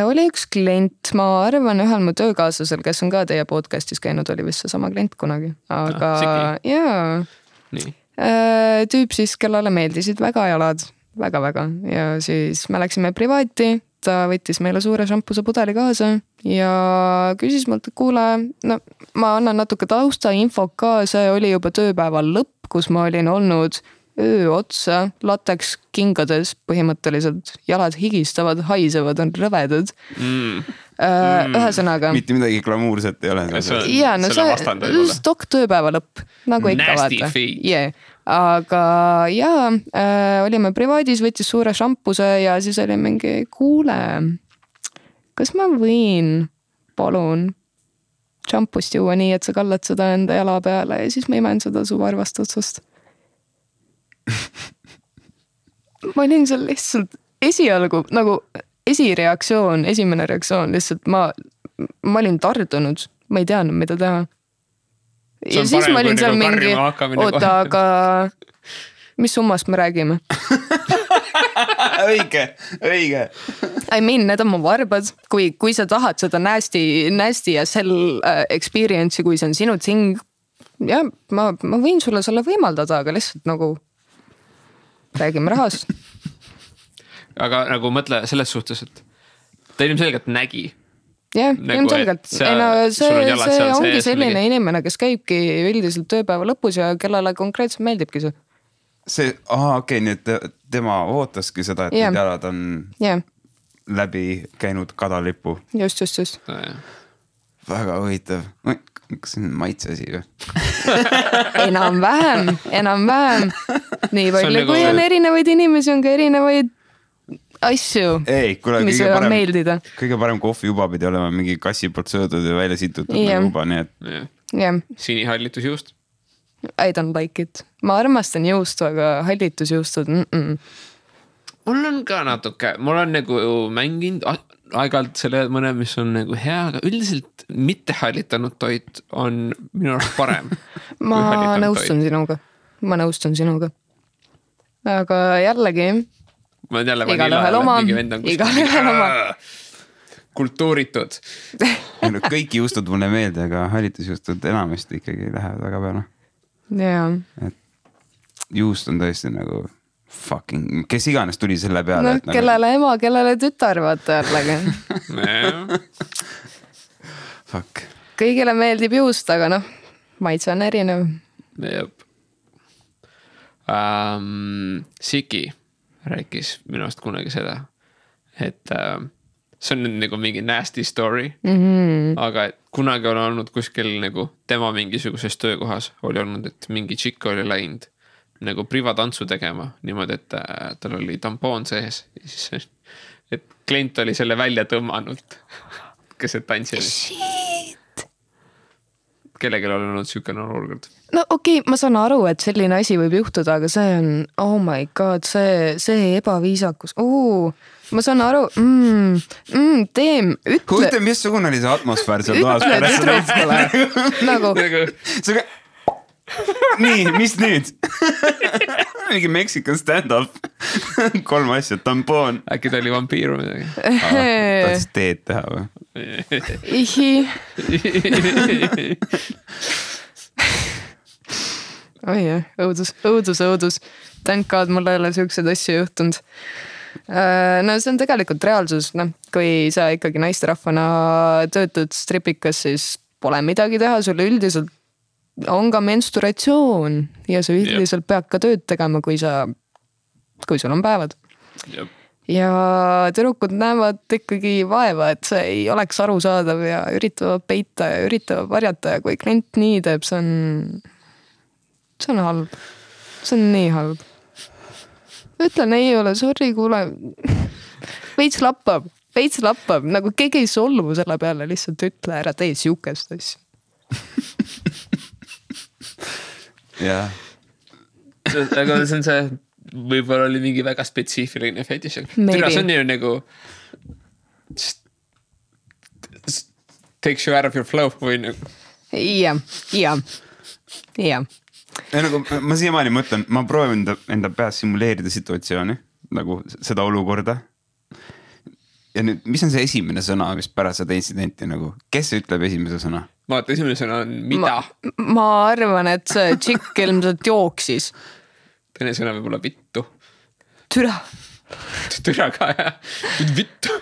Oli üks klient, ma arvan ühel mu töökaaslasel, kes on ka teie podcastis käinud, oli vist see sama klient kunagi, aga jaa. Tüüp siis, kellele meeldisid väga jalad, väga-väga ja siis me läksime privaati, ta võttis meile suure šampuse pudeli kaasa ja küsis mult, et kuule, no ma annan natuke tausta info ka, see oli juba tööpäeval lõpp, kus ma olin olnud öö otsa, lateks kingades põhimõtteliselt, jalad higistavad, haisevad, on rõvedad. Ühesõnaga. Mitte midagi glamuurset ei ole. Jaa, no see stok tööpäeva lõpp, nagu ikka vaata. Yeah. Aga jaa, olime privaadis, võttis suure šampuse ja siis oli mingi, kuule, kas ma võin, palun, šampust juua nii, et sa kallad seda enda jala peale ja siis ma imen seda su varvast otsast. Ma olin seal lihtsalt esialgu nagu esimene reaktsioon lihtsalt ma olin tardunud, ma ei teadnud, mida teha. Ja siis ma olin seal mingi, oota, aga mis summast me räägime? Õige. I mean, need on mu varbad, kui sa tahad seda nasty ja sell experience'i, kui see on sinu ting, ja ma võin sulle selle võimaldada, aga lihtsalt nagu räägime rahast. Aga nagu mõtle selles suhtes, et ta ilmselgelt nägi. Jah, ilmselgelt. See ongi selline inimene, kes käibki üldiselt tööpäeva lõpus ja kellele konkreetselt meeldibki see. Okei, nii et tema ootaski seda, et need jalad on läbi käinud kadalipu. Just. Väga huvitav. Kas see on maitseasi või? Enam-vähem. Nii palju, kui on erinevaid inimesi, on ka erinevaid asju, mis võivad meeldida. Kõige parem kohvi juba pidi olema mingi kassi poolt söödud ja välja situtud juba, nii et... Sinihallitus juust? I don't like it. Ma armastan juustu, aga hallitusjuustud. Mul on ka natuke, mul on nagu mänginud aeg-ajalt selle mõne, mis on nagu hea, aga üldiselt mitte hallitanud toit on minu arust parem. Ma nõustun sinuga. Aga jällegi, igalühel oma. Kultuuritud. Kõik juustud mulle meelde, aga hallitusjuustud enamasti ikkagi lähevad väga peale. Jaa. Juust on tõesti nagu fucking, kes iganes tuli selle peale. No, kellele ema, kellele tütar, vaata jällegi. Fuck. Kõigile meeldib juust, aga noh, maitse on erinev. Jep. Siki rääkis minu arust kunagi seda, et see on nagu mingi nasty story, aga kunagi on olnud kuskil nagu tema mingisuguses töökohas oli olnud, et mingi tšikk oli läinud nagu privatantsu tegema niimoodi, et tal oli tampoon sees ja siis, et klient oli selle välja tõmmanud, kes see tantsi oli. Shit! Kellelgi oli olnud sükene olukord. No okei, ma saan aru, et selline asi võib juhtuda, aga see on, oh my god, see ebaviisakus. Ma saan aru, Teem, ütle. Kujuta, missugune oli see atmosfäär seal toas? Ütle tüdrukule. Nagu. Nii, mis nüüd? Mingi Mexican stand-up. 3 asja, tampoon. Äkki ta oli vampiiru midagi. Tahtis teed teha või? Ihi. Oi jah, õudus. Thank God, mul ei ole siukseid asju juhtunud. No see on tegelikult reaalsus, kui sa ikkagi naisterahvana töötud stripikas, siis pole midagi teha, sulle üldiselt on ka menstruatsioon ja sa üldiselt pead ka tööd tegema, kui sul on päevad. Jep. Ja tüdrukud näevad ikkagi vaeva, et see ei oleks arusaadav ja üritavad peita ja üritavad varjata ja kui klient nii teeb, see on halb. See on nii halb. Ütlen ei ole, sorry, kuule. Veits lappab. Nagu keegi ei solvu selle peale, lihtsalt ütle ära tee siukest asja. jah. Aga see on see, võib-olla oli mingi väga spetsiifiline fetiš. Türa, see on ju nagu takes you out of your flow või nagu. Ja. Nagu, ma siiamaani mõtlen, ma proovin enda peas simuleerida situatsiooni, nagu seda olukorda. Ja nüüd, mis on see esimene sõna, mis pärast seda intsidenti nagu, kes ütleb esimese sõna? Ma vaata, esimene sõna on mida? Ma arvan, et see tšikk ilmselt jooksis. Teine sõna võib olla vittu. Türa. Türa ka, jah. Vittu.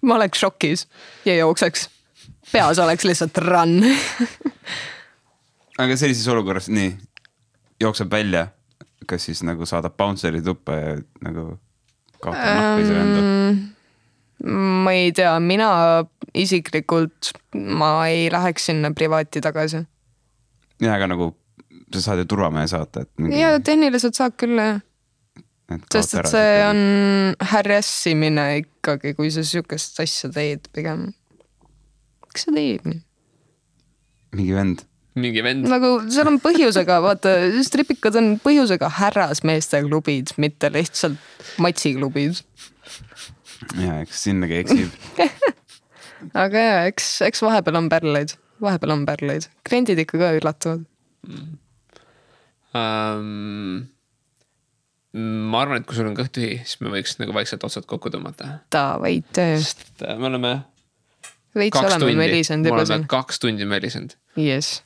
Ma oleks šokis ja jookseks. Peas oleks lihtsalt run. Aga sellises olukorras, nii, jookseb välja, kas siis nagu saadab bounceri tuppa ja nagu kaotab nahku ise enda? Ma ei tea, mina isiklikult, ma ei läheks sinna privaati tagasi. Ja, aga nagu sa saad ju turvamehe saata. Ja tehniliselt saab küll, jah. Sest et see on häressimine ikkagi, kui sa sükest asja teed pigem. Miks sa teed nii? Mingi vend. Nagu seal on põhjusega, vaata, stripikad on põhjusega härrasmeeste klubid, mitte lihtsalt matsiklubid. Ja, eks sinnagi eksib. Aga jah, eks vahepeal on pärleid. Kliendid ikka ka üllatuvad. Ma arvan, et kui sul on kõht tühi, siis me võiks nagu vaikselt otsad kokku tõmmata. Davai, töö. Sest me oleme veits oleme melisend juba siin. 2 tundi melisend. Yes.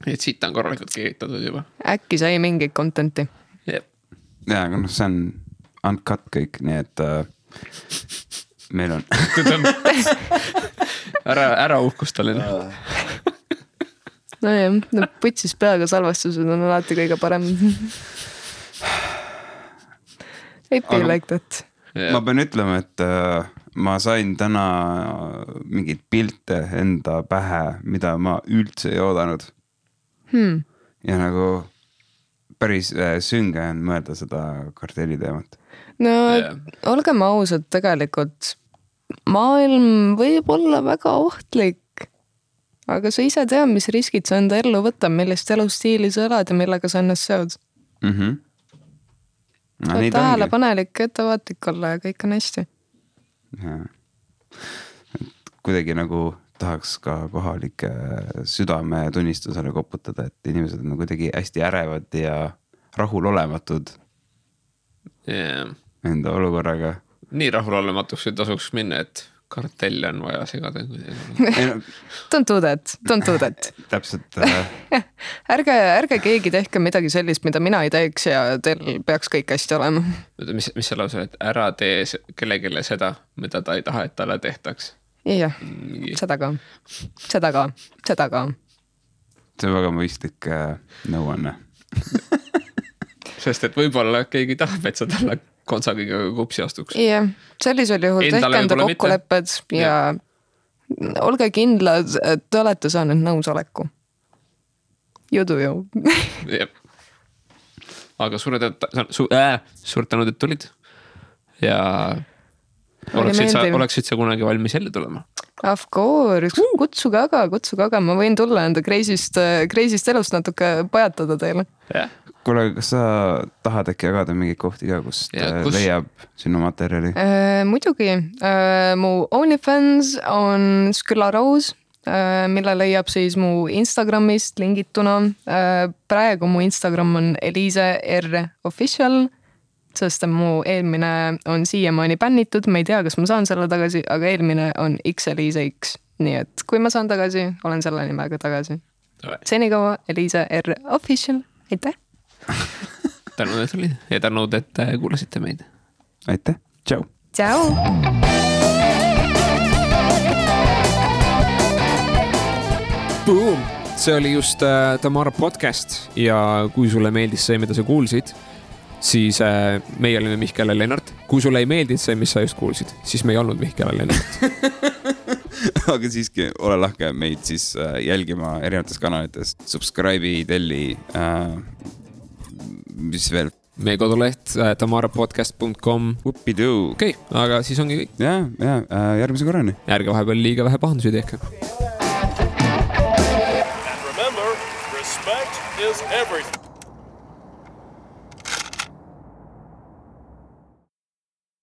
Et siit on korralikult keeritatud juba. Äkki sai mingit contenti. Yep. Ja, aga see on uncut kõik, nii et meil on ära uhkustalina. No jah, putsis peaga salvestused on alati kõige parem. Ei be like that. Ma pean ütlema, et ma sain täna mingid pilte enda pähe, mida ma üldse ei oodanud. Ja nagu päris sünge on mõelda seda kartelli teemat. No olgem ausad, tegelikult maailm võib olla väga ohtlik, aga sa ise tea, mis riskid sa enda ellu võtab, millist elustiili sa elad ja millega sa ennast seod. Tähelepanelik, ettevaatlik olla ja kõik on hästi. Kuidagi nagu tahaks ka kohalike südame tunnistusele koputada, et inimesed on kuidagi hästi ärevad ja rahulolematud enda olukorraga. Nii rahulolematuks ei tasuks minna, et kartelli on vaja segada. Don't do that. Täpselt. Ärge keegi tehke midagi sellist, mida mina ei teeks ja teil peaks kõik hästi olema. Mis see lause, et ära tee kellegile seda, mida ta ei taha, et talle tehtaks? Jah, seda ka. See on väga mõistlik nõuanne. Sest et võib-olla keegi tahab, et sa talle kontsagiga kupsi astuks. Jah, sellisel juhul tehke enda kokkulepped ja olge kindlad, et te olete saanud nõusoleku. You do you. Aga suure tänud, et tulid. Ja oleksid sa kunagi valmis jälle tulema? Of course, kutsuge aga, ma võin tulla enda kreisist elust natuke pajatada teile. Kuule, kas sa tahad äkki jagada mingeid kohti ka, kust leiab sinu materjali? Muidugi, mu OnlyFans on Skylla Rose, mille leiab siis mu Instagramist lingituna. Praegu mu Instagram on Eliise R Official, sest mu eelmine on siiamaani bännitud, ma ei tea, kas ma saan selle tagasi, aga eelmine on Eliise X. Nii et kui ma saan tagasi, olen selle nimega tagasi. Senikaua Eliise R Official, aitäh! Tänud, et olid ja tänud, et kuulasite meid. Aitäh, tšau! Tšau! Boom! See oli just Tamara podcast ja kui sulle meeldis see, mida sa kuulsid, siis meie olime Mihkel ja Lennart. Kui sulle ei meeldinud see, mis sa just kuulsid, siis me ei olnud Mihkel ja Lennart. Aga siiski ole lahke meid siis jälgima erinevates kanalites. Subscribe'i, telli, mis veel meie koduleht tamarapodcast.com. Okei, aga siis ongi kõik. Ja, järgmise korrani. Ärge vahepeal liiga vähe pahandusi tehke. And remember, respect is everything.